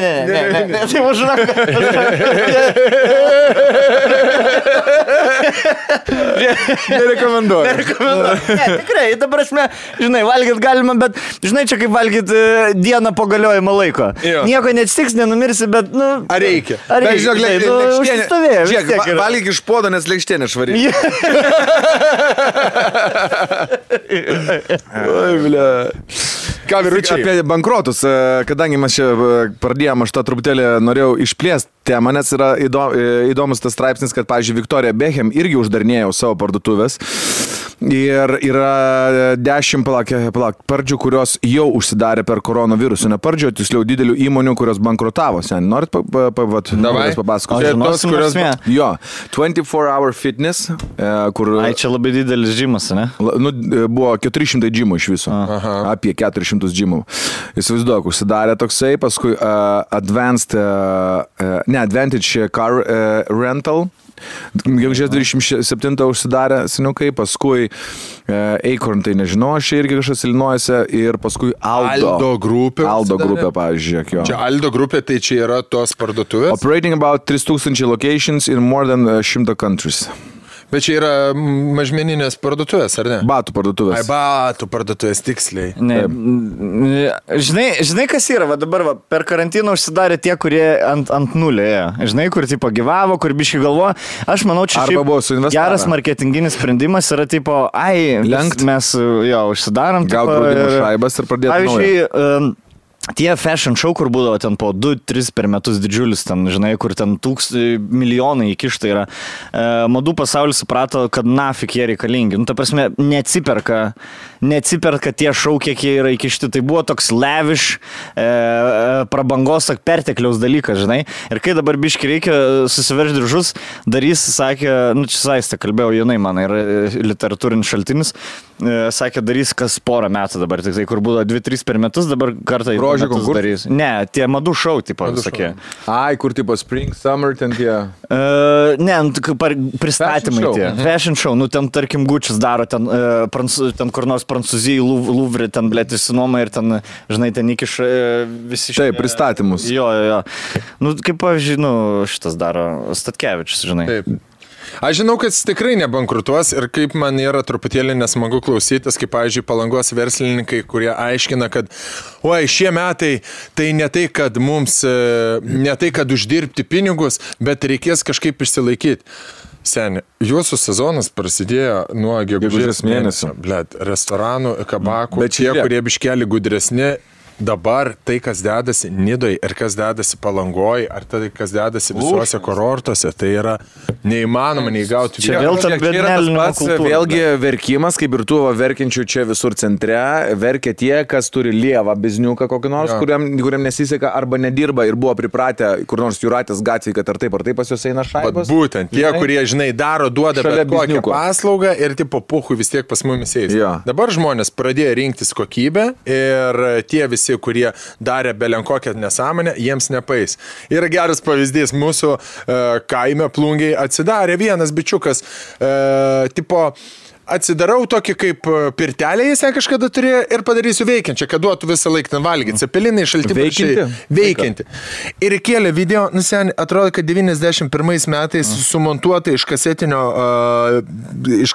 Tai užrak. Nerekomenduoju. Ne, tikrai, ta prasme, žinai, valgyt galima, bet, žinai, čia kaip valgyt dieną po galiojimo laiko. Nieko neatsitiks, nenumirsi, bet, Ar reikia? Bet, žinok, užsistovėjo. Žiūrėk, valgyk iš podo, nes lėkštienė švari. Oi, bля. Ką, vyručiai? Apie bankrotus, kadangi mes čia pradėjom, aš tą truputėlį norėjau išplėsti temą, nes yra įdomus tas straipsnis, kad, pavyzdžiui, Victoria Beckham irgi uždarinėjo savo parduotuvės. Ir yra 10 pardžių, kurios jau užsidarė per koronavirusą. Ne pardžių, tiksliau didelių įmonių, kurios bankrutavo. Norit papasakoti? Jo, 24-hour fitness, kur... Čia labai didelis džimas, ne? Buvo 400 džimų iš viso. Apie 400 džimų. Įsivaizduok, užsidarė toksai, paskui Advantage Car Rental. Gegužės 27 užsidarė seniukai, paskui Acorn, tai nežinau, aš irgi kažkas Illinoise ir paskui Aldo grupė. Aldo grupė, pavyzdžiui. Čia Aldo grupė, tai čia yra tos parduotuvės. Operating about 3000 locations in more than 100 countries. Bet čia yra mažmeninės parduotuvės, ar ne? Batų parduotuvės. Batų parduotuvės, tiksliai. Žinai, kas yra? Dabar per karantiną užsidarė tie, kurie ant nulio ėjo. Žinai, kur tipo gyvavo, kur biškai galvoja. Aš manau, čia geras marketinginis sprendimas yra tipo, mes užsidarom. Gal draudimo šaibas ir pradėti naują. Tie fashion show, kur būdavo ten po 2-3 per metus didžiulis, ten, žinai, kur ten milijonai įkišta yra. Madų pasaulis suprato, kad nafik jie reikalingi. Ta prasme, neatsiperka tie show, kiek jie yra įkišti. Tai buvo toks lavish, prabangos, pertekliaus dalykas, žinai. Ir kai dabar biški reikia susiveržti diržus, darys, sakė, čia Saistė kalbėjau, jinai man yra literatūrinis šaltinis, sakė, darys kas porą metų dabar, tik tai kur buvo 2-3 per metus, dabar kartą į Grožio metus darys. Ne, tie madų šou, tipo, sakė. Ai, kur tipo Spring, Summer, ten tie. Ne, pristatymai tie. Fashion show, nu ten tarkim Gucci's daro, ten kur nors Prancūzijai, Louvre, ten blėt įsinuoma ir ten, žinai, ten įkiš visi Taip, pristatymus. Jo. Nu, kaip pavyzdžiui, nu, šitas daro Statkevičius, žinai. Taip. Aš žinau, kad jis tikrai nebankrutuos ir kaip man yra truputėlį nesmagu klausytis, kaip, pavyzdžiui, Palangos verslininkai, kurie aiškina, kad oi, šie metai tai ne tai, kad mums, ne tai, kad uždirbti pinigus, bet reikės kažkaip išsilaikyti. Seni, jūsų sezonas prasidėjo nuo gegužės mėnesio. Blet, restoranų, kabakų, bet tie, kurie biškeli gudresni, dabar tai, kas dedasi Nidoj ir kas dedasi Palangoj, ar tai, kas dedasi visuose kurortuose, tai yra neįmanoma neįgauti. Čia vėl ta bernelino kultūra. Vėlgi verkimas, kaip ir tų verkiančių čia visur centre, verkia tie, kas turi lievą bizniuką kokį nors, kuriam nesiseka arba nedirba ir buvo pripratę kur nors Jūratės gatvėje, kad ar taip pas juos eina šaibos. Bet būtent, tie, kurie, žinai, duoda bet kokią paslaugą ir tipo puchui vis tiek pas mumis eis. Dabar žmonės pradėjo rinktis kokybę ir tie visi, kurie darė belenkokią nesąmonę, jiems nepais. Yra geras pavyzdys, mūsų kaime Plungiai atsidarė vienas bičiukas, tipo, atsidarau tokį kaip pirtelę, jis kažkada turėjo ir padarysiu veikiančią, kad duotų visą laiką ten valgyti. Cepelinai šalti veikianti. Ir kėlė video, atrodo, kad 91 metais sumontuota iš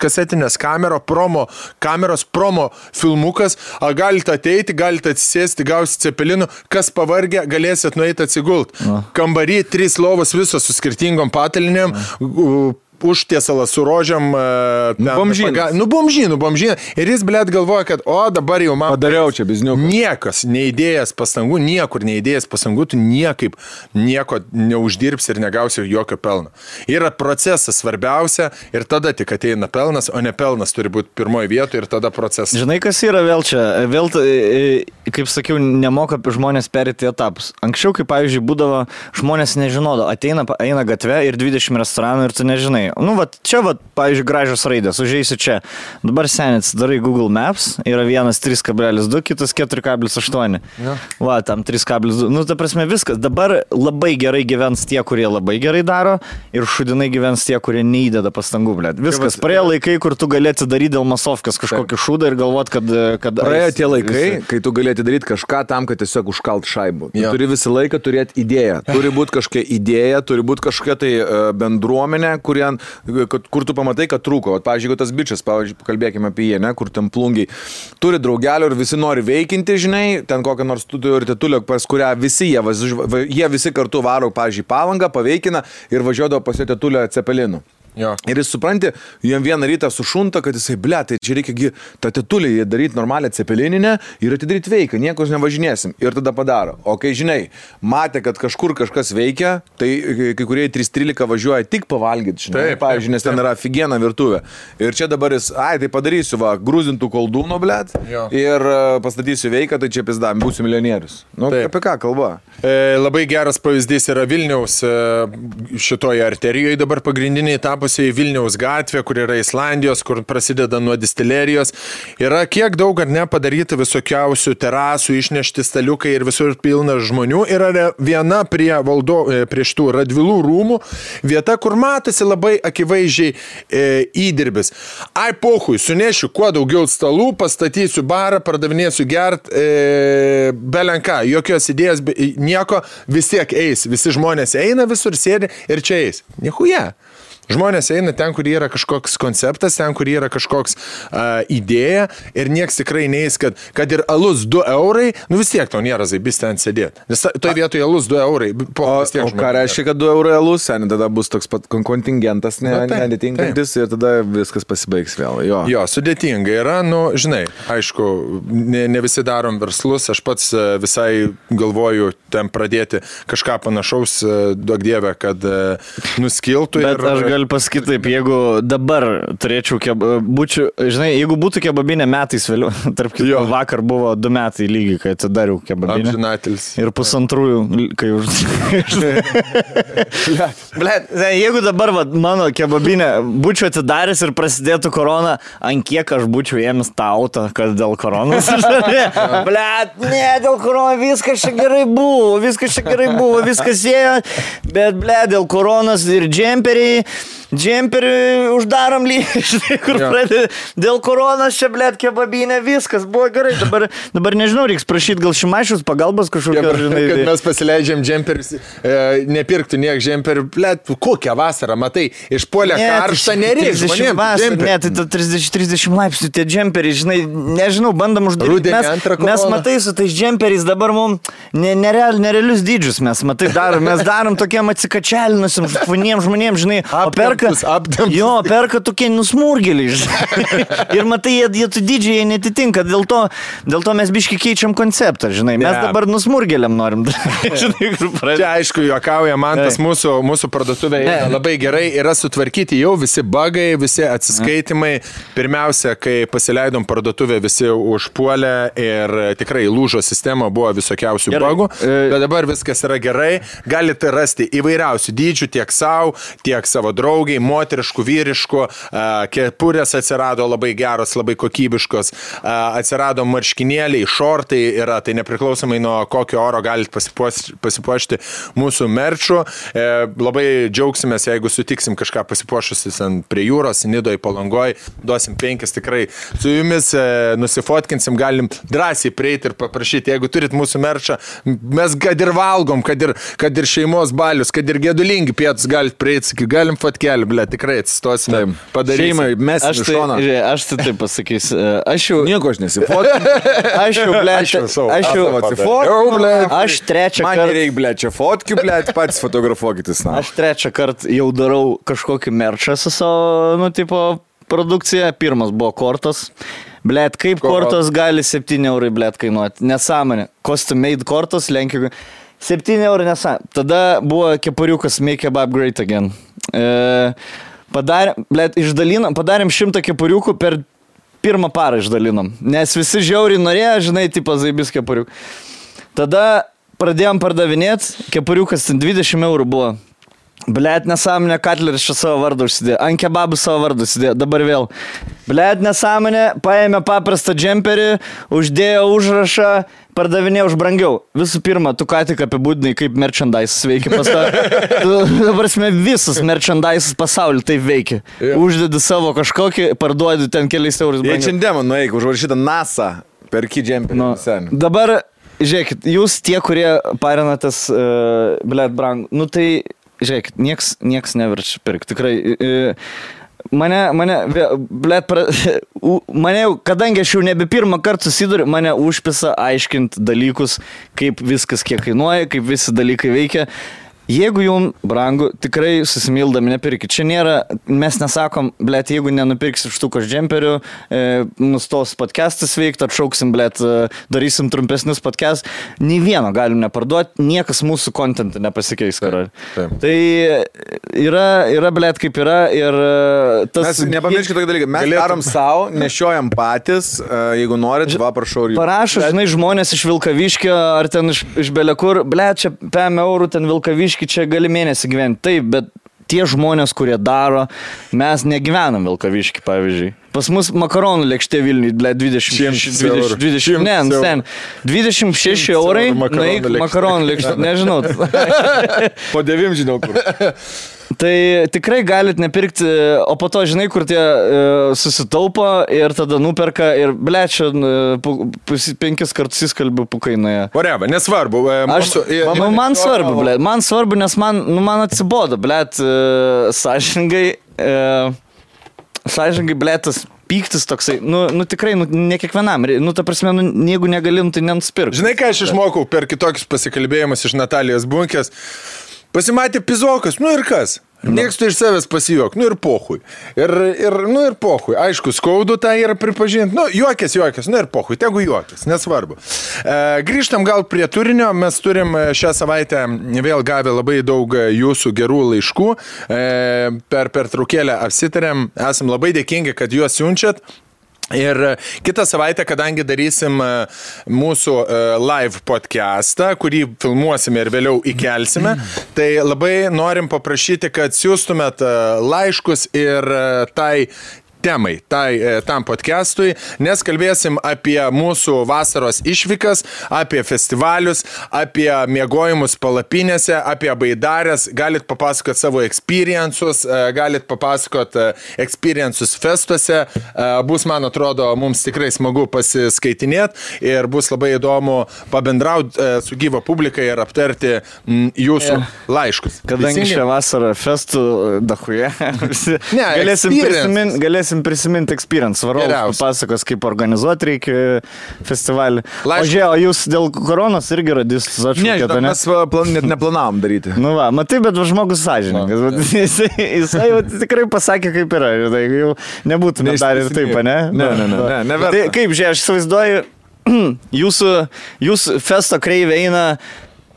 kasetinės kameros promo filmukas. Galite ateiti, galite atsisėsti, gausi cepelinų, kas pavargę, galėsit nueiti atsigult. Kambarį 3 lovos visos su skirtingom patalinėm, užtiesalas su rožiam. Bomžynų. Ir jis, blėt, galvoja, kad dabar jau man padariau čia bizniuką. Niekas neįdėjęs pastangų, niekur neįdėjęs pastangų, tu nieko neuždirbsi ir negausi jokio pelno. Yra procesas svarbiausia ir tada tik ateina pelnas, o ne pelnas turi būti pirmoje vietoje ir tada procesas. Žinai, kas yra vėl čia? Vėl, kaip sakiau, nemoka žmonės perėti etapus. Anksčiau, kaip pavyzdžiui, būdavo, žmonės nežinodo, eina gatve ir 20 restoranų ir tu nežinai. Nu, čia, pavyzdžiui, gražios raidės, užeisi čia. Dabar senis, darai Google Maps, yra vienas 3,2, kitas 4,8. Tam 3,2. Nu, ta prasme, viskas. Dabar labai gerai gyvens tie, kurie labai gerai daro ir šudinai gyvens tie, kurie neįdeda pastangų, blėt. Viskas. Praėjo laikai, kur tu galėti daryti dėl masovkės kažkokį šūdą ir galvot, kad praėjo tie laikai, kai tu galėti daryti kažką tam, kad tiesiog užkalt šaibų. Tu turi visą laiką turėti idėją. Turi būti kažkokia idėja, turi būti kažkokia tai bendruomenė, kur tu pamatai, kad trūko. Pavyzdžiui, jeigu tas bičias, pakalbėkime apie jį, kur ten Plungiai turi draugelių ir visi nori veikinti, žinai, ten kokią nors turi tetulę, pas kurią visi jie visi kartu varo, pavyzdžiui, Palangą, paveikina ir važiuodavo pas jo tetulę Cepelinų. Ir jis supranti, jam vieną rytą sušunta, kad jisai, tai čia reikia tą tetulį daryti normalią cepelininę ir atidaryti veiką, niekus nevažinėsim. Ir tada padaro. O kai, žinai, matė, kad kažkur kažkas veikia, tai kai kurie 3:13 važiuoja tik pavalgyti, žinai, pavyzdžiui, nes ten yra figiena virtuvė. Ir čia dabar jis, tai padarysiu, grūzintų koldūno, ir pastatysiu veiką, tai čia pizdam, būsiu milijonierius. Nu, apie ką kalba? Labai geras pavyzdys yra Vilniaus šitoje arterijoje dabar pagrindiniai tapo Vilniaus gatvė, kur yra Islandijos, kur prasideda nuo distilerijos. Yra kiek daug ar ne padaryta visokiausių terasų, išnešti staliukai ir visur pilna žmonių. Yra viena prie šitų Radvilų rūmų vieta, kur matosi labai akivaizdžiai įdirbis. Pohui, sunešiu kuo daugiau stalų, pastatysiu barą, pardavinėsiu gert, belenką, jokios idėjos, nieko, vis tiek eis. Visi žmonės eina visur, sėdi ir čia eis. Nichuja. Žmonės eina ten, kur yra kažkoks konceptas, ten, kur yra kažkoks idėja ir nieks tikrai neis, kad ir alus 2 eurai, nu vis tiek tau nėra zaibis ten sėdėti. Nes toje vietoje alus 2 eurai. O ką reiškia, kad 2 eurai alus, tada bus toks pat kontingentas netinkantis ir tada viskas pasibaigs vėl. Jo, sudėtinga yra, žinai, aišku, ne visi darom verslus, aš pats visai galvoju ten pradėti kažką panašaus, duok dievę, kad nuskiltų. Bet aš galiu pasakyti taip, jeigu dabar turėčiau žinai, jeigu būtų kebabinė metais vėliau, tarp kitko vakar buvo 2 metai lygiai, kai atidariau kebabinę. Amžinatelis. Ir 2, kai Blet, jeigu dabar mano kebabinė būčiau atidaręs ir prasidėtų korona, ant kiek aš būčiau ėmęs tą autą, kad dėl koronos. Blet, ne, dėl koronos viskas čia gerai buvo, viskas ėjo, bet blet, dėl koronos ir džemperį uždarom lygiai, kur pradėjo. Dėl koronos čia, blet, kebabinė, viskas buvo gerai. Dabar nežinau, reiks prašyti gal Šimašiaus pagalbos kažkokio, žinai. Kad mes pasileidžiam džemperis, nepirktų niek džemperių, blet, kokią vasarą, matai, išpuolė karštą, nereiks žmonėms. Ne, tai 30 laipsnių tie džemperiai, žinai, nežinau, bandom uždaryti. Mes matai su tais džemperiais dabar mums nerealius dydžius mes, matai, mes darom tokiem atsikačialinusim žmonėms, žinai, perka tokie nusmurgėliai, žinai. Ir matai, jie tu dydžiai netitinka, dėl to mes biški keičiam konceptą, žinai. Mes dabar nusmurgėliam norim. Čia aišku, juokauja, man tas mūsų parduotuvė labai gerai yra sutvarkyti jau visi bugai, visi atsiskaitimai. Pirmiausia, kai pasileidom parduotuvę, visi užpuolė ir tikrai lūžo sistema, buvo visokiausių bugų, bet dabar viskas yra gerai. Galite rasti įvairiausių dydžių tiek savo, tiek savo draugiai, moteriškų, vyriškų, kepurės atsirado labai geros, labai kokybiškos, atsirado marškinėliai, šortai yra, tai nepriklausomai nuo kokio oro galite pasipuošti mūsų merčų. Labai džiaugsimės, jeigu sutiksim kažką pasipuošusis prie jūros, Nidoje, Palangoje, duosim 5 tikrai. Su jumis nusifotkinsim, galim drąsiai prieiti ir paprašyti, jeigu turit mūsų merčą, mes kad ir valgom, kad ir šeimos balius, kad ir gedulingi pietus galite prieiti, galim fotkelį, ble, tikrai atsistosime, padarysim. Šeimai, mes iš šoną. Aš tai taip pasakysiu. Nieko aš nesifotkinu. Aš trečią kartą. Man nereik, ble, čia fotkiu, ble, pats fotografuokitis. Aš trečią kartą jau darau kažkokį merčą su savo, produkcija. Pirmas buvo kortos. Blet, kaip kortos gali 7 eurai, blet, kainuoti. Nesąmonė. Custom made kortos, Lenkijoje. 7 eurų nesąmonė. Tada buvo kepuriukas Make Kebab Great Again. Padarėm 100 kepuriukų, per pirmą parą išdalinom. Nes visi žiauriai norėjo, žinai, tipo zaibis kepuriukų. Tada pradėjom pardavinėti, kepuriukas 20 eurų buvo. Blet, nesąmonė, Katleris čia savo vardą užsidėjo, ant kebabų savo vardą užsidėjo, dabar vėl. Blet, nesąmonė, paėmė paprastą džemperį, uždėjo užrašą, pardavinė už brangiau. Visų pirma, tu ką tik apibūdinai, kaip merchandise veikia pasaulyje. Dabar visas merchandise pasaulyje taip veikia. Uždedi savo kažkokį, parduodi ten keliais eurus brangiau. Jei šiandien nueik, užrašyta NASA, perki džemperį. Dabar, žiūrėkit, jūs tie, kurie parinatės, blet, brangu, tai... Žiūrėkit, nieks neverčia pirkti, tikrai. Mane, kadangi aš jau nebe pirmą kartą susiduriu, mane užpisa aiškinti dalykus, kaip viskas kiek kainuoja, kaip visi dalykai veikia. Jeigu jums brangu, tikrai susimildami nepirkit. Čia nėra, mes nesakom, blet, jeigu nenupirksim štukos džemperių, nustos podcastas veikti, atšauksim, blet, darysim trumpesnius podcast. Nei vieno galim neparduoti, niekas mūsų kontentą nepasikeis, karali. Tai yra, blet, kaip yra ir tas... Mes nepamirškit tokį dalyką, mes darom savo, nešiojam patys, jeigu norit, va, prašau. Parašo, žinai, žmonės iš Vilkaviškio ar ten iš belekur, blet, čia 5 eurų, ten Vilkaviškio, čia gali mėnesį gyventi. Taip, bet tie žmonės, kurie daro, mes negyvenam Vilkaviškį, pavyzdžiui. Pas mus makaronų lėkštė Vilniui, 26 eurai, naik makaronų lėkštė, nežinau. Po 9 žinau kur. Tai tikrai galit nepirkti, o po to žinai, kur tie susitaupo ir tada nuperka ir blečia 5 kartus įskalbiu pukainoje. Whatever, nesvarbu. Man svarbu, nes man atsibodo, blet, sąžiningai, blėtas pyktis toksai, tikrai, ne kiekvienam, ta prasme, jeigu negalim, tai nenspirk. Žinai, ką aš išmokau per kitokius pasikalbėjimus iš Natalijos Bunkės? Pasimatė pizokas, ir kas? Mėgstu iš savęs pasijuok, ir pohui. Ir pohui. Aišku, skaudu tą yra pripažinti. Juokės, ir pohui, tegu juokės, nesvarbu. Grįžtam gal prie turinio. Mes turim šią savaitę vėl gavę labai daug jūsų gerų laiškų. Per traukėlę apsitarėm. Esam labai dėkingi, kad juos siunčiat. Ir kitą savaitę, kadangi darysim mūsų live podcastą, kurį filmuosime ir vėliau įkelsime, tai labai norim paprašyti, kad siūstumėt laiškus ir temai, tam podcastui, nes kalbėsim apie mūsų vasaros išvykas, apie festivalius, apie miegojimus palapinėse, apie baidarės, galit papasakot savo experiences, galit papasakot experiences festuose, bus, man atrodo, mums tikrai smagu pasiskaitinėti ir bus labai įdomu pabendrauti su gyva publika ir aptarti jūsų laiškus. Kadangi šią vasarą festų dachuje, galėsim prisiminti experience. Varovas pasakos, kaip organizuoti reikia festivalį. O jūs dėl koronos irgi radys atšaukėte, ne? Mes net neplanavom daryti. Nu va, matai, bet žmogus sąžininkas. Jisai tikrai pasakė, kaip yra. Jau nebūtume dar ir taip, ne? Ne. Tai kaip, aš įsivaizduoju, jūsų festo kreivė eina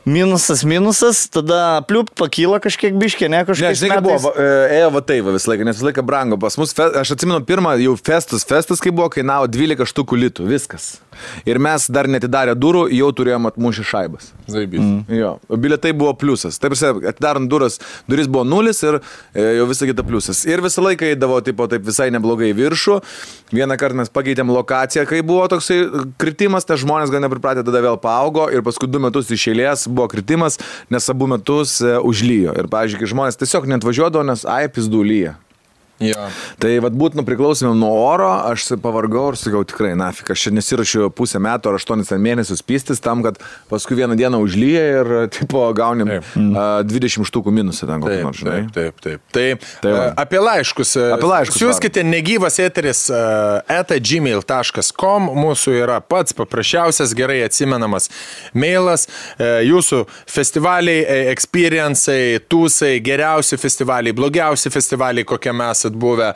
minusas, tada pliup pakyla kažkiek biškė, ne kažkiek. Žinai, kaip buvo, ėjo va taip visą laiką, nes visą laiką brango pas mus. Aš atsimenu pirmą jau festas, kai buvo, kainavo 12 štukų litų, viskas. Ir mes dar netidarę durų, jau turėjom atmušę šaibas. Zaibys. Jo, bilietai buvo pliusas. Taip, atidarant duris buvo 0 ir jau visą kitą pliusas. Ir visą laiką eidavo taip visai neblogai viršų. Vieną kartą mes pakeitėm lokaciją, kai buvo toksai kritimas, tai žmonės gal nepripratė, tada vėl paaugo ir paskui 2 metus iš eilės buvo kritimas, nes abu metus užlyjo. Ir, pavyzdžiui, kai žmonės tiesiog neatvažiuodavo, nes pizdu lyja. Ja. Tai būtų priklausomėm nuo oro, aš pavargau ir sakiau tikrai, nafik, aš čia nesirašiu pusę metų ar 8 mėnesius pystis tam, kad paskui vieną dieną užlyja ir tipo gaunim 20 štukų minusą ten kokį nors, žinai. Taip. Tai apie laiškus. Siūskite negyvas eteris @gmail.com, mūsų yra pats paprasčiausias, gerai atsimenamas mailas, jūsų festivaliai, experience'ai, tūsai, geriausi festivaliai, blogiausi festivaliai, kokie mes buvę,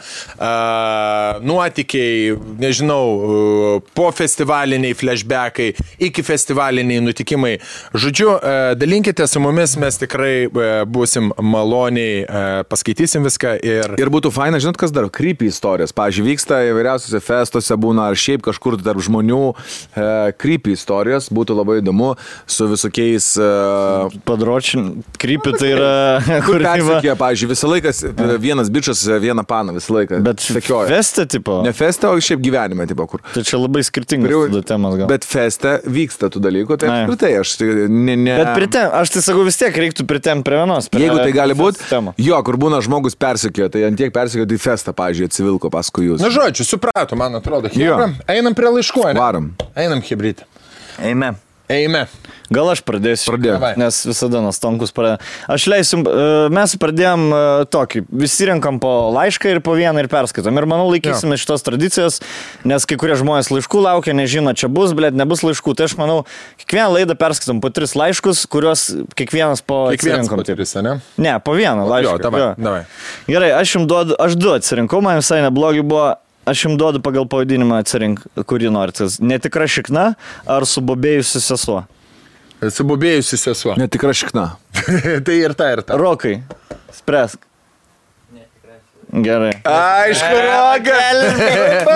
nuotykiai, nežinau, po festivaliniai flashbackai, iki festivaliniai nutikimai. Žodžiu, dalinkite su mumis, mes tikrai būsim maloniai, paskaitysim viską ir būtų faina, žinot, kas dar, creepy istorijos. Pavyzdžiui, vyksta įvairiausiose festuose, būna ar šiaip kažkur tarp žmonių creepy istorijos, būtų labai įdomu su visokiais padročin, creepy tai yra kur persikė, pavyzdžiui, visą laiką vienas bičas, vieną paną visą laiką. Bet feste, tipo? Ne feste, o šiaip gyvenime, tipo, kur. Tai čia labai skirtingas temas gal. Bet feste vyksta tų dalykų, tai apskritai aš ne... Bet aš tai sakau, vis tiek reiktų pritemti prie vienos. Jeigu tai gali būti, jo, kur būna žmogus persekiojo, tai ant tiek persekiojo, tai festą, pavyzdžiui, atsivilko paskui jūs. Na, žodžiu, suprato, man atrodo. Einam prie laiškų, ne? Varom. Einam, hibrid. Eime. Gal aš pradėsiu, nes visada Nastonkus pradėjo. Aš leisiu, mes pradėjom tokį, visi renkam po laišką ir po vieną ir perskaitom. Ir manau, laikysime šitos tradicijos, nes kai kurie žmonės laiškų laukia, nežino, čia bus, blėt, nebus laiškų. Tai aš manau, kiekvieną laidą perskaitom po 3 laiškus, kuriuos kiekvienas po atsirinkom. Ne, po vieną laišką. Davai. Gerai, aš 2 atsirinkau, man visai neblogi buvo. Aš jums duodu pagal pavadinimą atsirink, kurį norite. Netikra šikna ar subobėjusi sesuo? Subobėjusi sesuo. Netikra šikna. Tai ir ta. Rokai, spręsk. Gerai. Aišku, Roka.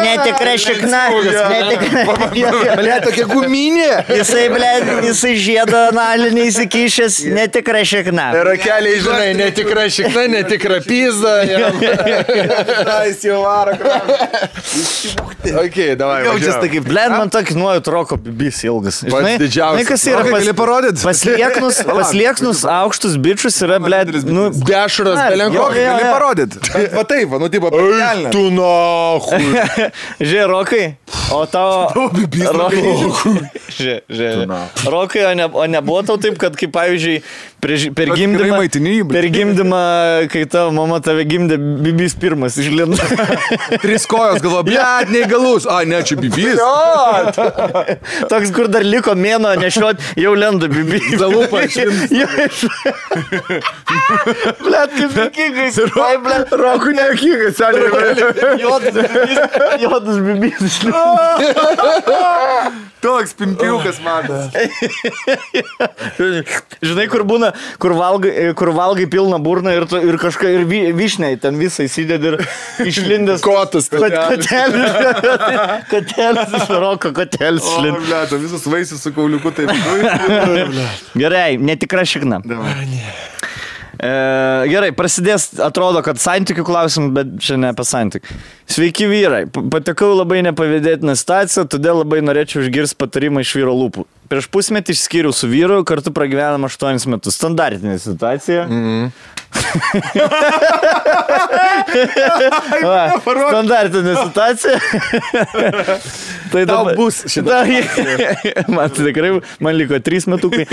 Netikra šikna. Bля, tokia guminė. Jisai žiedo analinį įsikišęs, netikra šikna. Rokeliai, žinai, netikra šikna, netikra pizda. Jis jau varo. Ok, davai. Jaučias tai kaip, blėt, man tokį nuojut Roko bibis ilgas. Pats didžiausias. Gali parodyti? Paslieknus aukštus bičius yra, blėt, dešras belenko. Gali parodyti. Va taip, nu tipo, pelnė. Tu nahui. Žiūrė, Rokai, o tavo... Rokai, o nebuvo tau taip, kad kaip pavyzdžiui, per gimdymą, kai tavo mama tave gimdė, bibis pirmas išlindo. 3 kojos galvo, blėt, neįgalus. Ne, čia bibis. Toks, kur dar liko mėno nešiot, jau lenda bibis. Zalupą išlindo. Blėt, kaip kiekais. Rokui nekikas, seniai. Jodas bibis išlindo. Toks pimpiukas matas. Žinai, kur būna, kur valgai pilną burną ir kažką, ir vyšniai ten visai įsidedi ir išlindęs. Kotus. Kotelis iš roko, kotelis išlindęs. O, blėta, visas vaisius su kauliuku taip. Gerai, netikra šikna. Gerai, prasidės, atrodo, kad santykių klausim, bet čia ne apie santykių. Sveiki vyrai, patekau labai nepavydėtiną situaciją, todėl labai norėčiau išgirsti patarimą iš vyro lūpų. Prieš pusmetį išskyriau su vyru, kartu pragyvenam 8 metus. Standartinė situacija. Standartinė situacija. Tai dabar bus šitą. Man tikrai, man liko 3 metukai.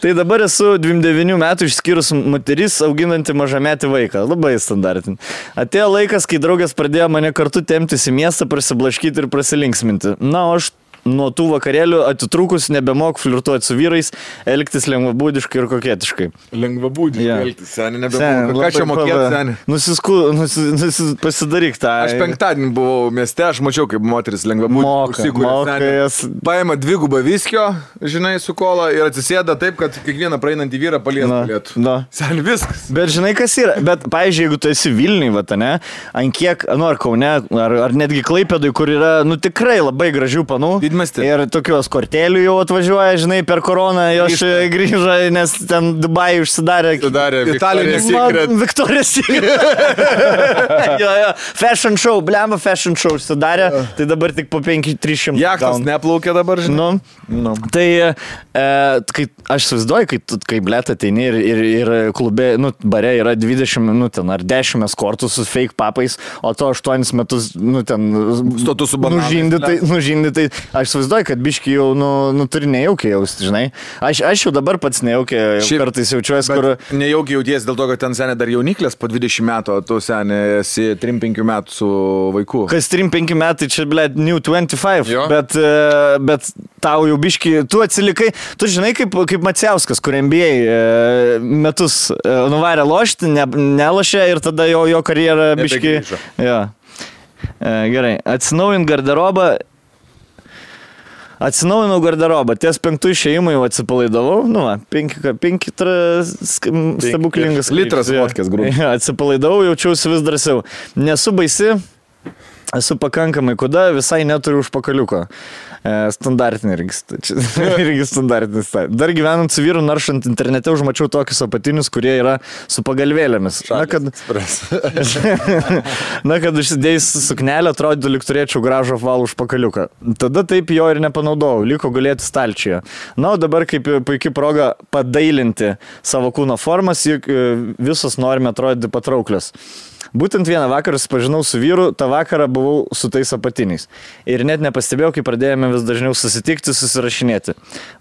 Tai dabar esu 29 metų išskyrus moteris, auginanti mažametį vaiką. Labai standartinė. Atėjo laikas, kai draugas pradėjo mane kartu temptis į miestą, prasiblaškyti ir prasilinksminti. Na, o aš nuo tų vakarėlių atitrūkus nebemok flirtuoti su vyrais, elgtis lengvabūdiškai ir koketiškai. Lengvabūdiškai elgtis, seni, nebemok. Ką čia mokėti, seni? Pasidaryk tą. Aš penktadienį buvau mieste, aš mačiau, kaip moteris lengvabūdiškai. Paima 2 viskio, žinai, su kola ir atsisėda taip, kad kiekvieną praeinantį vyrą palies galėtų. Seni, viskas. Bet žinai, kas yra? Bet, pavyzdžiui, jeigu tu esi Vilniui, ne, ant kiek, ar Kaune, ar netgi Klaipėdui, kur yra, tikrai labai gražių panų. Ir tokios kortelių jau atvažiuoja, žinai, per koroną jos grįžo, nes ten Dubajai užsidarė. Victoria's Secret. Victoria's Secret. Jo. Fashion show, blema fashion show užsidarė, tai dabar tik po 500-300. Jachtas neplaukia dabar, žinai. Tai kai aš įsivaizduoju, kai blėt ateini ir klube, bare yra 20 ten ar 10 eskortų su fake papais, o to 8 metus, ten stotų su bananais. Nužindytai. Aš įsivaizduoju, kad biški jau, turi nejaukiai jausti, žinai. Aš jau dabar pats nejaukiai kartais jaučiuosi, kur... Nejaukiai jauties dėl to, kad ten seniai dar jauniklės po 20 metų, o tu seniai esi 3-5 metų su vaiku. Kas 3-5 metai, čia, blėt, New 25, bet tau jau biški, tu atsilikai, tu žinai, kaip Maciauskas, kur NBA metus nuvarė lošti, nelošė ir tada jo karjera biški... Gerai, Atsinaujinau garderobą, ties 5 išėjimų jau atsipalaidavau, 5 stebuklingas litras vodkės grūdų. Atsipalaidavau, jaučiausi vis drąsiau. Nesu baisi, esu pakankamai kuda, visai neturiu užpakaliuko. Standartinė irgi standartinis. Dar gyvenant su vyru, naršant internete, užmačiau tokius apatinius, kurie yra su pagalvėlėmis. Na, kad užsidėjus suknelę, atrodytų, lyg turėčiau gražų apvalų užpakaliuką. Tada taip jo ir nepanaudojau, liko gulėti stalčiuje. Na, o dabar kaip puikia proga padailinti savo kūno formas, juk visos norime atrodyti patrauklios. Būtent vieną vakarą susipažinau su vyru, tą vakarą buvau su tais apatiniais. Ir net nepastebėjau, kai pradėjome vis dažniau susitikti, susirašinėti.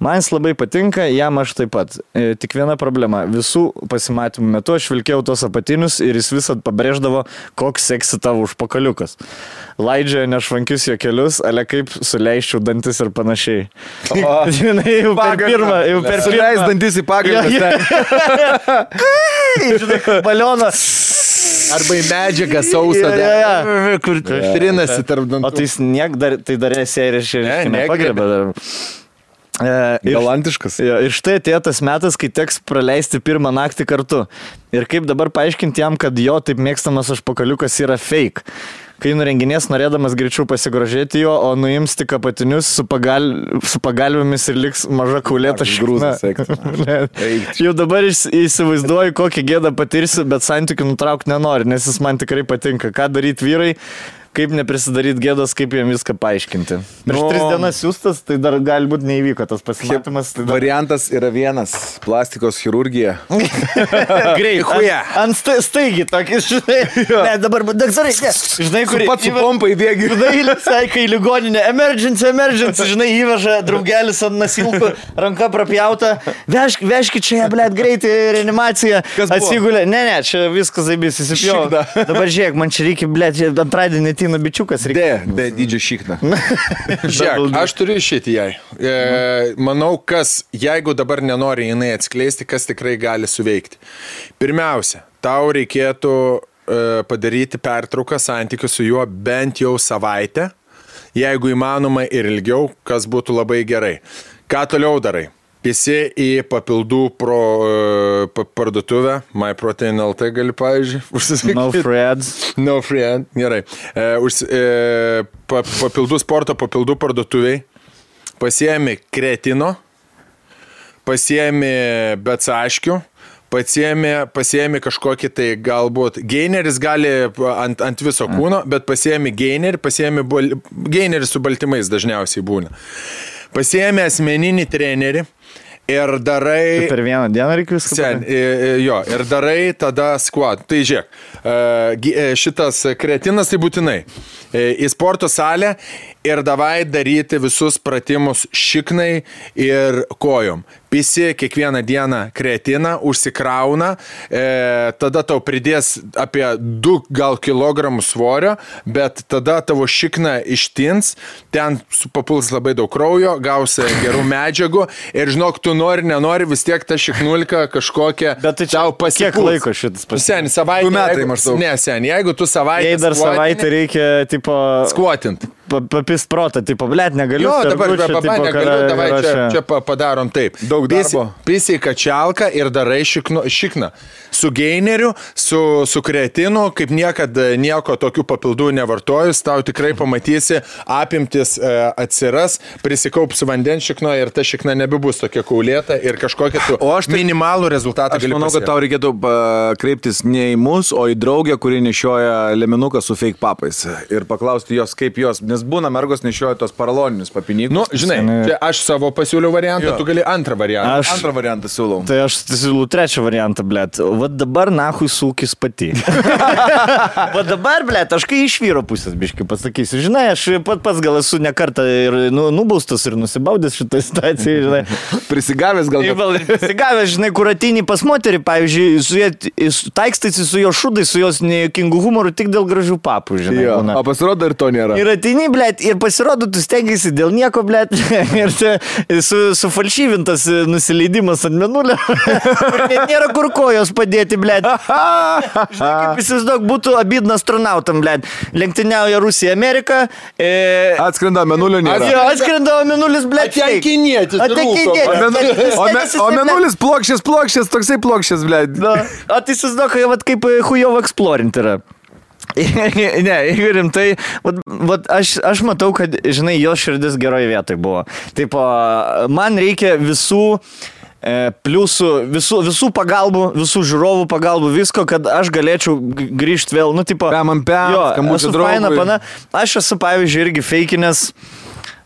Man jis labai patinka, jam aš taip pat. Tik viena problema. Visų pasimatymų metu aš vilkėjau tos apatinius ir jis visad pabrėždavo, koks seksi tavo užpakaliukas. Laidžioja nešvankius jo kelius, ale kaip suleiščiau dantis ir panašiai. Žinai, jau per pirmą. Suleis dantis į pagalbą. Žinai, balionas. Arba į medžiagą sausą. Kur trinasi tarp dantų. O tai dar esi ir nepagrebė dar. Galantiškas. Ir štai atėjo tas metas, kai teks praleisti pirmą naktį kartu. Ir kaip dabar paaiškinti jam, kad jo taip mėgstamas užpakaliukas yra fake. Kai nurenginės norėdamas greičiau pasigrožėti jo, o nuims tik apatinius su pagalvėmis ir liks maža kaulėta šikna. Jau dabar įsivaizduoju, kokį gėdą patirsiu, bet santykių nutraukti nenori, nes jis man tikrai patinka. Ką daryti vyrai? Kaip neprisidaryti gėdos, kaip jiem viską paaiškinti. Prieš 3 dienas siūstas, tai dar galbūt neįvyko tas pasimatymas. Tai dar... Variantas yra vienas – plastikos chirurgija. Greit, ant staigi tokį, žinai. Ne, dabar, daktarai, ne. Žinai, kur... Pats su pompa įbėgi. Žinai, saikai ligoninė. Emergency, žinai, įveža draugelis ant nasilkų, ranka prapjauta. Vežkit čia, blėt, greitai reanimacija. Atsigulė. Ne, čia viskas zaibys, įsipjau. Dabar žiūrėk, man čia reikia, blėt, antradienį ateina bičiukas. Be dydžio šikna. Žiūrėk, aš turiu išėti jai. Manau, jeigu dabar nenori jinai atskleisti, kas tikrai gali suveikti. Pirmiausia, tau reikėtų padaryti pertrauką santykių su juo bent jau savaitę jeigu įmanoma ir ilgiau, kas būtų labai gerai. Ką toliau darai? Visi į papildų parduotuvę, MyProtein.lt gali, pavyzdžiui, užsisakyti. No free ads. No free ads, gerai. Papildų sporto, papildų parduotuviai. Pasiemi kreatino, pasiemi betsaškių, pasiemi kažkokį tai galbūt gaineris gali ant viso kūno, bet pasiemi gainerį, gainerį su baltymais dažniausiai būna. Pasiemi asmeninį trenerį ir darai... Per vieną dieną reikia viską. Jo, ir darai tada squat. Tai žiūrėk, šitas kreatinas tai būtinai. Į sporto salę ir davai daryti visus pratimus šiknai ir kojom. Pisi kiekvieną dieną kreatiną, užsikrauna, tada tau pridės apie 2 gal kilogramų svorio, bet tada tavo šikna ištins, ten papuls labai daug kraujo, gausi gerų medžiagų ir žinok, tu nenori, vis tiek ta šiknulka kažkokia tai tau pasipuls. Kiek laiko šitas pasipuls? Sen, savaitę. 2 metai maždaug. Ne, sen, jeigu tu savaitę... Jei dar savaitę reikia, tipo... Skuotint. Papist protą, tipo, blėt, negaliu. Jo, dabar negaliu, davai čia padarom taip. Daug darbo. Pisi kačialką ir darai šikną. Su gaineriu, su kreatinu, kaip niekada nieko tokių papildų nevartojus, tau tikrai pamatysi, apimtis atsiras, prisikaups vandens šikno ir ta šikna nebebus tokia kaulėta ir kažkokia tu minimalų rezultatą gali pasiekti. Aš manau, kad tau reikėtų kreiptis ne į mus, o į draugę, kuri nešioja leminuką su fake papais ir paklausti jos, kaip jos, nes būna mergos nešioja tos paraloninius papinikus. Nu, žinai, čia aš savo pasiūliau variantą, tu gali antrą variantą. Antrą variantą siūlau. Tai aš siūlau trečią variantą, blėt. Vat dabar nahui sūkis pati. Vat dabar, blėt, aš kai iš vyro pusės biškai pasakysiu. Žinai, aš pats gal esu ne kartą ir nubaustas ir nusibaudęs šitą situaciją, žinai. Prisigavęs gal. Prisigavęs, žinai, kur ateini pas moterį, pavyzdžiui, taikstaisi su jo šudai, su jos nekingų humoru tik dėl gražių papų, žinai. Jo, o pasirodo ir to nėra. Ir ateini, blėt, ir pasirodo, tu stengiasi dėl nieko, blėt, ir sufalšyvintas nusileidimas ant mėnulio. Net nėra kur kojos padėti, blėt. Žinai, kaip įsivaizduok, būtų abidna astronautam, blėt. Lenktyniauja Rusija, Amerika. Atskrenda mėnulio nėra. Atskrenda mėnulis, blėt. O mėnulis plokščias, toksai plokščias, blėt. O tai įsivaizduok, kaip Hujovo Exploring yra. Ne, jeigu rimtai, aš matau, kad, žinai, jo širdis geroje vietoje buvo. Taip, man reikia visų pliusų, visų pagalbų, visų žiūrovų pagalbų, visko, kad aš galėčiau grįžti vėl, nu, tipo... Aš esu, pavyzdžiui, irgi feikinės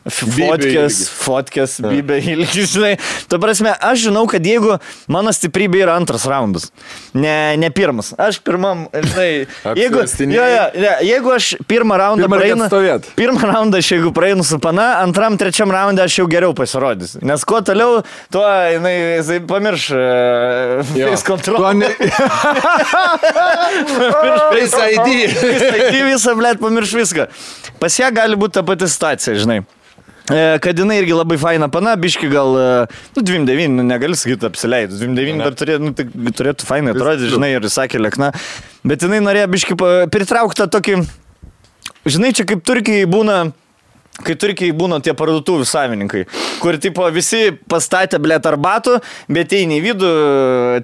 fotkės, bibė ilgis, žinai. Tu prasme, aš žinau, kad jeigu mano stiprybė yra antras raundas, ne pirmas. Aš pirmam, žinai, jeigu aš pirmą raundą jeigu praeinu su pana, antram, trečiam raundą aš jau geriau pasirodysiu. Nes kuo toliau, tuo, jisai pamirš face control. Face ID visą, blėt, pamirš viską. Pas ją gali būti ta pati situacija, žinai. Kad jinai irgi labai faina pana, biški gal, 29, negali sakyti apsileidus, 29 dar turėtų fainai atrodyti, žinai, ir sakė lėkna, bet jinai norėjo biški pritraukti tokį, žinai, čia kaip Turkijai būna tie parduotuvių savininkai, kur tipo visi pastatė, blėt, arbatų, bet eini į vidų,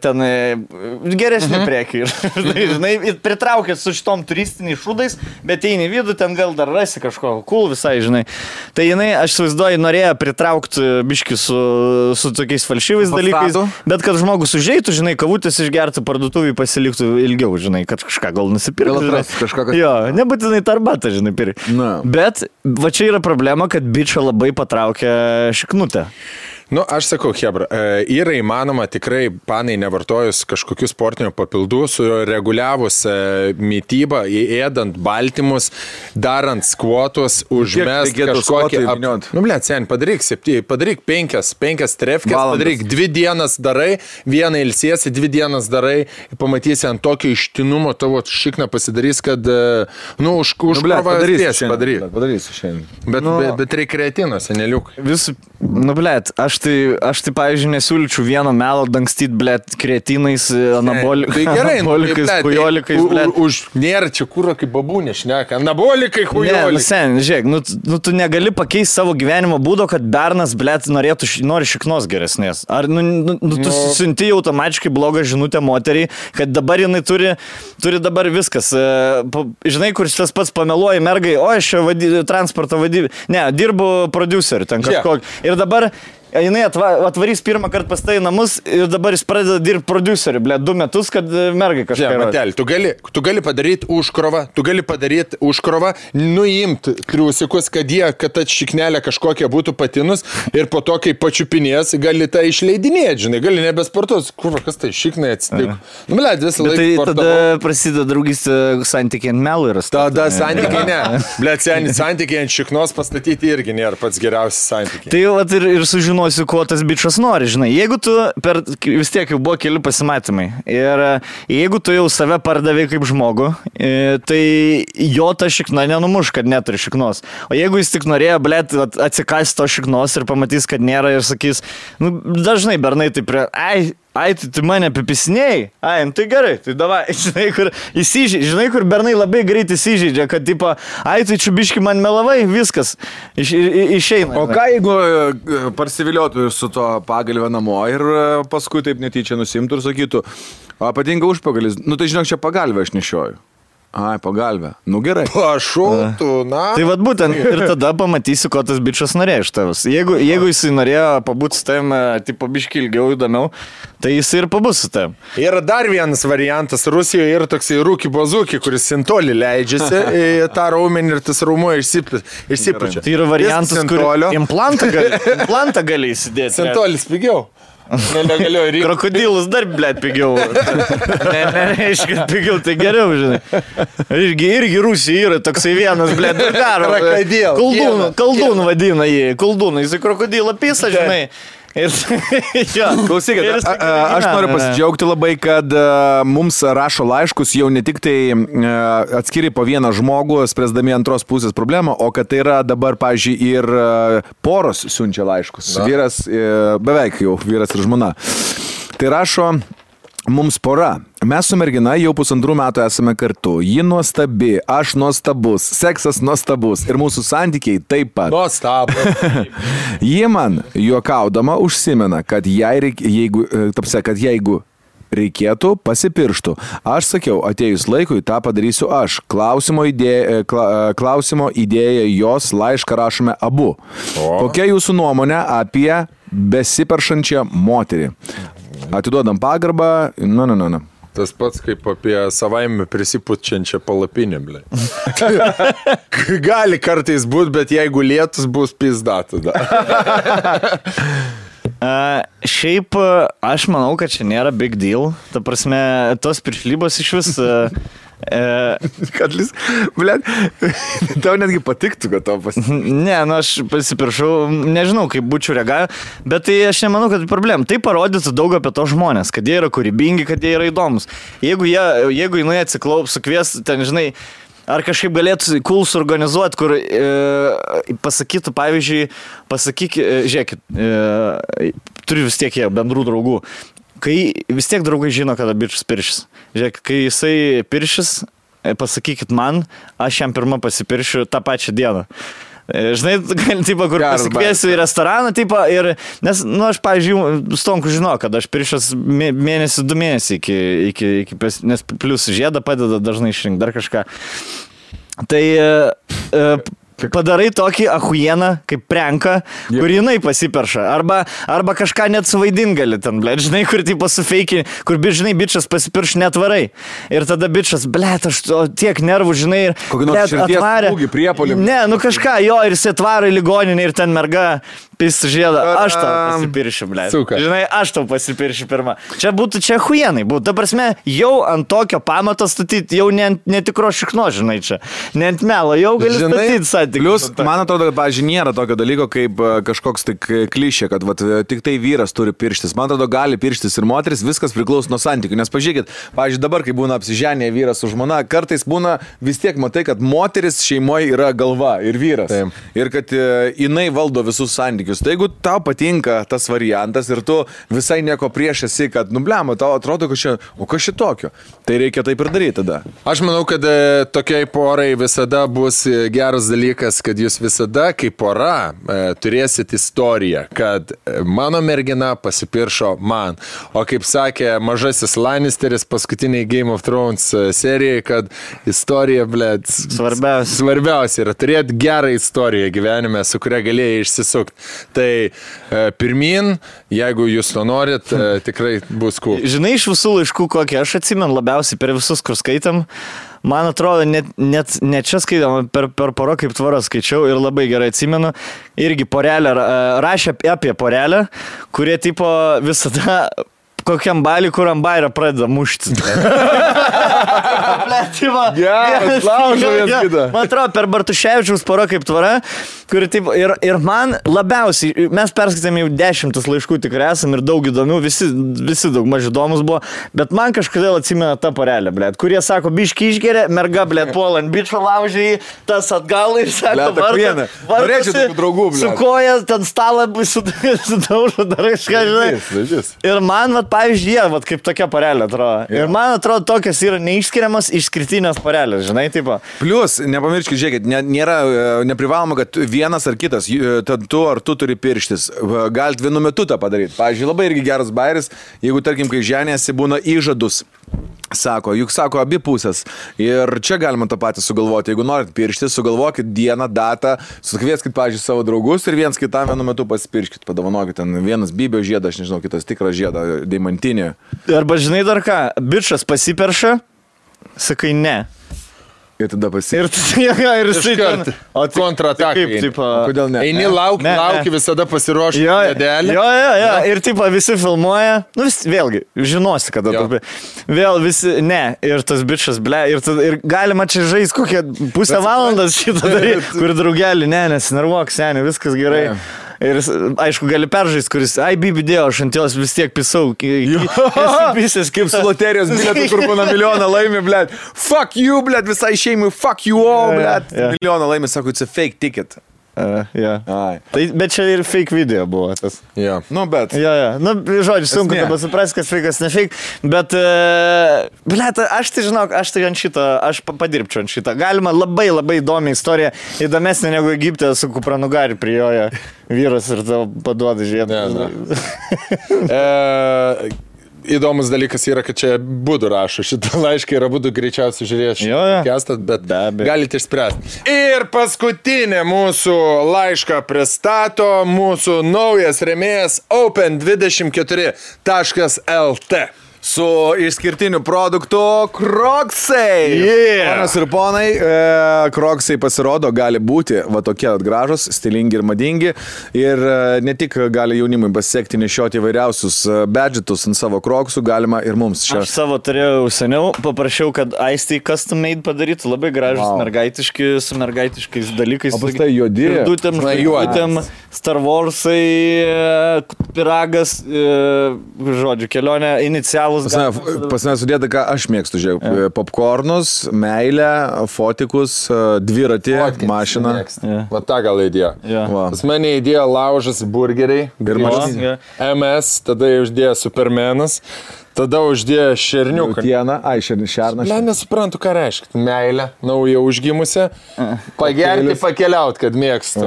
ten geresnį prekį. Žinai, pritraukė su šitom turistiniais šūdais, bet eini į vidų, ten gal dar rasi kažko cool visai, žinai. Tai jinai, aš įsivaizduoju, norėjo pritraukti biškį su tokiais falšyvais dalykais, bet kad žmogus užeitų, žinai, kavutės išgertų, parduotuvį pasiliktų ilgiau, žinai, kad kažką gal nusipirktų. Jo, nebūtinai tą arbatą, žinai, pirkti. Bet va čia yra problema, kad bičą labai patraukia šiknutę. Nu, aš sakau, hebra, yra įmanoma tikrai panai nevartojus kažkokių sportinių papildų, sureguliavus mytybą, įėdant baltymus, darant skvotus, užmest kažkokį... Nu, blėt, sen, padaryk 5 trefkės, padaryk 2 dienas darai, vieną ilsiesi, 2 dienas darai, pamatysi ant tokio ištinumo tavo šikną pasidarys, kad, nu, užkrovas padarysiu šiandien. Bet reikia kreatino, seneliuk. Nu, blėt, aš aš tai pavyzdžiui, nesiūlyčiau vieno melo dangstyti, blėt, kretinais, anabolikais, hujolikais, blėt. Nėra čia kūro kaip babūnė šneka, anabolikai, hujolikai. Sen, žiūrėk, tu negali pakeisti savo gyvenimo būdo, kad bernas, blėt, nori šiknos geresnės. Ar tu siunti automatiškai blogą žinutę moteriai, kad dabar jinai turi dabar viskas. Žinai, kur tas pats pameluoja mergai, o aš transporto vadybė. Ne, dirbu produceriu ten kažkokį. Ir dabar jinai atvarys pirmą kartą pas tai namus ir dabar jis pradeda dirbti produceriu, 2 metus, kad mergai kažką. Matelį, tu gali padaryti užkrovą, nuimti triusikus, kad ta šiknelė kažkokia būtų patinus ir po to, kai pačiupinės, gali tą išleidinėti, žinai, gali nebesportuos. Kur, kas tai šiknai atsitiko? Visą laiką sportavau. Tada prasideda draugystė santykiai ant melų ir tada santykiai ne. Santykiai ant šiknos pastatyti irgi nėra pats geriausias santykiai. Tai ir sužinoti, ko tas bičas nori, žinai. Jeigu tu vis tiek jau buvo keli pasimatymai ir jeigu tu jau save pardavai kaip žmogų, tai jo ta šikna nenumuš, kad neturi šiknos. O jeigu jis tik norėjo, blėt, atsikasti to šiknos ir pamatys, kad nėra ir sakys, dažnai bernai taip tai mane apipisinėjai, tai gerai, tai davai, žinai, kur bernai labai greit įsižeidžia, kad tipo, tai čiubiški man melavai, viskas, išeina. O ką jeigu parsiviliotų su to pagalvę namo ir paskui taip netyčia nusimtų ir sakytų, patinka užpagalis, tai žinok, čia pagalvę aš nešioju. Pagalbę. Gerai. Pašautų, Tai vat būtent ir tada pamatysi, ko tas bičas norėjo iš tavęs. Jeigu jis norėjo pabūti su tavim, tipo biškį ilgiau įdomiau, tai jis ir pabus su tavim. Yra dar vienas variantas. Rusijoje yra toksai rūki bazūki, kuris sintolį leidžiasi į tą raumenį ir tas raumuo išsipučia. Tai yra variantas, kur implantą gali įsidėti. Sintolis pigiau. Krokodilus dar, blėt, pigiau. Nereiškia, pigiau, tai geriau, žinai. Irgi Rusija yra toksai vienas, blėt, daro. Koldūnų vadina jį. Koldūnų, jis į krokodilą pisa, žinai. Klausykit, aš noriu pasidžiaugti labai, kad mums rašo laiškus jau ne tik tai atskiri po vieną žmogų, spręsdami antros pusės problemą, o kad tai yra dabar, pavyzdžiui, ir poros siunčia laiškus. Vyras, beveik jau vyras ir žmona. Tai rašo mums pora. Mes su mergina jau 1,5 metų esame kartu. Ji nuostabi, aš nuostabus, seksas nuostabus ir mūsų santykiai taip pat. Nuostabus. Ji man juokaudama užsimena, kad jeigu reikėtų, pasipirštų. Aš sakiau, atėjus laikui, tą padarysiu aš. Klausimo idėja jos laišką rašome abu. Kokia jūsų nuomonė apie besiperšančią moterį? Atiduodam pagarbą. Tas pats kaip apie savaime prisipučiančią palapinę, blė. Gali kartais būti, bet jeigu lietus bus pizda tada. Šiaip aš manau, kad čia nėra big deal. Ta prasme, tos piršlybos iš vis... Kad blėt, tau netgi patiktų, kad to Ne, aš pasipiršau, nežinau, kaip būčiau reagavę, bet tai aš nemanau, kad tai problema. Tai parodytų daug apie to žmonės, kad jie yra kūrybingi, kad jie yra įdomus. Jeigu jinai atsiklaups, sukvies, ten, žinai, ar kažkaip galėtų cool suorganizuoti, kur pasakytų, pavyzdžiui, žiūrėkit, turiu vis tiek jie bendrų draugų. Kai vis tiek draugai žino, kada bičas piršis. Žiūrėk, kai jisai piršis, pasakykit man, aš jam pirmą pasipiršiu tą pačią dieną. Žinai, tipo, kur pasikviesiu į restoraną, tipo, ir, nes, aš, pavyzdžiui, Stonku žinau, kad aš piršęs 2 mėnesiai nes plius žiedą padeda dažnai išrinkti dar kažką. Tai padarai tokį ahujeną, kaip prenką, kur jinai pasiperša. Arba kažką net suvaidin gali ten, blėt, žinai, kur tipo sufeiki, kur, žinai, bičas pasipirš netvarai. Ir tada bičas, blėt, aš tiek nervų, žinai, ir blėt, atvarė. Ne, kažką, jo, ir jis atvaro į ligoninę ir ten merga pis žiedą. Aš tau pasipiršiu, blėt. Žinai, aš tau pasipiršiu pirmą. Čia ahujenai būtų. Ta prasme, jau ant tokio pamato statyti, jau ne tikro šikno, žinai, čia. Ne ant melo, jau gali statyti Plius, man atrodo, kad, pavyzdžiui, nėra tokio dalyko kaip kažkoks tik klišė, kad vat, tik tai vyras turi pirštis. Man atrodo, gali pirštis ir moteris, viskas priklauso nuo santykių. Nes pažiūrėkit, pavyzdžiui, dabar, kai būna apsiženę vyras su žmona, kartais būna vis tiek matai, kad moteris šeimoje yra galva ir vyras. Taip. Ir kad jinai valdo visus santykius. Tai jeigu tau patinka tas variantas ir tu visai nieko prieš esi, kad, nublema, tau atrodo, kas šitokio. Tai reikia taip ir daryti tada. Aš manau, kad tokiai porai visada bus geras dalykas, kad jūs visada kaip pora turėsit istoriją, kad mano mergina pasipiršo man. O kaip sakė mažasis Lannisteris paskutiniai Game of Thrones serijai, kad istorija, blėt, svarbiausia yra turėti gerą istoriją gyvenime, su kuria galėjai išsisukti. Tai pirmin, jeigu jūs to norit, tikrai bus cool. Žinai, iš visų laiškų, kokie aš atsimenu labiausiai per visus, kur skaitam, man atrodo, net čia skaitam, per porą kaip tvaro skaičiau ir labai gerai atsimenu, irgi porelę, rašė apie porelę, kurie tipo visada kokiam balį, kur ant bairio pradeda muštis. Geras, laužo vienas kitą. Man atrodo, per Bartuševičiaus porą kaip tvara, kuri taip, ir man labiausiai, mes perskaitėme jau 10 laiškų tikrai esam ir daug įdomių, visi daug maž įdomus buvo, bet man kažkodėl atsimena ta porelė, blėt, kurie sako, biški išgeria, merga, blėt, puolant bičio laužiai, tas atgal ir sako, vartusi, su koja, ten stalą sudaužo, darai kažką, žinai. Ir man, vat, pavyzdžiui, vat, kaip tokia porelė atrodo. Ir man atrodo, tokios yra neišskiriamas išskirtinės porelės, žinai, tipo. Plius, nepamirškit, žiūrėkit, nėra neprivaloma, kad vienas ar kitas, tu ar tu turi pirštis. Galit vienu metu tą padaryti. Pavyzdžiui, labai irgi geras bairis, jeigu, tarkim, kai ženėsi, būna įžadus. Sako, juk sako abi pusės. Ir čia galima tą patį sugalvoti. Jeigu norit pirštis, sugalvokit dieną, datą, sukvieskit, pavyzdžiui, savo draugus ir viens kitam vienu metu pasipirškit. Padovanokit ten vienas bybio žiedą, aš nežinau, kitas tikrą žiedą, deimantinį. Arba žinai dar ką, bičas pasiperša, sakai ne. Ir tada ir jisai ten kontratakai. Kodėl ne? Eini lauki visada pasiruošti medelį. Jo. Ir tipo visi filmuoja. Nu vėlgi, žinosi, kada tu. Vėl visi, ne. Ir tas bičas, ble. Ir galima čia žaisti kokią pusę valandas šitą daryti. Kur draugelį, nesinervuok, seniai, viskas gerai. Ir aišku, gali peržaisti, kuris, bibi dėjo, aš ant jos vis tiek pisau. Visas kaip su loterijos bilietu, kur būna milijoną laimi, blėt. Fuck you, blėt, visai šeimui, fuck you all, blėt. Milijoną laimi, sako, it's a fake ticket. Tai, bet čia ir fake video buvo tas. Nu, bet. Nu, žodžiu, sunku tada suprasti, kas fake, kas ne fake. Bet, blėt, aš tai žinok, aš tai ant šito, aš padirbčiau ant šito. Galima labai įdomi istorija, įdomesnė negu Egipte su kupranugari prijoja vyras ir tau paduoda žiedą. Įdomus dalykas yra, kad čia Budu rašo šitą laišką ir Budu greičiausiai žiūrės šitą podcastą, bet galite išspręsti. Ir paskutinė mūsų laišką pristato mūsų naujas rėmėjas Open24.lt. Su išskirtiniu produktu Crocsai. Ponas ir ponai, Crocsai pasirodo gali būti va tokie gražus, stilingi ir madingi. Ir ne tik gali jaunimui pasiekti nešioti įvairiausius badgetus ant savo Crocsų, galima ir mums čia. Aš savo turėjau seniau, paprašiau, kad Aistai custom made padarytų labai gražus mergaitiški, su mergaitiškais dalykais. O pas tai juodi. Dutėm, Star Warsai, piragas, žodžiu, kelionė, inicialų. Pas mane sudėta, ką aš mėgstu, žiūrėjau. Popcornus, meilę, fotikus, dviratį, mašiną. Va tą gal įdėjo. Pas mane įdėjo laužas burgeriai. MS, tada uždėjo Supermanas. Tada uždėjo šerniuką. Šernas. Ne, nesuprantu, ką reiškia. Meilė, nauja užgimusi. Pagerti, pakeliaut, kad mėgstu.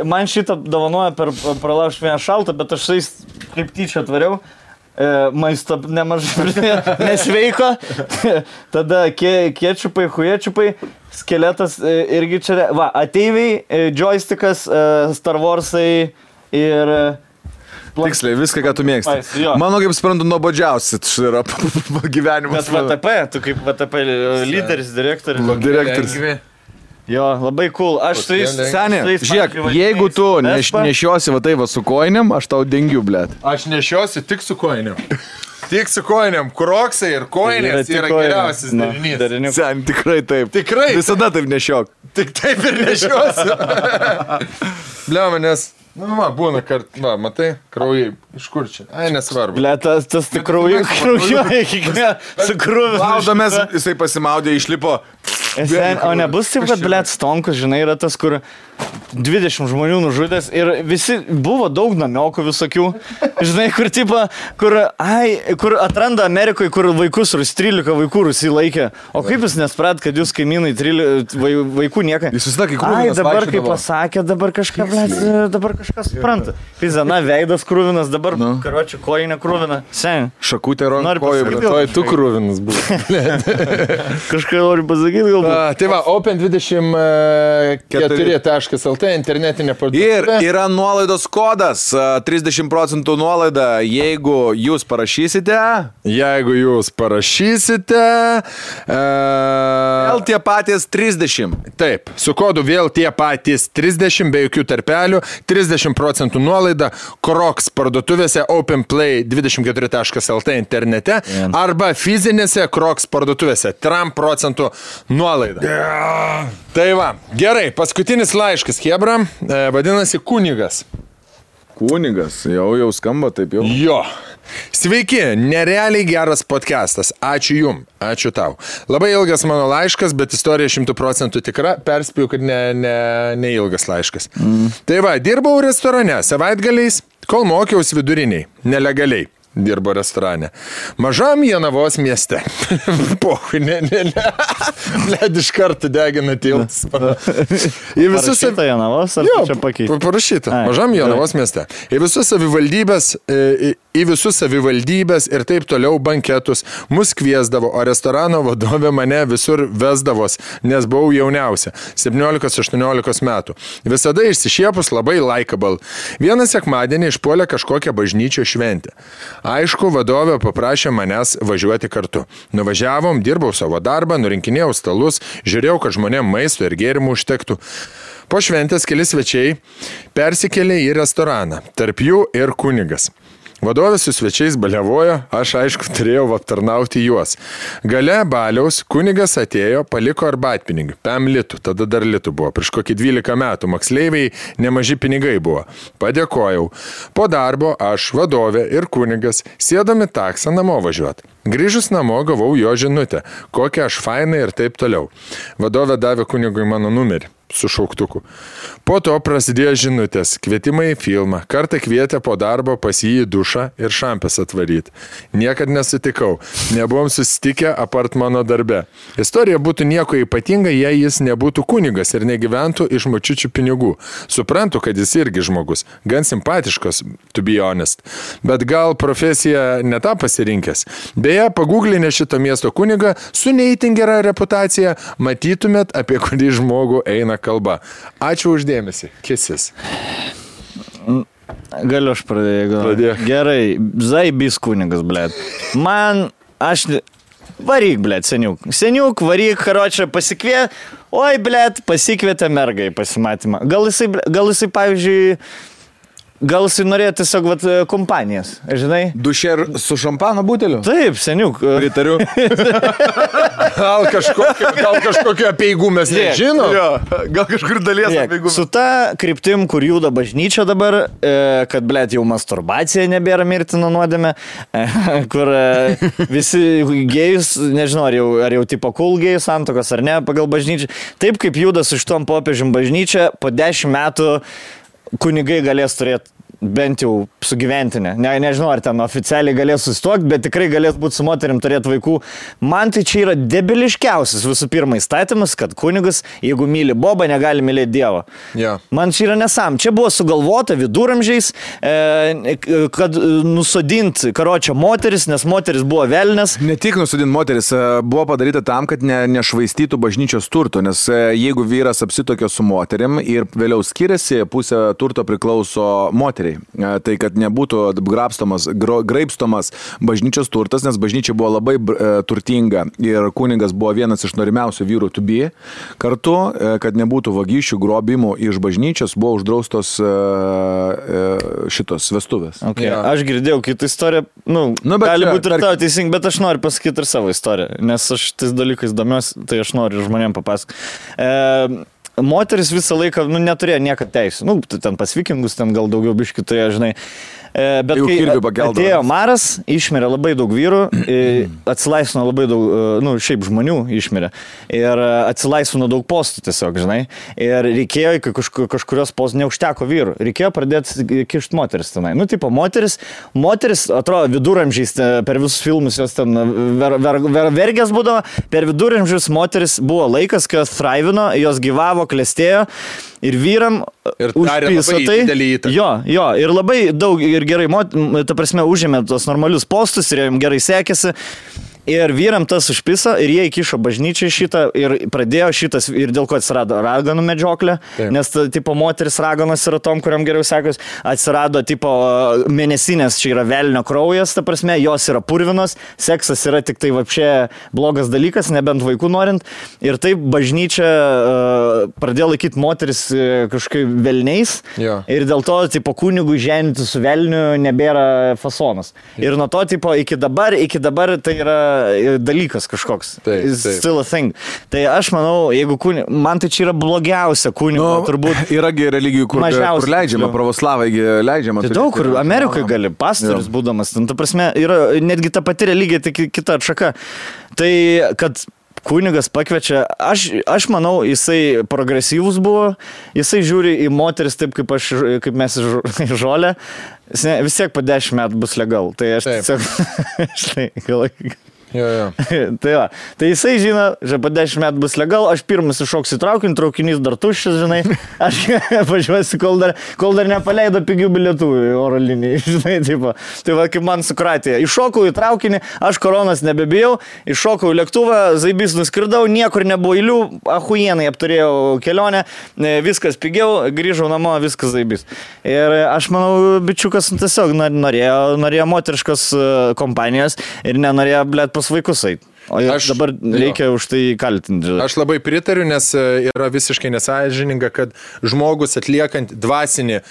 Man šitą dovanoja per pralaužt vieną šaltą, bet aš sais kaip tyčia atvariau. Maisto nemažai nesveiko. Tada kečupai, huječiupai, skeletas irgi čia. Va, ateiviai, joystickas, Star Warsai ir... Tiksliai, viską, ką tu mėgsti. Mano, kaip suprantu, nuobodžiausi yra gyvenimas. Bet VTP, tu kaip VTP lyderis, direktorius. Jo, labai cool. Aš tai seniai, žiūrėk, jeigu tu nešiosi va tai va su koinėm, aš tau dengiu, blėt. Aš nešiosi tik su koinėm. Tik su kojinėm. Kroksai ir kojinės yra geriausias derinys. Sen, tikrai taip. Tikrai. Visada taip nešiok. Tik taip ir nešiosiu. Bliama, nes... Nu, būna kart, matai, kraujai, iš kur čia? Ai, nesvarbu. Ble, tas tik kraujuoja iki su krūviu. Laudomės, jisai pasimaudė, išlipo. O nebus taip, kad, ble, Stonkus, žinai, yra tas, kur 20 žmonių nužudęs ir visi buvo daug namiokų visokių, žinai, kur atranda Amerikoje, kur vaikus, 13 vaikų Rusai laikė. O kaip jūs nesprat, kad jūs kaimynai vaikų niekai? Jis susitakai krūvinas. Ai, dabar kaip pasakė, dabar kažką, ble, dabar kažkas supranta. Pizana, veidas krūvinas, dabar karočią kojinę krūviną. Sen. Šakutė kojų, bet tu krūvinas buvo. Kažką noriu pasakyti, gal. Tai va, Open24.lt internetinė parduotuvė. Ir yra nuolaidos kodas, 30% nuolaida, jeigu jūs parašysite. Vėl tie patys 30. Taip, su kodu vėl tie patys 30, be jokių tarpelių, 30% nuolaida Crocs parduotuvėse openplay24.lt internete arba fizinėse Crocs parduotuvėse 3% nuolaida. Tai va, gerai, paskutinis laiškas, Hebra, vadinasi Kunigas. Kunigas, jau skamba taip jau. Jo. Sveiki, nerealiai geras podcastas. Ačiū jum, ačiū tau. Labai ilgas mano laiškas, bet istorija 100% tikra. Perspėjau, kad ne ilgas laiškas. Tai va, dirbau restorane savaitgaliais, kol mokiausi viduriniai, nelegaliai. Dirbo restorane. Mažam Jonavos mieste. Pohui, Bled iš karto degina tiltas. Parašyta Jonavos, ar čia pakeitė? Parašyta. Mažam Jonavos mieste. Į visus savivaldybės ir taip toliau banketus mus kviesdavo, o restorano vadovė mane visur vesdavos, nes buvau jauniausia, 17-18 metų. Visada išsišiepus labai likeable. Vieną sekmadienį išpuolė kažkokią bažnyčio šventę. Aišku, vadovė paprašė manęs važiuoti kartu. Nuvažiavom, dirbau savo darbą, nurinkinėjau stalus, žiūrėjau, kad žmonėm maisto ir gėrimų užtektų. Po šventės keli svečiai persikėlė į restoraną, tarp jų ir Kunigas. Vadovė su svečiais baliavojo, aš aišku turėjau aptarnauti juos. Gale baliaus Kunigas atėjo, paliko arbatpinigių, 5 litų, tada dar litų buvo, prieš kokį 12 metų, moksleiviai nemaži pinigai buvo. Padėkojau. Po darbo aš, vadovė ir Kunigas sėdami taksą namo važiuoti. Grįžus namo gavau jo žinutę, kokia aš fainai ir taip toliau. Vadovė davė Kunigui mano numerį su šauktuku. Po to prasidėjo žinutės, kvietimai į filmą. Kartą kvietė po darbo pas jį į dušą ir šampės atvaryti. Niekad nesutikau. Nebuvom susitikę apart mano darbe. Istorija būtų nieko ypatinga, jei jis nebūtų Kunigas ir negyventų iš močiučių pinigų. Suprantu, kad jis irgi žmogus. Gan simpatiškas, to be honest. Bet gal profesija ne tą pasirinkęs. Beje, paguglinę šito miesto Kunigą su neįtin gera reputacija, matytumėt, apie kurį žmogų eina kalba. Ačiū uždėmesi. Kisis. Galiu aš pradėjau. Gerai. Zaibys Kunigas, blėt. Varyk, blėt, seniuk. Seniuk, varyk, karočią pasikvietė. Oi, blėt, pasikvietė mergą į pasimatymą. Gal jisai, pavyzdžiui, gal jisai norėjo tiesiog kompanijas, žinai? Dušer su šampano buteliu? Taip, seniuk. Pritariu. Gal kažkokiu apieigų mes nežinom? Gal kažkur dalies apieigų. Su ta kryptim, kur juda bažnyčia dabar, kad, blėt, jau masturbacija nebėra mirtina nuodėmė, kur visi gėjus, nežinau, ar jau tipo cool gėjus santokos ar ne, pagal bažnyčią. Taip kaip juda su šitom popiežium bažnyčia, po 10 metų kunigai galės turėti bent jau sugyventinę. Nežinau, ar ten oficialiai galės susituokti, bet tikrai galės būti su moterim turėti vaikų. Man tai čia yra debiliškiausias visų pirma įstatymas, kad kunigas, jeigu myli Bobą, negali mylėti Dievą. Yeah. Man čia yra nesam. Čia buvo sugalvota viduramžiais, kad nusodinti karočią moteris, nes moteris buvo velnės. Ne tik nusodinti moteris, buvo padaryta tam, kad nešvaistytų bažnyčios turto, nes jeigu vyras apsitokė su moterim ir vėliau skiriasi, pusė turto priklauso moteriai. žodžiai. Tai, kad nebūtų graibstomas bažnyčios turtas, nes bažnyčia buvo labai turtinga ir kunigas buvo vienas iš norimiausių vyrų to be. Kartu, kad nebūtų vagysčių, grobimų iš bažnyčios, buvo uždraustos šitos vestuvės. Okay. Ja. Aš girdėjau kitą istoriją, gali būti ir tavo teisingai, bet aš noriu pasakyti ir savo istoriją, nes aš tais dalykais domiuosi, tai aš noriu žmonėm papasakoti. Moteris visą laiką, neturėjo niekad teisų. Ten pas vikingus, ten gal daugiau biškių turėjo, žinai. Bet kai atėjo maras, išmirė labai daug vyrų, atsilaisvino labai daug, šiaip žmonių išmirė. Ir atsilaisvino daug postų tiesiog, žinai. Ir reikėjo, kai kažkurios postų neužteko vyrų, reikėjo pradėti kišti moteris tenai. Moteris, atrodo, viduramžiais per visus filmus jos ten vergės būdavo, per viduramžius moteris buvo laikas, kai jos thraivino, jos gyvavo, klestėjo. Ir vyram užpiso tai. Jo, ir labai daug ir gerai, ta prasme, užėmė tos normalius postus ir jiems gerai sekėsi. Ir vyram tas užpiso ir jie įkišo bažnyčiai šitą ir pradėjo šitas, ir dėl ko atsirado raganų medžioklė, nes tipo moteris raganos yra tom, kuriam geriau sekos, atsirado tipo mėnesinės, čia yra velnio kraujas, ta prasme, jos yra purvinos, seksas yra tik tai vapšė blogas dalykas, nebent vaikų norint, ir taip bažnyčia pradėjo laikyti moteris kažkaip velniais, ir dėl to tipo kunigų ženyti su velniu nebėra fasonas. Ir nuo to tipo iki dabar tai yra dalykas kažkoks. Still a thing. Tai aš manau, jeigu man tai čia yra blogiausia kunigo, turbūt. Yragi religijų, kur leidžiama, pravoslavai leidžiama. Tai daug, kur Amerikoje gali, pastorius būdamas. Ta prasme, yra netgi ta pati religija, tik kita atšaka. Tai, kad kunigas pakviečia, aš manau, jisai progresyvus buvo, jisai žiūri į moteris taip, kaip mes į žolę, vis tiek po 10 metų bus legal. Tai aš tiesiog... Tai jisai žino, že po 10 metų bus legal, aš pirmas iššoksiu traukinį, traukinys dar tuščias, žinai, aš važiuosiu, kol dar nepaleido pigių bilietų oro linijai, žinai, tipo. Tai va, kaip man sukratė. Iššokau į traukinį, aš koronas nebebijau, iššokau į lėktuvą, zaibys nuskridau, niekur nebuvo eilių, ahujienai apturėjau kelionę, viskas pigiau, grįžau namo, viskas zaibys. Ir aš manau, bičiukas tiesiog norėjo moteriškos kompanijos ir nenorėjo, blėt, vaikus eit. O dabar reikia už tai kaltinti. Aš labai pritariu, nes yra visiškai nesąžininga, kad žmogus atliekant dvasinis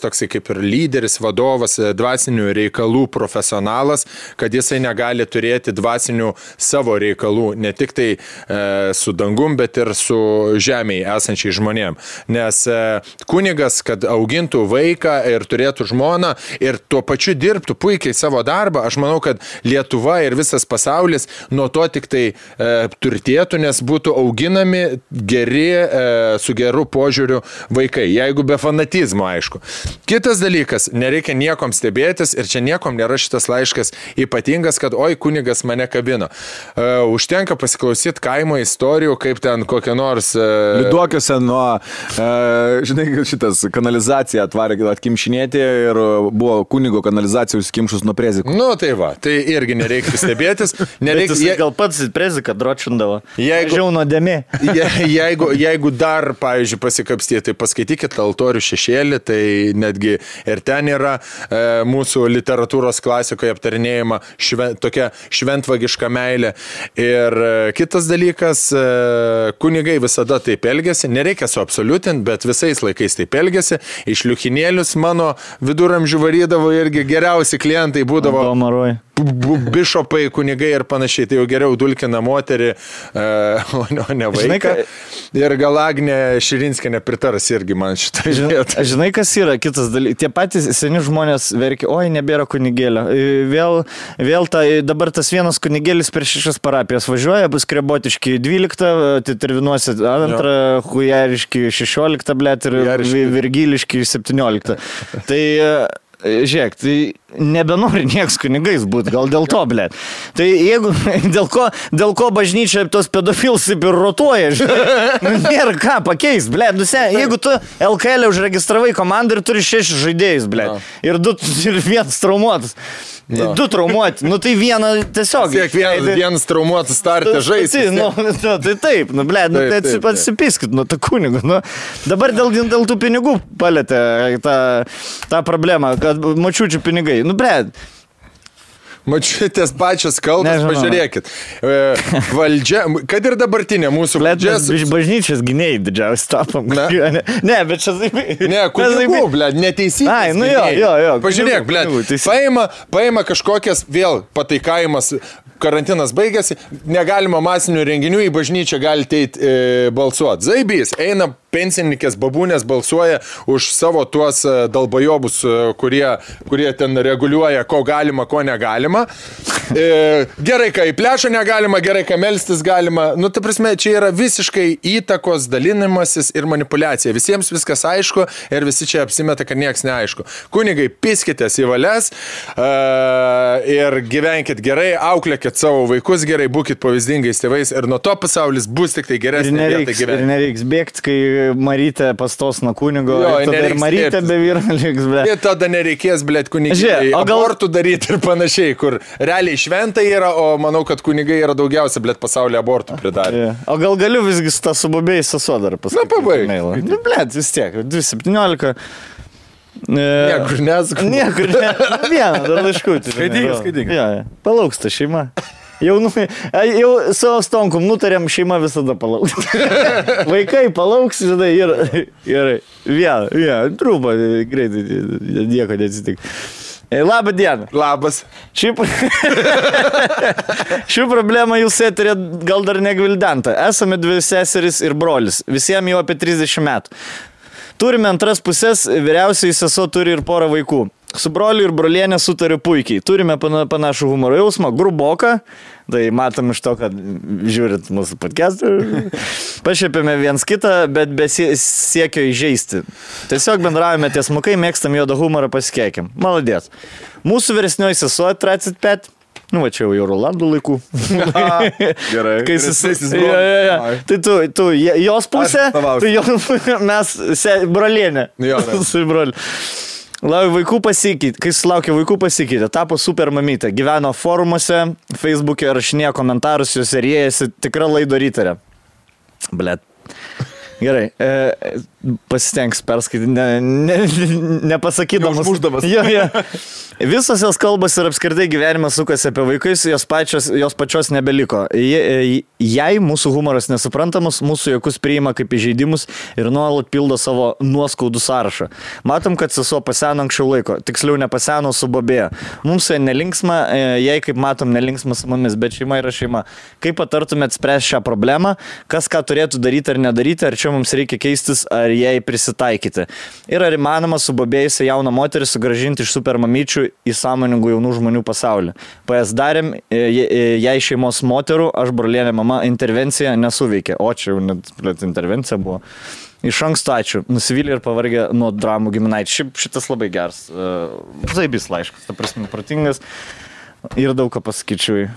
toksai kaip ir lyderis, vadovas, dvasinių reikalų profesionalas, kad jisai negali turėti dvasinių savo reikalų, ne tik tai su dangum, bet ir su žemėje esančiai žmonėm. Nes kunigas, kad augintų vaiką ir turėtų žmoną ir tuo pačiu dirbtų puikiai savo darbą, aš manau, kad Lietuva ir visas pasaulis nuo to tik tai turtėtų, nes būtų auginami geri, su geru požiūriu vaikai, jeigu be fanatizmo, aišku. Kitas dalykas, nereikia niekom stebėtis ir čia niekom nėra šitas laiškas ypatingas, kad oi, kunigas mane kabino. Užtenka pasiklausyti kaimo istorijų, kaip ten kokia nors... Liuduokiuose nuo, žinai, šitas kanalizacija atvarė atkimšinėti ir buvo kunigo kanalizacija užsikimšus nuo prezikų. Tai va, tai irgi nereikia stebėtis. Gal pats preziką dročindavo. Žiau nuodėmė. Jeigu dar, pavyzdžiui, pasikapstyti, tai paskaitykit Altorių šešėlį, tai netgi ir ten yra mūsų literatūros klasikoje aptarinėjama tokia šventvagiška meilė. Ir kitas dalykas, kunigai visada taip elgėsi, nereikia suabsoliutinti, bet visais laikais taip elgėsi. Iš liuchinėlius mano viduramžių varydavo irgi geriausi klientai būdavo. Bišopai, kunigai ir panašiai, tai jau geriau dulkina moterį, o ne vaiką. Ir gal Agnė Širinskienė pritaras irgi man šitą vietą. Žinai, kas yra kitas dalykas? Tie patys seni žmonės verkia, oi, nebėra kunigėlio. Dabar tas vienas kunigėlis per 6 parapijas važiuoja, bus Krebotiški 12, Tervinuose 2, Hujariški 16, blėt, ir Virgiliški 17. Tai... Žiūrėk, tai nebenori nieks kunigais būti, gal dėl to, blėt. Tai jeigu, dėl ko bažnyčia tos pedofilus ir rotuoja, nėra ką pakeist, blėt. Jeigu tu LKL užregistravai komandą ir turi 6 žaidėjus, blėt, ir 1 traumuotas, Du traumuoti, nu tai vieną tiesiog. Vienas traumuotas startą žaisti. Tai taip, nu ble, nu tai atsipiskit, nu tą kunigą. Nu, dabar dėl tų pinigų palėtė tą problemą, kad močiučių pinigai. Nu ble. Mačiutės pačios kalbos, pažiūrėkit. Valdžia, kad ir dabartinė mūsų valdžia. Bažnyčios gynėjai didžiausi tapom. Ne, bet čia taip. Ne, kunigų, blėd, neteisybės. Ai, nu jo. Pažiūrėk, blėd, paima kažkokias vėl pataikavimas, karantinas baigėsi, negalima masinių renginių, į bažnyčią galite eiti balsuoti. Zaibys, eina pensininkės babūnės balsuoja už savo tuos dalbajobus, kurie ten reguliuoja, ko galima, ko negalima. Gerai, kai į plešą negalima, gerai, kai melstis galima. Nu, ta prasme, čia yra visiškai įtakos dalinimasis ir manipulacija. Visiems viskas aišku ir visi čia apsimeta, kad nieks neaišku. Kunigai, piskitės į valias ir gyvenkit gerai, auklėkit savo vaikus gerai, būkit pavyzdingais tėvais ir nuo to pasaulis bus tik tai geresnė vieta gyventi. Ir nereiks bėgti, kai Marytė pastos nuo kunigo, ir Marytė be vyro liks, ble. Ir tada nereikės, ble, kunigai abortų daryti ir panašiai, kur realiai šventai yra, o manau, kad kunigai yra daugiausia, ble, pasaulyje abortų pridarė. O gal galiu visgi su tą subobėjai sesuo dar pasakyti? Na, pabaig. Nu, ble, vis tiek, 217. Niekur nesakau. Niekur nesakau. Vieną, dar laiškutį. Skaityk. Palauks ta šeima. Jau savo stonkom nutarėm, šeima visada palauks. Vaikai palauks, žinai, ir vieną, trūpą, greitai, nieko neatsitik. Labą dieną. Labas. Šių problemą jūs eterė gal dar negvildenta. Esame 2 seserys ir brolis, visiems jau apie 30 metų. Turime antras pusės, vyriausiai sesuo turi ir porą vaikų. Su broliu ir brolienė sutariu puikiai. Turime panašų humoro jausmą, gruboką. Tai matom iš to, kad žiūrit mūsų podcastą. Pašiepėme viens kitą, bet be siekio įžeisti. Tiesiog bendravome tiesmukai, mėgstam juodą humorą, pasikeikim. Maladės. Mūsų vyresnioji sesuo 35. Nu, va čia jau Rolandų laikų. Gerai. Kai tai tu jos pusė, mes brolienė. Su broliu. Vaikų pasikeitė, kai sulaukė vaikų pasikeitė, tapo super mamytė, gyveno forumuose, Facebook'e rašinėjo komentarus, jos rėjasi, tikra laido rytarė. Blet. Gerai, pasitengs perskaityti, nepasakydamas. Užmušdamas. Jo. Visos jos kalbos ir apskritai gyvenimas sukasi apie vaikus, jos pačios nebeliko. Jei mūsų humoras nesuprantamas, mūsų jokus priima kaip įžeidimus ir nuolat pildo savo nuoskaudų sąrašą. Matom, kad sesuo paseno anksčiau laiko, tiksliau nepaseno, subobėjo. Mums nelinksma, jei kaip matom nelinksma su mumis, bet šeima yra šeima. Kaip patartumėt spręsti šią problemą, kas ką turėtų daryti ar nedaryti, ar čia mums reikia keistis, ar jai prisitaikyti. Ir ar įmanoma subobėjusią jauną moterį sugrąžinti iš supermamyčių į sąmoningų jaunų žmonių pasaulį. PS darėm, jei šeimos moterų, aš brolienė mama, intervencija nesuveikė. O čia jau net intervencija buvo. Iš anksto ačiū. Nusivylė ir pavargė nuo dramų giminaičių. Šitas labai geras. Zaibys laiškas, ta prasme, protingas. Ir daug ką pasakyčiau.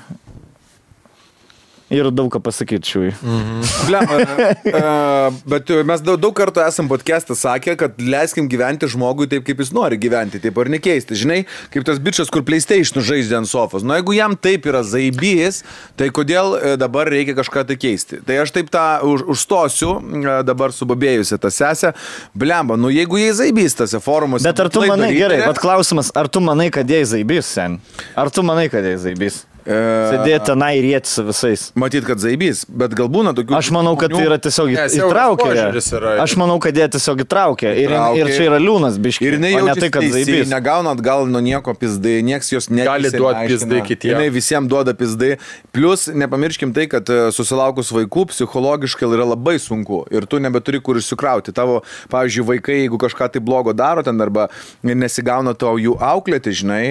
Bet mes daug kartų esam podcast'ą sakę, kad leiskim gyventi žmogui taip, kaip jis nori gyventi, taip ar nekeisti. Žinai, kaip tas bičas, kur PlayStation žaidžia ant sofos. Nu, jeigu jam taip yra zaibys, tai kodėl dabar reikia kažką tai keisti? Tai aš taip tą užstosiu, dabar subabėjusi tą sesę. Blemba, nu jeigu jie zaibys tose forumuose. Bet ar tu manai, gerai, bet klausimas, ar tu manai, kad jie zaibys, sen? Ar tu manai, kad jie zaibys? Sėdėti tenai ir rėti su visais. Matyt, kad zaibys, bet gal būna tokių... Aš manau, kad tai yra tiesiog įtraukę. Aš manau, kad jie tiesiog įtraukę. Ir čia yra liūnas biškiai. Ir jinai jaučiasi tai, kad zaibys. Negauna atgal nuo nieko pizdai, nieks jos gali duoti pizdai kitiems. Jinai visiems duoda pizdai. Plus, nepamirškim tai, kad susilaukus vaikų psichologiškai yra labai sunku. Ir tu nebeturi kur išsikrauti. Tavo, pavyzdžiui, vaikai, jeigu kažką tai blogo daro ten arba nesigauna tau jų auklėti, žinai,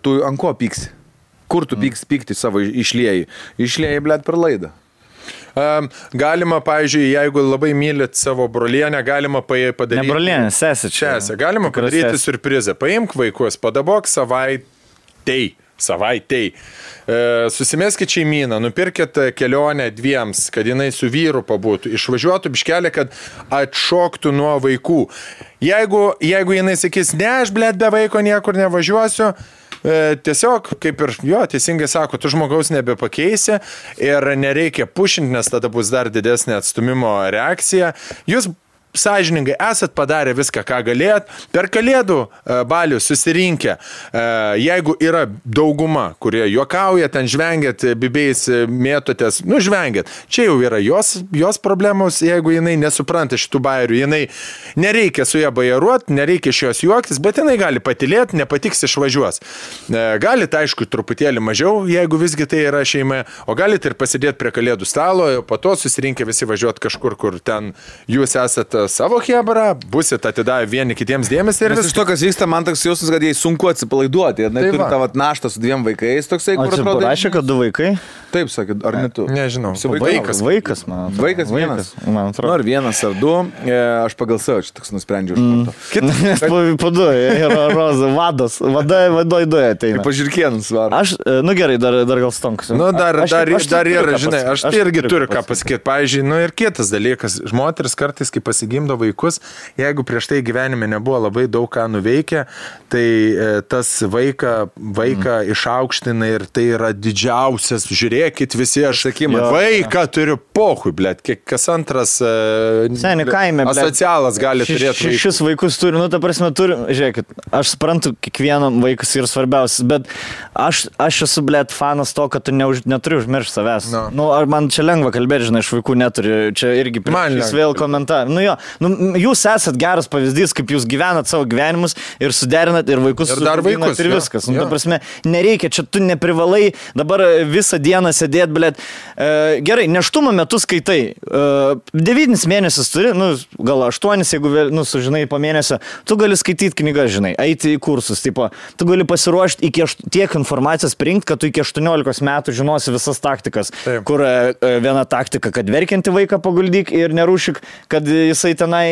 tu ant ko pyksi? Kur tu pykti savo išlieji? Išlieji, blėt, per laidą. Galima, pavyzdžiui, jeigu labai mylit savo brolienę, galima padaryti... Ne brolienę, sesę čia. Galima padaryti surprizą. Paimk vaikus, padabok savaitei. Susimeskit šeimyną, nupirkit kelionę dviems, kad jinai su vyru pabūtų, išvažiuotų biškelį, kad atšoktų nuo vaikų. Jeigu jinai sakys, ne, aš, blėt, be vaiko niekur nevažiuosiu, tiesiog, kaip ir jo, teisingai sako, tu žmogaus nebepakeisi ir nereikia pušinti, nes tada bus dar didesnė atstumimo reakcija. Jūs sąžiningai esat padarę viską, ką galėjot. Per Kalėdų balių susirinkę, jeigu yra dauguma, kurie juokauja, ten žvengiat, bibiais mėtotės, žvengiat. Čia jau yra jos problemos, jeigu jinai nesupranta šitų bairių, jinai nereikia su ją bajaruoti, nereikia iš jos juoktis, bet jinai gali patilėti, nepatiks išvažiuos. Galite, aišku, truputėlį mažiau, jeigu visgi tai yra šeima, o galite ir pasidėti prie Kalėdų stalo, po to susirinkę visi važiuoti kažkur, kur ten jūs esate savo hebrą, busit atidavę vieni kitiems dėmesį ir iš to, kas vyksta, man toks jausmas, kad jai sunku atsipalaiduoti. Jie turi tą naštą su 2 vaikais, toksai, kur atrodo. Parašė, kad 2 vaikai? Taip, sakė, ar ne tu? Nežinau. Vaikas, man atrodo. Vaikas vienas. Man atrodo. Ar 1 ar 2, aš pagal savo čia toks nusprendžiau iš karto. Po 2, yra Roza, vadoj 2 ateina. Pažirkėnus varo. Aš, gerai, dar gal stonksiu. Dar yra, žinai, aš irgi turiu ką pasakyti. Pavyzdžiui, ir kitas dalykas, moteris kartais, kai pasigimdo vaikus, jeigu prieš tai gyvenime nebuvo labai daug ką nuveikę, tai tas vaiką išaukština ir tai yra didžiausias, žiūrėkit visi, aš sakymu, vaiką turiu pohui, blėt, kas antras asocialas gali turėti. Šis vaikus turi, ta prasme, turi, žiūrėkit, aš suprantu, kiekvienam vaikas yra svarbiausias, bet aš esu, blėt, fanas to, kad tu neturi užmiršti savęs. Ar man čia lengva kalbėti, žinai, iš vaikų neturi, čia irgi prieš vėl komentarą. Jūs esat geras pavyzdys, kaip jūs gyvenat savo gyvenimus ir suderinat ir vaikus ir viskas. Ta prasme, nereikia, čia tu neprivalai dabar visą dieną sėdėti, blėt. Gerai, nėštumo metu skaitai. 9 mėnesius turi, gal 8, jeigu sužinai po mėnesio, tu gali skaityti knygas, žinai, eiti į kursus. Tipo, tu gali pasiruošti tiek informacijos prinkti, kad tu iki 18 metų žinosi visas taktikas. Taip. Kur viena taktika, kad verkianti vaiką paguldyk ir nerūšik, kad jisai tenai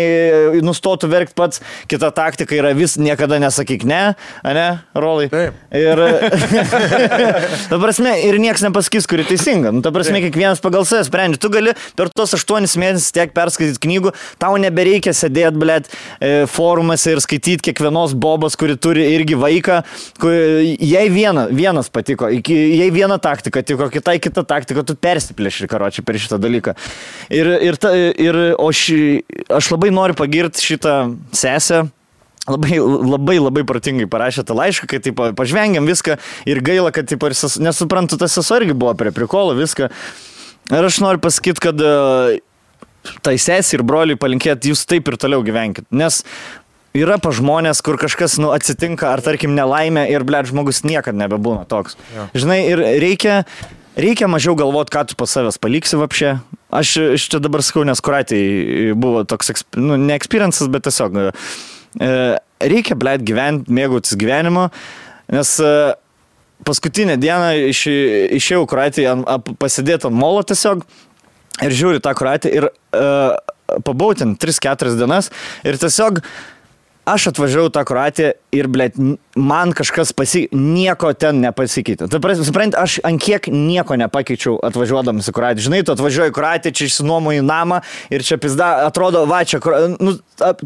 nustotų verkti pats. Kita taktika yra niekada nesakyk ne, Rolai? Taip. Ir, ta prasme, ir nieks nepasakys, kuri teisinga. Ta prasme, kiekvienas pagal save sprendžia. Tu gali per tos 8 mėnesius tiek perskaityti knygų, tau nebereikia sėdėti, blėt, forumuose ir skaityti kiekvienos bobos, kuri turi irgi vaiką. Jei vienas patiko, jei viena taktika tiko, kitai kita taktika, tu persiplėši, karočiui, per šitą dalyką. Aš labai noriu pagirti šitą sesę. Labai protingai parašė tą laišką, kai taip pažvengiam viską ir gaila, kad taip, nesuprantu, tas sesuo irgi buvo prie prikolo viską. Ir aš noriu pasakyti, kad tai sesė ir broliui palinkėti, jūs taip ir toliau gyvenkit. Nes yra pa žmonės, kur kažkas atsitinka, ar tarkim nelaimė ir, blėt, žmogus niekad nebebūna toks. Ja. Žinai, ir reikia mažiau galvoti, ką tu pas savęs paliksi vapšė. Aš čia dabar sakau, nes Kuratei buvo toks, ne experiences, bet tiesiog reikia, blėt, gyventi, mėgautis gyvenimo, nes paskutinę dieną išėjau Kuratei pasidėti ant molo tiesiog ir žiūriu tą Kuratį ir pabuvau ten 3-4 dienas ir tiesiog aš atvažiavau tą Kroatiją ir, blėt, man kažkas nieko ten nepasikeitė. Supranti, aš ant kiek nieko nepakeičiau atvažiuodamas į Kroatiją. Žinai, tu atvažiuoji į Kroatiją, čia išsinuomoji namą ir čia pizda, atrodo, va, čia,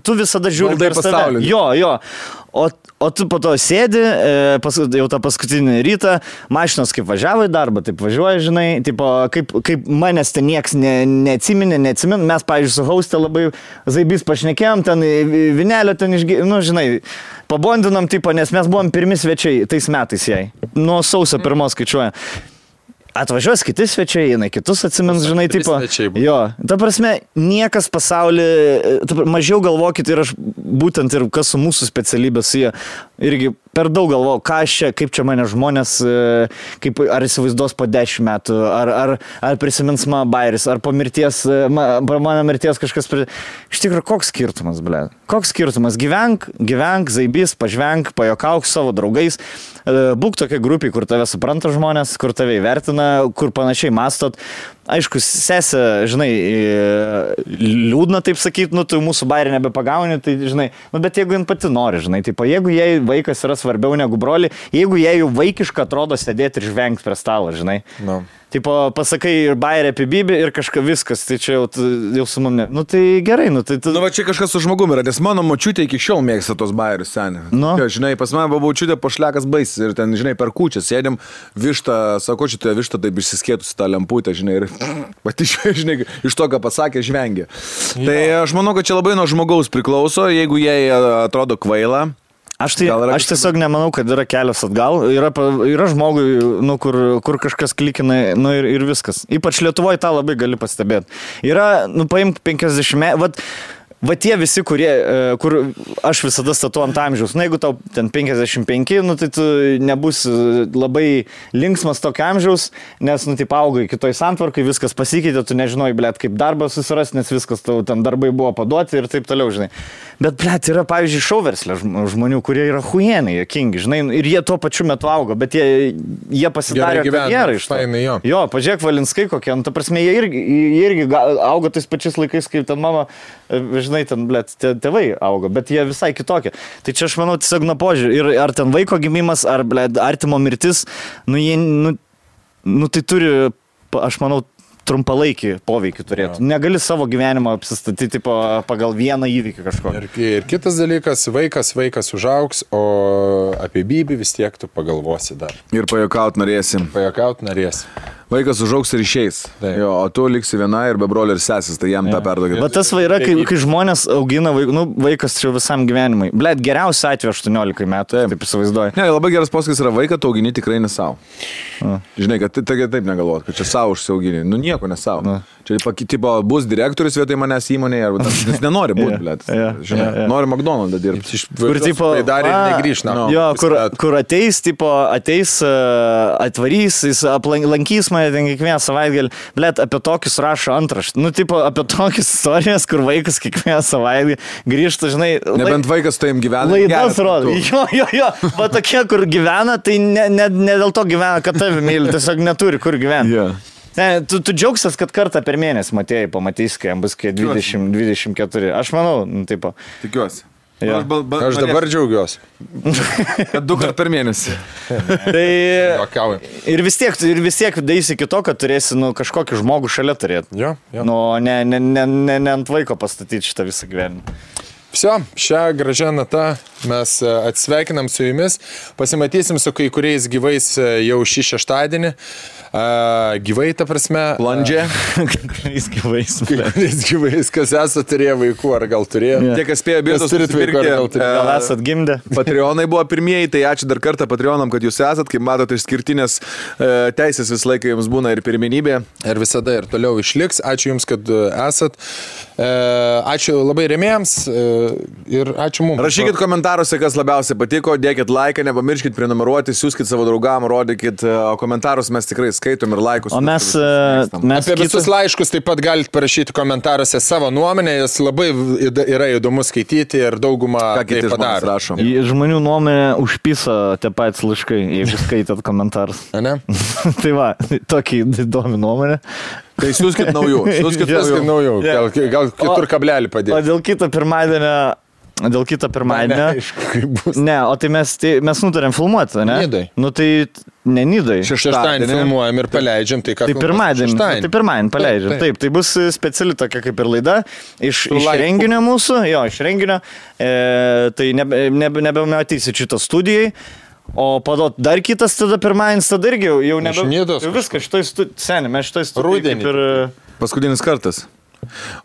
tu visada žiūri per save. Jo. O tu po to sėdi, jau tą paskutinį rytą, mašinos kaip važiavo į darbą, taip važiuoja, žinai, tipo, kaip manęs ten nieks neatsiminė, mes, pavyzdžiui, su hauste labai zaibys pašnekėjom, ten vinelio ten žinai, pabondinom, tipo, nes mes buvom pirmi svečiai tais metais jai, nuo sausio 1 skaičiuoja. Atvažiuos kiti svečiai, jinai kitus atsimins, žinai, tipo. Jo, ta prasme, niekas pasaulyje, mažiau galvokit ir aš būtent ir kas su mūsų specialybės jie irgi per daug galvojau, kaip čia mane žmonės, ar įsivaizduos po 10 metų, ar prisimins mano bairis, ar po mano mirties kažkas. Iš tikrųjų, koks skirtumas, ble? Koks skirtumas? Gyvenk, zaibys, pažvenk, pajokauk su savo draugais, būk tokia grupė, kur tave supranta žmonės, kur tave įvertina, kur panašiai mastot. Aišku, sesė, žinai, liūdna taip sakyti, tu mūsų bairį nebepagauni, tai, žinai, bet jeigu jin pati nori, žinai, taip, jeigu jai vaikas yra svarbiau negu broli, jeigu jai jau vaikiška atrodo sėdėti ir žvengti prie stalo, žinai. Tipo, pasakai ir bairį apie Bibį ir kažką viskas, tai čia jau su mane. Nu tai gerai, nu tai... Nu va čia kažkas su žmogumi yra, nes mano močiutė iki šiol mėgsta tos bairius seniai. Nu. Ja, žinai, pas mane buvo močiutė pošlekas baisas ir ten, žinai, per kūčią sėdėm, vištą, sako, šitoje vištą taip išsiskėtusi tą lemputę, žinai, ir pati, žinai, iš to, ką pasakė, žvengė. Ja. Tai aš manau, kad čia labai nuo žmogaus priklauso, jeigu jie atrodo kvaila. Aš tiesiog nemanau, kad yra kelias atgal. Yra žmogui, nu, kur kažkas klikina, nu, ir viskas. Ypač Lietuvoje tą labai gali pastebėti. Yra, nu, paimk 50, va tie visi, kur aš visada statu ant amžiaus. Na, jeigu tau ten 55, nu, tai tu nebus labai linksmas tokio amžiaus, nes, nu, taip augai kitoj santvarkai, viskas pasikeitė, tu nežinojai, blėt, kaip darbą susirasti, nes viskas tau ten darbai buvo paduoti ir taip toliau, žinai. Bet, blėt, yra, pavyzdžiui, šauverslė žmonių, kurie yra huijenai, jokingi, žinai, ir jie tuo pačiu metu auga, bet jie pasidarė karjerą iš to. Jo, pažiūrėk, Valinskai kokie, nu, ta prasme, jie irgi auga tais pačiais laikais, kaip ten mama, žinai, ten, blėt, tėvai auga, bet jie visai kitokie. Tai čia aš manau tiesiog nuo požiūrį. Ir ar ten vaiko gimimas, ar, blėt, artimo mirtis, nu, jie, nu, tai turi, aš manau, trumpalaikį poveikį turėtų. Negali savo gyvenimą apsistatyti pagal vieną įvykį kažko. Ir kitas dalykas, vaikas užaugs, o apie Bibį vis tiek tu pagalvosi dar. Ir pajuokaut norėsim. Vaikas užaugs ir išeis. Jo, o tu liksi viena ir be brolio ir sesis, tai jam tą perdogė. Bet tas yra, kai žmonės augina vaikas čia visam gyvenimui. Blet, geriausia atveju 18 metų, taip įsivaizduoju. Ne, labai geras posakis yra, vaiką tu augini tikrai ne savo. Žinai, kad taip negalvot, kad čia savo užsiaugini. Nu nieko ne savo. Čia tipo, bus direktorius vietoj manęs įmonėje, arba jis nenori būti, blet. Žinai, nori McDonald's dirbti. Kur tipo, dar ir negrįš, na. Jo, kur ateis, atvarys, jis lankys mane ten kiekvieną savaitgalį. Blet, apie tokius rašo antraštį. Nu, tipo, apie tokias istorijas, kur vaikas kiekvieną savaitgalį grįžta, žinai. Nebent vaikas tai jam gyvena. Laidas rodo. Jo. Va tokie, kur gyvena, tai ne dėl to gyvena, kad tave myli, tiesiog neturi kur gyventi. Yeah. Ne, tu džiaugsies, kad kartą per mėnesį matėjai, pamatys, kai jam bus 20-24. Aš manau, taip. Tikiuosi. Ja. Aš dabar džiaugiuosi. Kad 2 kartus per mėnesį. Tai ir vis tiek daisi iki to, kad turėsi kažkokį žmogų šalia turėti. Jo. Nu, ne ant vaiko pastatyti šitą visą gyvenimą. Vsio, šią gražią natą mes atsveikinam su jumis. Pasimatysim su kai kuriais gyvais jau šį šeštadienį. Gyvai, ta prasme. Plandžia. Kuriais gyvais, kas esate turėję vaikų, ar gal turėjo. Tie, kas spėjo bilietus nusipirkti, gal esat gimdę. Patreonai buvo pirmieji, tai ačiū dar kartą Patreonam, kad jūs esat. Kaip matote, išskirtinės teisės visą laiką jums būna ir pirmenybė. Ir visada ir toliau išliks. Ačiū jums, kad esat. Ačiū labai rėmėjams. Ir ačiū mums. Rašykit komentaruose, kas labiausiai patiko, dėkit laiką, nepamirškit prenumeruoti, siūskit savo draugam, rodykit komentarus, mes tikrai skaitom ir laikus. O mes apie visus laiškus taip pat galite parašyti komentaruose savo nuomonę, jas labai yra įdomu skaityti ir daugumą tai padaro. Žmonių nuomonė užpisa tie patys laiškai, jeigu skaitat komentarus. Ne? Tai va, tokį įdomi nuomonė. Tai siūskit naujų. Gal kitur kablelį padėti. O dėl kito pirmadienio. Ne, o tai mes nutarėm filmuoti, ne? Nidai. Nu tai ne Nidai. Šeštadienį filmuojam ir paleidžiam. Tai pirmadienį paleidžiam. Taip, tai bus speciali tokia kaip ir laida. Iš renginio mūsų, iš renginio. Tai nebematysite šitą studijai. O padot dar kitas tada pirmadienis, tada irgi jau viskas šitoj studijai. Mes šitoj studijai kaip ir... Paskutinis kartas.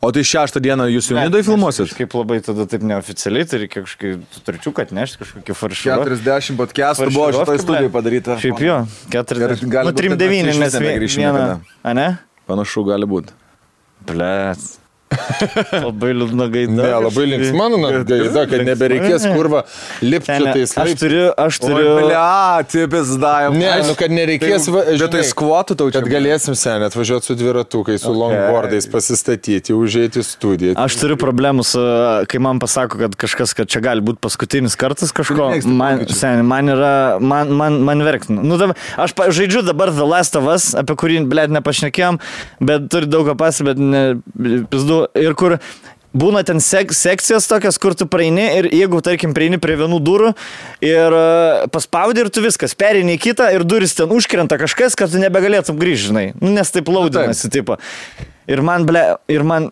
O tai 6 dieną jūs jau Nidoj filmuosit? Kaip labai tada taip neoficialiai, tai reikia kažkokį turčiuką atnešti, kažkokį faršą. 40 podcastų buvo šitoj studijai padaryta. Šiaip jo, 40. Nu, 3-9, nes vieną. A ne? Panašu gali būti. Blėt. Labai liūdna gaida. Ne, labai linksma gaida, kad nebereikės kurva lipti tais laiptais. Aš turiu... Tipis davė. Ne, kad nereikės... Vietoj skvotų tau čia. Kad galėsim seniai atvažiuoti su dviratukai, su longboardais pasistatyti, užeiti į studiją. Aš turiu problemų su... Kai man pasako, kad kažkas, kad čia gali būti paskutinis kartas kažko, man verktina. Nu, aš žaidžiu dabar The Last of Us, apie kurį, blėt, nepašnekėjom, bet turi daug ką bet pizdu. Ir kur būna ten sekcijas tokias, kur tu praeini ir jeigu, tarkim, praeini prie vienų durų ir paspaudi ir tu viskas, perini į kitą ir duris ten užkrenta kažkas, kad tu nebegalėtum grįžti, žinai. Nu, nes taip laudinasi, tipo. Ir man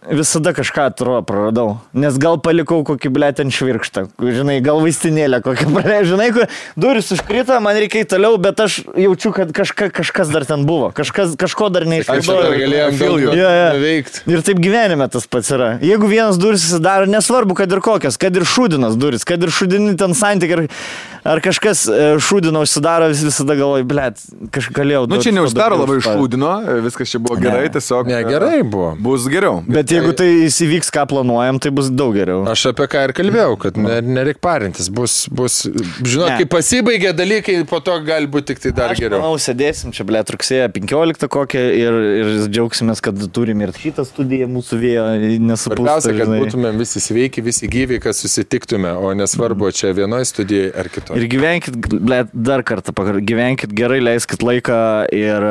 visada kažką praradau. Nes gal palikau kokį, ten švirkštą. Žinai, gal vaistinėlę kokią praleidžiu. Žinai, kur duris užkrito, man reikia toliau, bet aš jaučiu, kad kažkas dar ten buvo. Kažko dar neišvaidau. Aš galėjom veikti. Ir taip gyvenime tas pats yra. Jeigu vienas duris susidaro, nesvarbu, kad ir kokias, kad ir šūdinas duris, kad ir šūdini ten santykiai, ar kažkas šūdino užsidaro, visada galvoju, kažką galėjau. Nu, čia neuždaro labai šūdino, viskas čia buvo gerai, tiesiog. Ne, gerai buvo. Bus geriau. Bet jeigu tai įvyks, ką planuojam, tai bus daug geriau. Aš apie ką ir kalbėjau, kad nereik parintis. Bus žinot, kai pasibaigia dalykai, po to gali būti tik tai dar geriau. Manau, sėdėsim čia, rugsėjo 15 kokią ir džiaugsimės, kad turim ir šitą studiją mūsų vėjo nesupūsta. Svarbiausia, kad būtumėm visi sveiki, visi gyvi, kad susitiktume, o nesvarbu, čia vienoje studijoje ar kitoje. Ir gyvenkit, dar kartą, gyvenkit gerai, leiskit laiką ir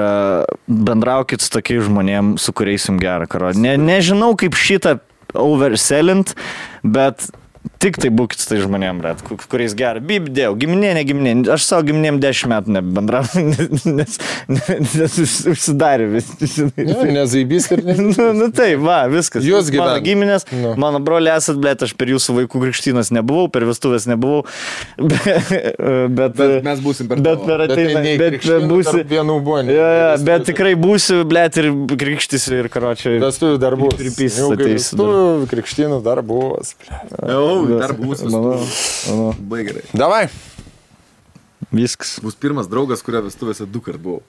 bendraukit su tokiais žmonėm, su kuriais jums gerą karo. Nežinau, kaip šitą overselint, bet tik tai būkit su tai žmonėm, kuriais gerą. Bibdėjau, giminė, ne giminė. Aš savo giminėm 10 metų nebendrau, nes užsidarė vis. Nezaibys ir ne. Nu tai, viskas. Jūs gyvenate. Mano giminės, mano broliai esat, aš per jūsų vaikų krikštynas nebuvau, per vestuvės nebuvau. Bet mes būsim per bet per ateina. Bet būsi. Bet tikrai būsiu, ir krikštysiu ir karočiui. Vestuvių dar bus. Vestuvių krikštynų dar bus. Dar bus gerai. Davai. Viskas. Bus pirmas draugas, kurio vestuvėse 2 kart buvau.